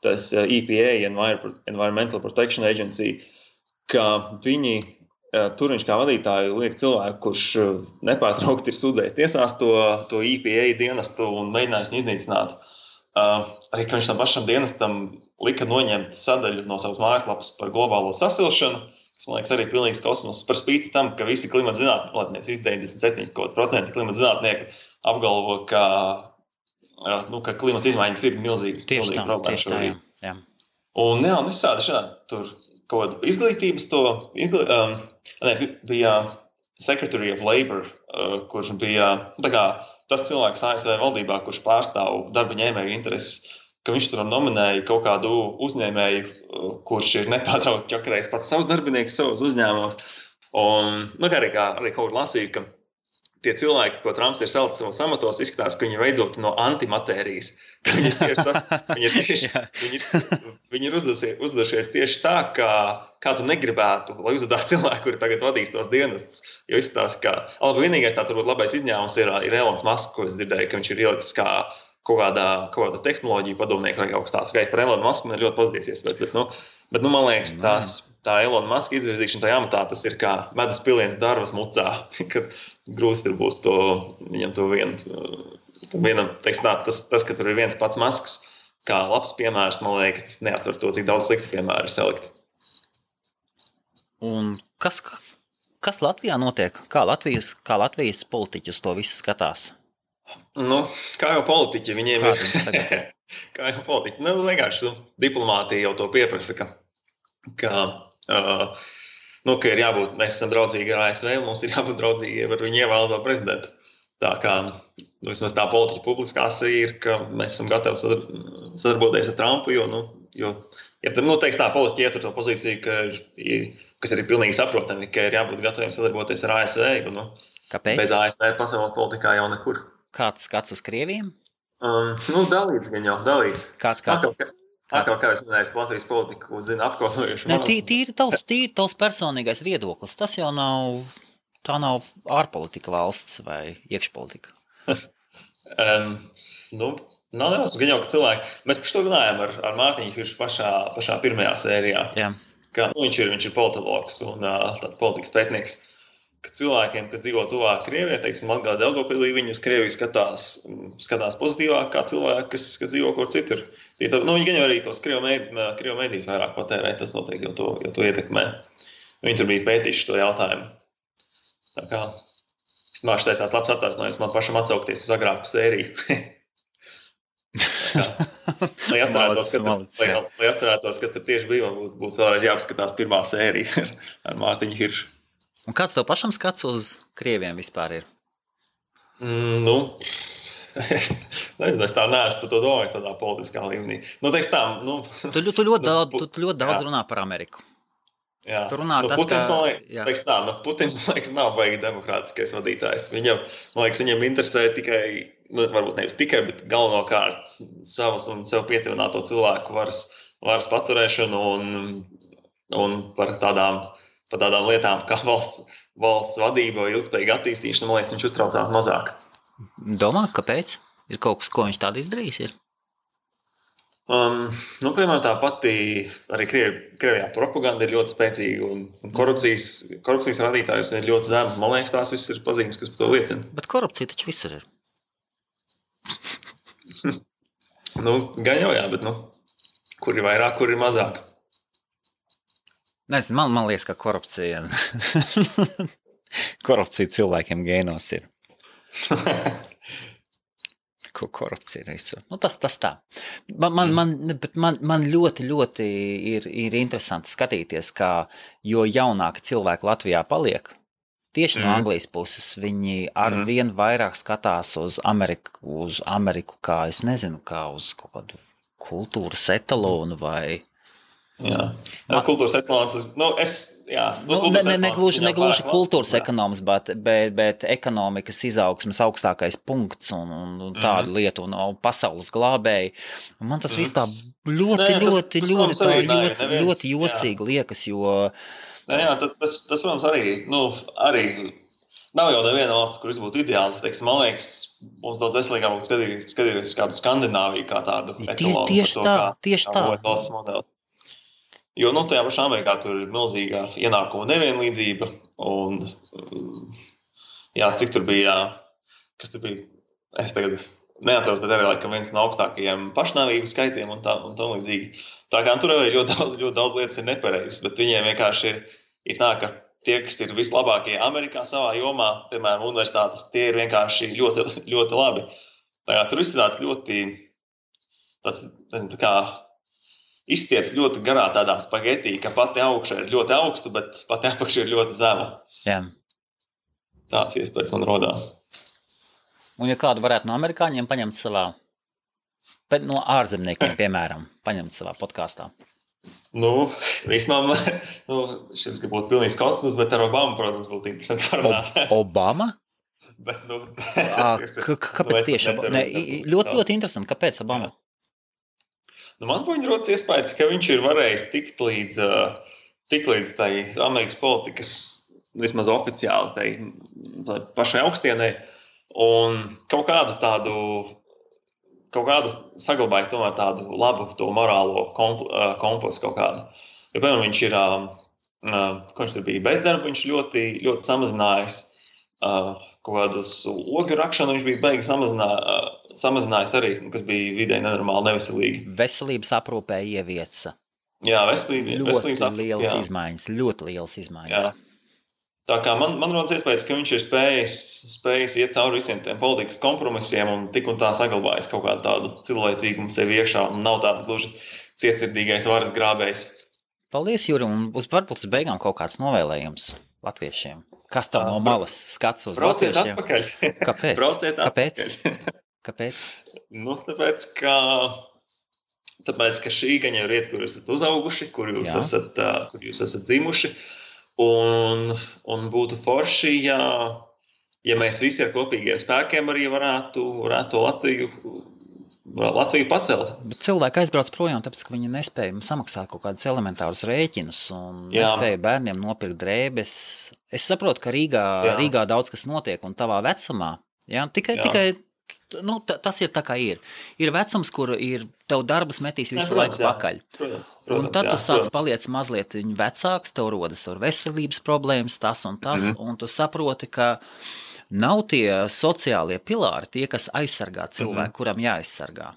tas EPA, Environmental Protection Agency, ka viņi tur viņš kā vadītāju liek cilvēku, kurš nepārtraukti ir sūdzējis tiesās to EPA dienestu un mēģinājis viņu iznīcināt. Arī, ka viņš tam pašam dienestam lika noņemt sadaļu no savas mājaslapas par globālo sasilšanu, kas, man liekas, arī pilnīgs kosmos par spīti tam, ka visi klimata zinātnieki, visi 97% klimata zinātnieku apgalvo, ka klimata izmaiņas ir milzīgas problēmas. Tieši tā, jā. Un visādi šādi tur kaut kāda izglītības bija Secretary of Labor, kurš bija tas cilvēks ASV valdībā, kurš pārstāv darba ņēmēju intereses, ka viņš tur nominēja kaut kādu uzņēmēju, kurš ir nepārtraukti ķakarējis pats savus darbiniekus savos uzņēmumos. Un arī kaut kur lasīju, ka tie cilvēki, ko Trumps ir salicis savos amatos, izskatās, ka viņi ir veidoti no antimatērijas. Viņi ir uzdevušies tieši tā, kā tu negribētu, lai uzvedātu cilvēku, kuri tagad vadīs tos dienestus. Jo izskatās, ka vienīgais tāds varbūt labais izņēmums ir Elons Musk, ko es dzirdēju, ka viņš ir ielicis kā kaut kāda tehnoloģija padomnieka vai kaut kas tāds. Par Elonu Musku man ir ļoti pozitīvs iespējas, bet man liekas, tā Elona Muska izvirzīšana tajā amatā, tas ir kā medus piliens darvas mucā, kad grūti tur būs viņam to vienam, teiksim tā, tas, ka tur ir viens pats Musks, kā labs piemērs, man liekas, tas neatsver to, cik daudz slikti piemēri ir salikti. Un kas Latvijā notiek? Kā Latvijas politiķi uz to visu skatās? Kā jau politiķi, viņiem ir. Kā jau politiķi. Vienkārši diplomātija jau to pieprasa, ka ir jābūt, mēs esam draudzīgi ar ASV, un mums ir jābūt draudzīgi ar viņu ievēlēto prezidentu. Tā kā vismaz tā politiķa publiskās ir, ka mēs esam gatavi sadarboties ar Trumpu, jo teiks tā politiķi ietur to pozīciju, kas ir pilnīgi saprotami, ka ir jābūt gataviem sadarboties ar ASV, jo Kāpēc? Bez ASV pasaules politikā jau nekur. Kāds skats uz Krieviem? Dalīts gan jau, dalīts. Kāds? Kā es minēju, Latvijas politiku zina apkopojuši. Tīri tavs personīgais viedoklis. Tas jau tā nav ārpolitika valsts vai iekšpolitika. Nav nemaz gan jau, ka cilvēki. Mēs par to runājam ar Mārtiņu Hiršu pašā pirmajā sērijā. Jā. Ka, viņš ir politologs un tāds politikas pētnieks. Ka cilvēkiem, kas dzīvo tuvāk Krievijai, teiksim, Latgalē, Daugavpilī, viņi uz Krieviju skatās pozitīvāk kā cilvēki, kas dzīvo kur citur. Viņi gan jau arī tos Krievu mēdījus vairāk patērē, tas noteikti jau to ietekmē. Viņi tur bija pētījuši to jautājumu. Tā kā, es māšu teicu tāds labs attaisnojums man pašam atsaukties uz agrāku sēriju. Lai atcerētos, kas tur tieši bija, būs vēlreiz jāapskatās pirmā sērija ar Mārtiņu Hiršu. Un kāds tev pašam skats uz Krieviem vispār ir? Nezinu, es tā neesmu par to domājis tādā politiskā līmenī. Teiks tā, Tu ļoti daudz runā par Ameriku. Jā. Tu runā Putins, Putins, man liekas, nav baigi demokrātiskais vadītājs. Viņam interesē tikai, varbūt nevis tikai, bet galvenokārt savas un sev pietuvināto cilvēku varas paturēšanu un par tādām lietām kā valsts vadība vai ilgspējīga attīstīšana, man liekas, viņš uztraucās mazāk. Domā, kāpēc? Ir kaut kas, ko viņš tādu izdarījis? Ir? Piemēram, tā pati arī Krievijā propaganda ir ļoti spēcīga un korupcijas rādītājus ir ļoti zemes. Man liekas, tās viss ir pazīmes, kas par to liecina. Bet korupcija taču visur ir. Gan jau jā, bet kur ir vairāk, kur ir mazāk. Nezinu, man liekas, ka korupcija cilvēkiem gēnos ir. Ko korupcija ir visur. Tas tā. Man ļoti ir interesanti skatīties, kā jo jaunāki cilvēki Latvijā paliek, tieši no Anglijas puses, viņi arvien vairāk skatās uz Ameriku kā, es nezinu, kā uz kaut kādu kultūras etalonu vai... Jā, kultūras etalons, negluži kultūras ekonoms, bet ekonomikas izaugsmes augstākais punkts un tādu lietu un pasaules glābēji. Un man tas viss tā ļoti jocīgi liekas, jo... Tas, protams, arī nav jau neviena valsts, kur būtu ideāli. Teiksim, man liekas, mums daudz veselīgāk skatīties kādu Skandināviju kā tādu etalonu. Tieši tā. Jo tajā pašā Amerikā tur ir milzīga ienākuma nevienlīdzība un cik tur bija, kas tur bija, es tagad neatceros, bet arī laikam viens no augstākajiem pašnāvības skaitiem un tā līdzīgi. Tā kā tur arī ļoti daudz lietas ir nepareizas, bet viņiem vienkārši ir tā, ka tie, kas ir vislabākie Amerikā savā jomā, piemēram, universitātes, tie ir vienkārši ļoti, ļoti labi. Tā kā tur viss ir tāds ļoti, nezinu, tā kā izstieps ļoti garā tādā spagetī, ka pati augša ir ļoti augstu, bet pati apakša ir ļoti zema. Jā. Tāds iespējas man rodās. Un ja kādu varētu no amerikāņiem paņemt savā, bet no ārzemniekiem, piemēram, paņemt savā podkāstā? Vismaz, šis, ka būtu pilnīgs kosmos, bet ar Obamu, protams, būtu interesanti parunāt. Obama? Bet, kāpēc tieši Obama? Ļoti interesanti, kāpēc Obama? Man viņa rodas iespējas, ka viņš ir varējis tikt līdz tai Amerikas politikas, vismaz oficiāli, tai pašai augstienai, un kaut kādu saglabājis tomēr tādu labu to morālo kompasu kaut kādu. Jo, piemēram, viņš ir, ko viņš tur bija bezdarba, viņš ļoti, ļoti samazinājis kaut kādus ogļu rakšanu, viņš bija beigi samazinājis arī, kas bija vidēji nenormāli neveselīgi. Veselības aprūpē ievieca. Jā, veselības aprūpē. Ļoti lielas izmaiņas. Jā. Tā kā man rodas iespējas, ka viņš ir spējis iet cauri visiem tiem politikas kompromisiem un tik un tā saglabājis kaut kādu tādu cilvēcīgumu sevi iekšā un nav tāds gluži cietsirdīgais varas grābējs. Paldies, Juri, un varbūt uz beigām kaut kāds novēlējums latviešiem. Kas tev no malas skats uz latviešiem? Brauciet atpakaļ. Kāpēc? Kāpēc? Tāpēc, ka šī gaņa ir iet, kur jūs esat uzauguši, kur jūs esat dzimuši. Un būtu forši, ja mēs visi ar kopīgiem spēkiem arī varētu to Latviju Latviju pacelt. Bet cilvēki aizbrauc projām, tāpēc, ka viņi nespēja samaksāt kaut kādus elementārus rēķinus un nespēja bērniem nopirkt drēbes. Es saprotu, ka Rīgā daudz kas notiek un tavā vecumā. Tikai tas ir tā kā ir. Ir vecums, kur tev darbus metīs visu laiku pakaļ. Protams, un tad tu sāc paliec mazliet vecāks, tev rodas veselības problēmas, tas un tas, un tu saproti, ka nav tie sociālie pilāri, tie, kas aizsargā cilvēku, kuram jāaizsargā.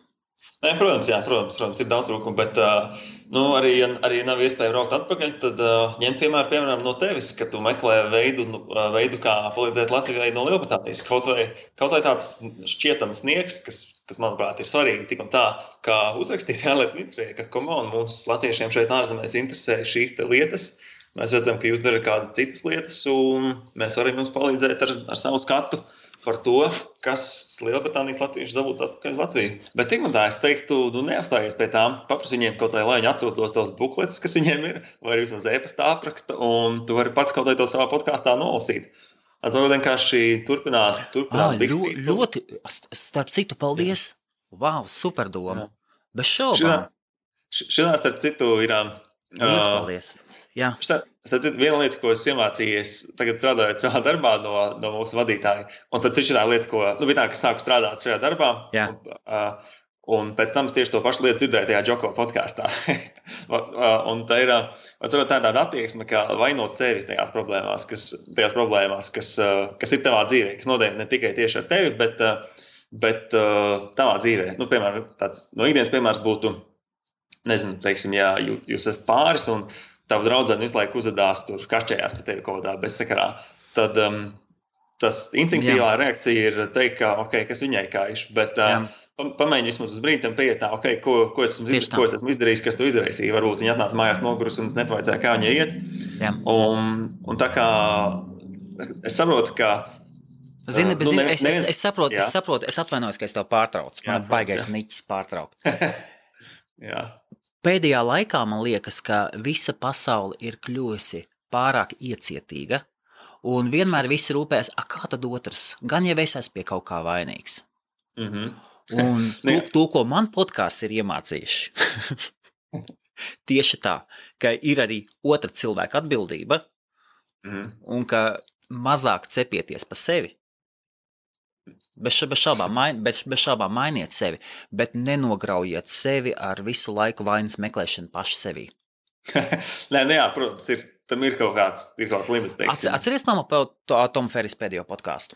Nē, protams, ir daudz trūkumu, bet arī, ja nav iespēja braukt atpakaļ, tad ņem piemēram no tevis, ka tu meklē veidu kā palīdzēt Latvijai no Lielbritānijas. Kaut vai tāds šķietams sniegs, kas manuprāt, ir svarīgi tik un tā, kā uzrakstīt ārlietu ministrijai, ka mums latviešiem šeit ārzemēs interesē šīs lietas. Mēs redzam, ka jūs darat kādas citas lietas, un mēs varam jums palīdzēt ar savu skatu par to, kas Lielbritānijas latvieši dabūt atpakaļ uz Latviju. Bet tik un tā, es teiktu, tu neapstājies pie tām, paprasti viņiem kaut vai, lai viņi atsūtos tos bukletus, kas viņiem ir, vai arī vismaz e-pasta apraksta, un tu vari pats kaut vai to savā podkāstā nolasīt. Atcaukt vienkārši turpināt bikstīt. Ļoti, starp citu, paldies. Wow, super doma. Bez šaubām. Šitā starp citu ir... Liels paldies. Jā. Viena lieta, ko es iemācījies tagad strādājot savā darbā no mūsu vadītāja, un starp citu šitā lieta, kas sāku strādāt šajā darbā, un pēc tam es tieši to pašu lietu dzirdēju tajā Džoko podkāstā. Un tā ir tāda attieksme, kā vainot sevi tajās problēmās, kas ir tavā dzīvē, kas notiek ne tikai tieši ar tevi, bet tavā dzīvē. Piemēram, tāds no ikdienas piemērs būtu, nezinu, teiksim, ja jūs esat pāris un tava draudzene visu laiku uzvedās tur kašķējās par tevi kaut kādā bezsakarā, tad tas instinktīvā reakcija ir teikt, ka, kas viņai kaiš, bet pamēģini vismaz uz brīdi tam pieiet tā, ko es esmu izdarījis, kas tu izdarīsi. Varbūt viņa atnāca mājās nogurus un es nepavaicāju, kā viņai iet. Un tā kā es saprotu, ka Zini, es saprotu, es atvainojos, ka es tev pārtraucu. Man baigais niķis pārtraukt. Jā. Pēdējā laikā man liekas, ka visa pasaule ir kļuvusi pārāk iecietīga, un vienmēr visi rūpēs, kā tad otrs, gan jau es esmu pie kaut kā vainīgs. Un to, ko man podkāsti ir iemācījuši, tieši tā, ka ir arī otra cilvēka atbildība, un ka mazāk cepieties pa sevi. Bez šaubām mainiet sevi, bet nenograujiet sevi ar visu laiku vainas meklēšanu paši sevī. Protams, tam ir kaut kāds limits. Atceries Tomu Ferris pēdējo podkāstu?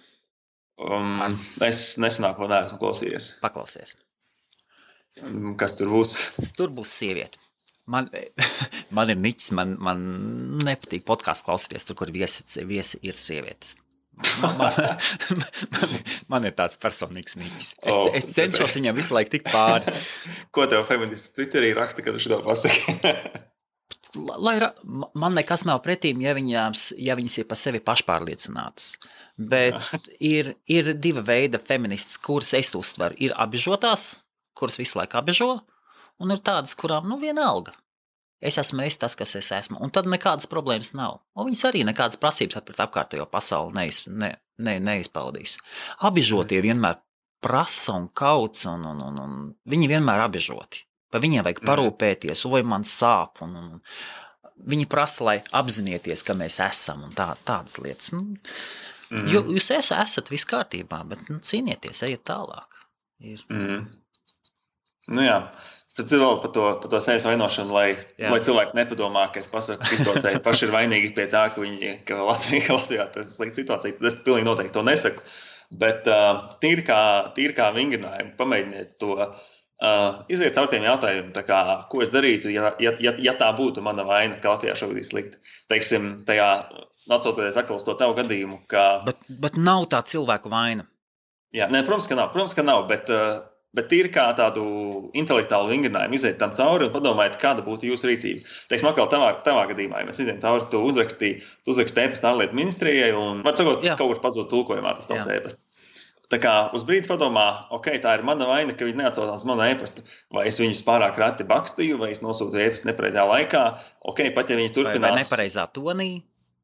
Es nesenāko neesmu klausījies. Paklausies. Kas tur būs? Tur būs sieviete. Man ir niķis, man nepatīk podkāstu klausīties, tur, kur viesi ir sievietes. Man ir tāds personīgs niķis. Es cenšos viņam visu laiku tikt pāri. Ko tev feministi Twitterī raksta, kad tu šito pasaki? Man nekas nav pretīm, ja viņas ir pa sevi pašpārliecinātas. Bet ir diva veida feministas, kuras es uztveru. Ir apbežotās, kuras visu laiku apbežo, un ir tādas, kurām vienalga. Es esmu tas, kas es esmu, un tad nekādas problēmas nav. Un viņas arī nekādas prasības pret apkārtējo pasauli neizpaudīs. Apbežotie vienmēr prasa un kauc, un viņi vienmēr apbežoti. Pa viņiem vajag parūpēties, vai man sāp, un viņi prasa, lai apzinieties, ka mēs esam, un tādas lietas. Jo jūs esat viss kārtībā, bet cīnieties, ejiet tālāk. Jā. Tad vēl par to sevis vainošanu, lai cilvēki nepadomā, ka es pasaku, ka izbraucēji paši ir vainīgi pie tā, ka Latvijā tas ir slikta situācija. Tad es pilnīgi noteikti to nesaku. Bet tīri kā vingrinājumu, pamēģiniet to iziet caur tiem jautājumiem, ko es darītu, ja tā būtu mana vaina, ka Latvijā šobrīd ir slikti. Teiksim, tajā atsaucoties atkal uz to tavu gadījumu, ka... Bet nav tā cilvēku vaina. Jā, protams, ka nav, bet tīri kā tādu intelektuālu vingrinājumu iziet tam cauri un padomājiet, kāda būtu jūsu rīcība. Teiksim, atkal tavā gadījumā, ja mēs izējām cauri, tu uzrakstīji e-pastu ārlietu ministrijai un, var sakot, kaut kur pazūd tulkojumā tas tavs e-pasts. Tā kā uz brīdi padomā, tā ir mana vaina, ka viņi neatsaucās manu e-pastu, vai es viņus pārāk reti bakstīju, vai es nosūtu e-pastu nepareizā laikā, pat ja viņi turpinās... Vai nepareizā tonī.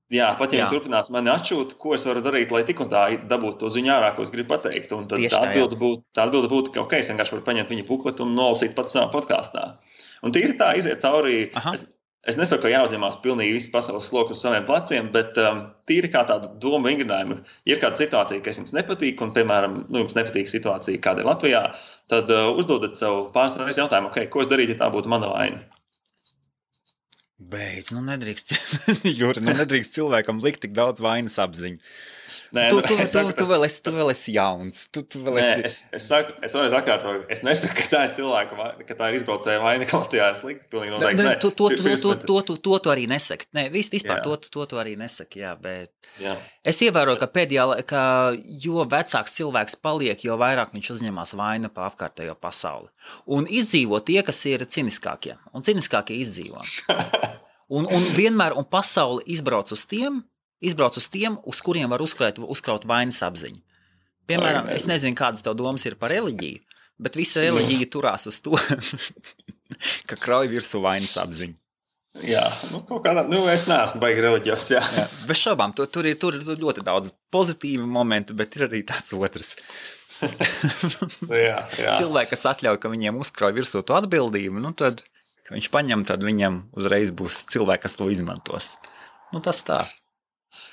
Jā, pat ja viņi turpinās mani atšūt, ko es varu darīt, lai tik un tā dabūtu to ziņu ārā, ko es gribu pateikt. Un tad tā atbilde būtu, ka es vienkārši varu paņemt viņa bukletu un nolasīt pats savā podkāstā. Un tīri tā iziet cauri. Es nesaku, ka jāuzņemās pilnīgi visu pasaules sloku uz saviem pleciem, bet tīri kā tādu domu vingrinājumu. Ja ir kāda situācija, kas jums nepatīk, un, piemēram, jums nepatīk situācija, kāda ir Latvijā, tad uzdodat sev pāris reizes jautājumu, ko es darītu, ja tā būtu mana vaina. Beidz, nedrīkst, Juri, nedrīkst cilvēkam likt tik daudz vainas apziņu. Nē, tu vēl esi jauns. Es vēlreiz atkārtoju, es nesaku, ka tā ir cilvēka vaina, ka tā ir izbraucēja vaina, ka Latvijā ir slikti. Pilnīgi noteikti. To arī nesaki. Nē, vispār to arī nesaki, bet es ievēroju, ka pēdējā, ka jo vecāks cilvēks paliek, jo vairāk viņš uzņemās vainu pa apkārtējo pasauli. Un izdzīvo tie, kas ir ciniskākie. Un ciniskākie izdzīvo. Un vienmēr, un pasauli izbrauc uz tiem, uz kuriem var uzkraut vainas apziņu. Piemēram, es nezinu, kādas tev domas ir par reliģiju, bet visa reliģija turās uz to, ka krauj virsū vainas apziņu. Jā, kaut kādā, es neesmu baigi reliģijos, jā. Bez šaubām, tur ir ļoti daudz pozitīvu momentu, bet ir arī tāds otrs. Jā. Cilvēki, kas atļauj, ka viņiem uzkrauj virsū to atbildību, tad, ka viņš paņem, tad viņam uzreiz būs cilvēki, kas to izmantos. Tas tā.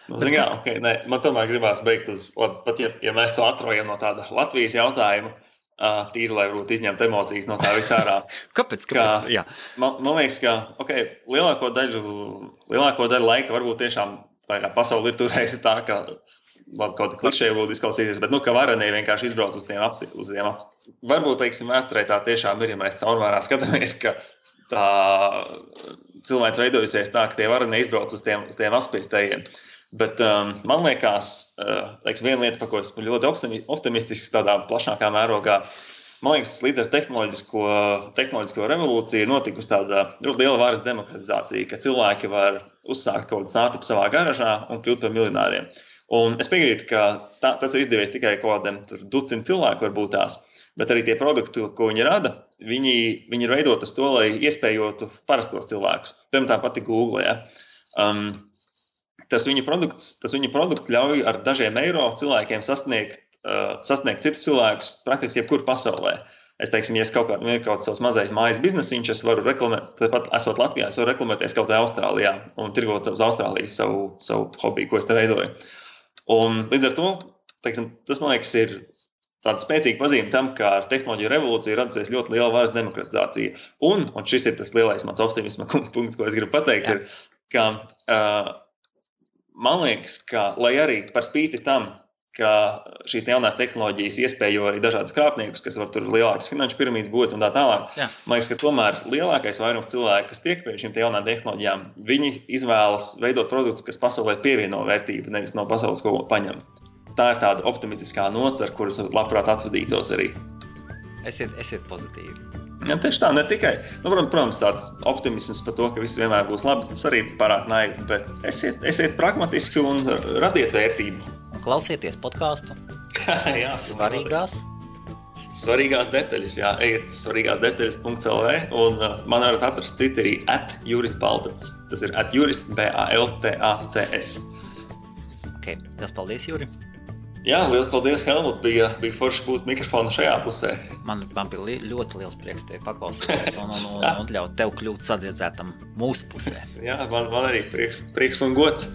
Man tomēr gribās beigt uz, pat ja mēs to atrojam no tāda Latvijas jautājuma, tīri, lai varbūt izņemt emocijas no tā visā ārā. Kāpēc? Jā. Man liekas, ka lielāko daļu laika varbūt tiešām pasauli ir turējusi tā, ka kaut kā klišēji būtu izklausīsies, bet ka varenie vienkārši izbrauc uz tiem varbūt, vēsturē tā tiešām ir, ja mēs caurmērā skatāmies, ka tā cilvēks veidojusies tā, ka tie varenie izbrauc uz tiem apspiestējiem. Bet man liekas, viena lieta, par ko esmu ļoti optimistisks tādā plašākā mērogā, man liekas, līdz ar tehnoloģisko revolūciju ir notikusi tāda ļoti liela varas demokratizācija, ka cilvēki var uzsākt kaut kādu startupu savā garažā un kļūt par miljonāriem. Un es piekrītu, ka tas ir izdevies tikai kaut kādiem ducim cilvēku varbūt tās, bet arī tie produkti, ko viņi rada, viņi ir veidot uz to, lai iespējotu parastos cilvēkus. Piemēram, tā pati Google, Tas viņu produkts ļauj ar dažiem eiro cilvēkiem sasniegt citus cilvēkus praktiski jebkur pasaulē. Es teiksim, ja es kaut kāds savs mazais mājas biznesiņš, es varu reklamēt, tāpat esot Latvijā, es varu reklamēties kaut kā Austrālijā un tirgot uz Austrāliju savu hobiju, ko es te veidoju. Un līdz ar to, tas man liekas ir tāda spēcīga pazīme tam, ka ar tehnoloģiju revolūciju radusies ļoti liela varas demokratizācija. Un šis ir tas lielais mans optimisma punkts, ko es gribu pateikt, ir, ka man liekas, ka, lai arī par spīti tam, ka šīs jaunās tehnoloģijas iespējo arī dažādus krāpniekus, kas var tur lielākas finanšu piramīdas būt un tā tālāk, man liekas, ka tomēr lielākais vairums cilvēku, kas tiek pie šīm jaunām tehnoloģijām, viņi izvēlas veidot produktus, kas pasaulē pievieno vērtību, nevis no pasaules ko paņem. Tā ir tāda optimistiskā nots, ar kuras labprāt atvadītos arī. Esiet pozitīvi. Ja, tieši tā, ne tikai. Protams, tāds optimisms par to, ka viss vienmēr būs labi, tas arī pārāk naivi, bet esiet pragmatiski un radiet vērtību. Un klausieties podcastu. Jā, svarīgās detaļas, ejiet svarīgāsdetaļas.lv un man varat atrast Twitterī @jurisbaltacs. Tas ir @juris_baltacs. Liels paldies, Juri. Jā, liels paldies, Helmut. Bija forši būt mikrofonu šajā pusē. Man bija ļoti liels prieks tevi paklausīties un ļaut tev kļūt sadziedzētam mūsu pusē. Jā, man arī prieks un gods.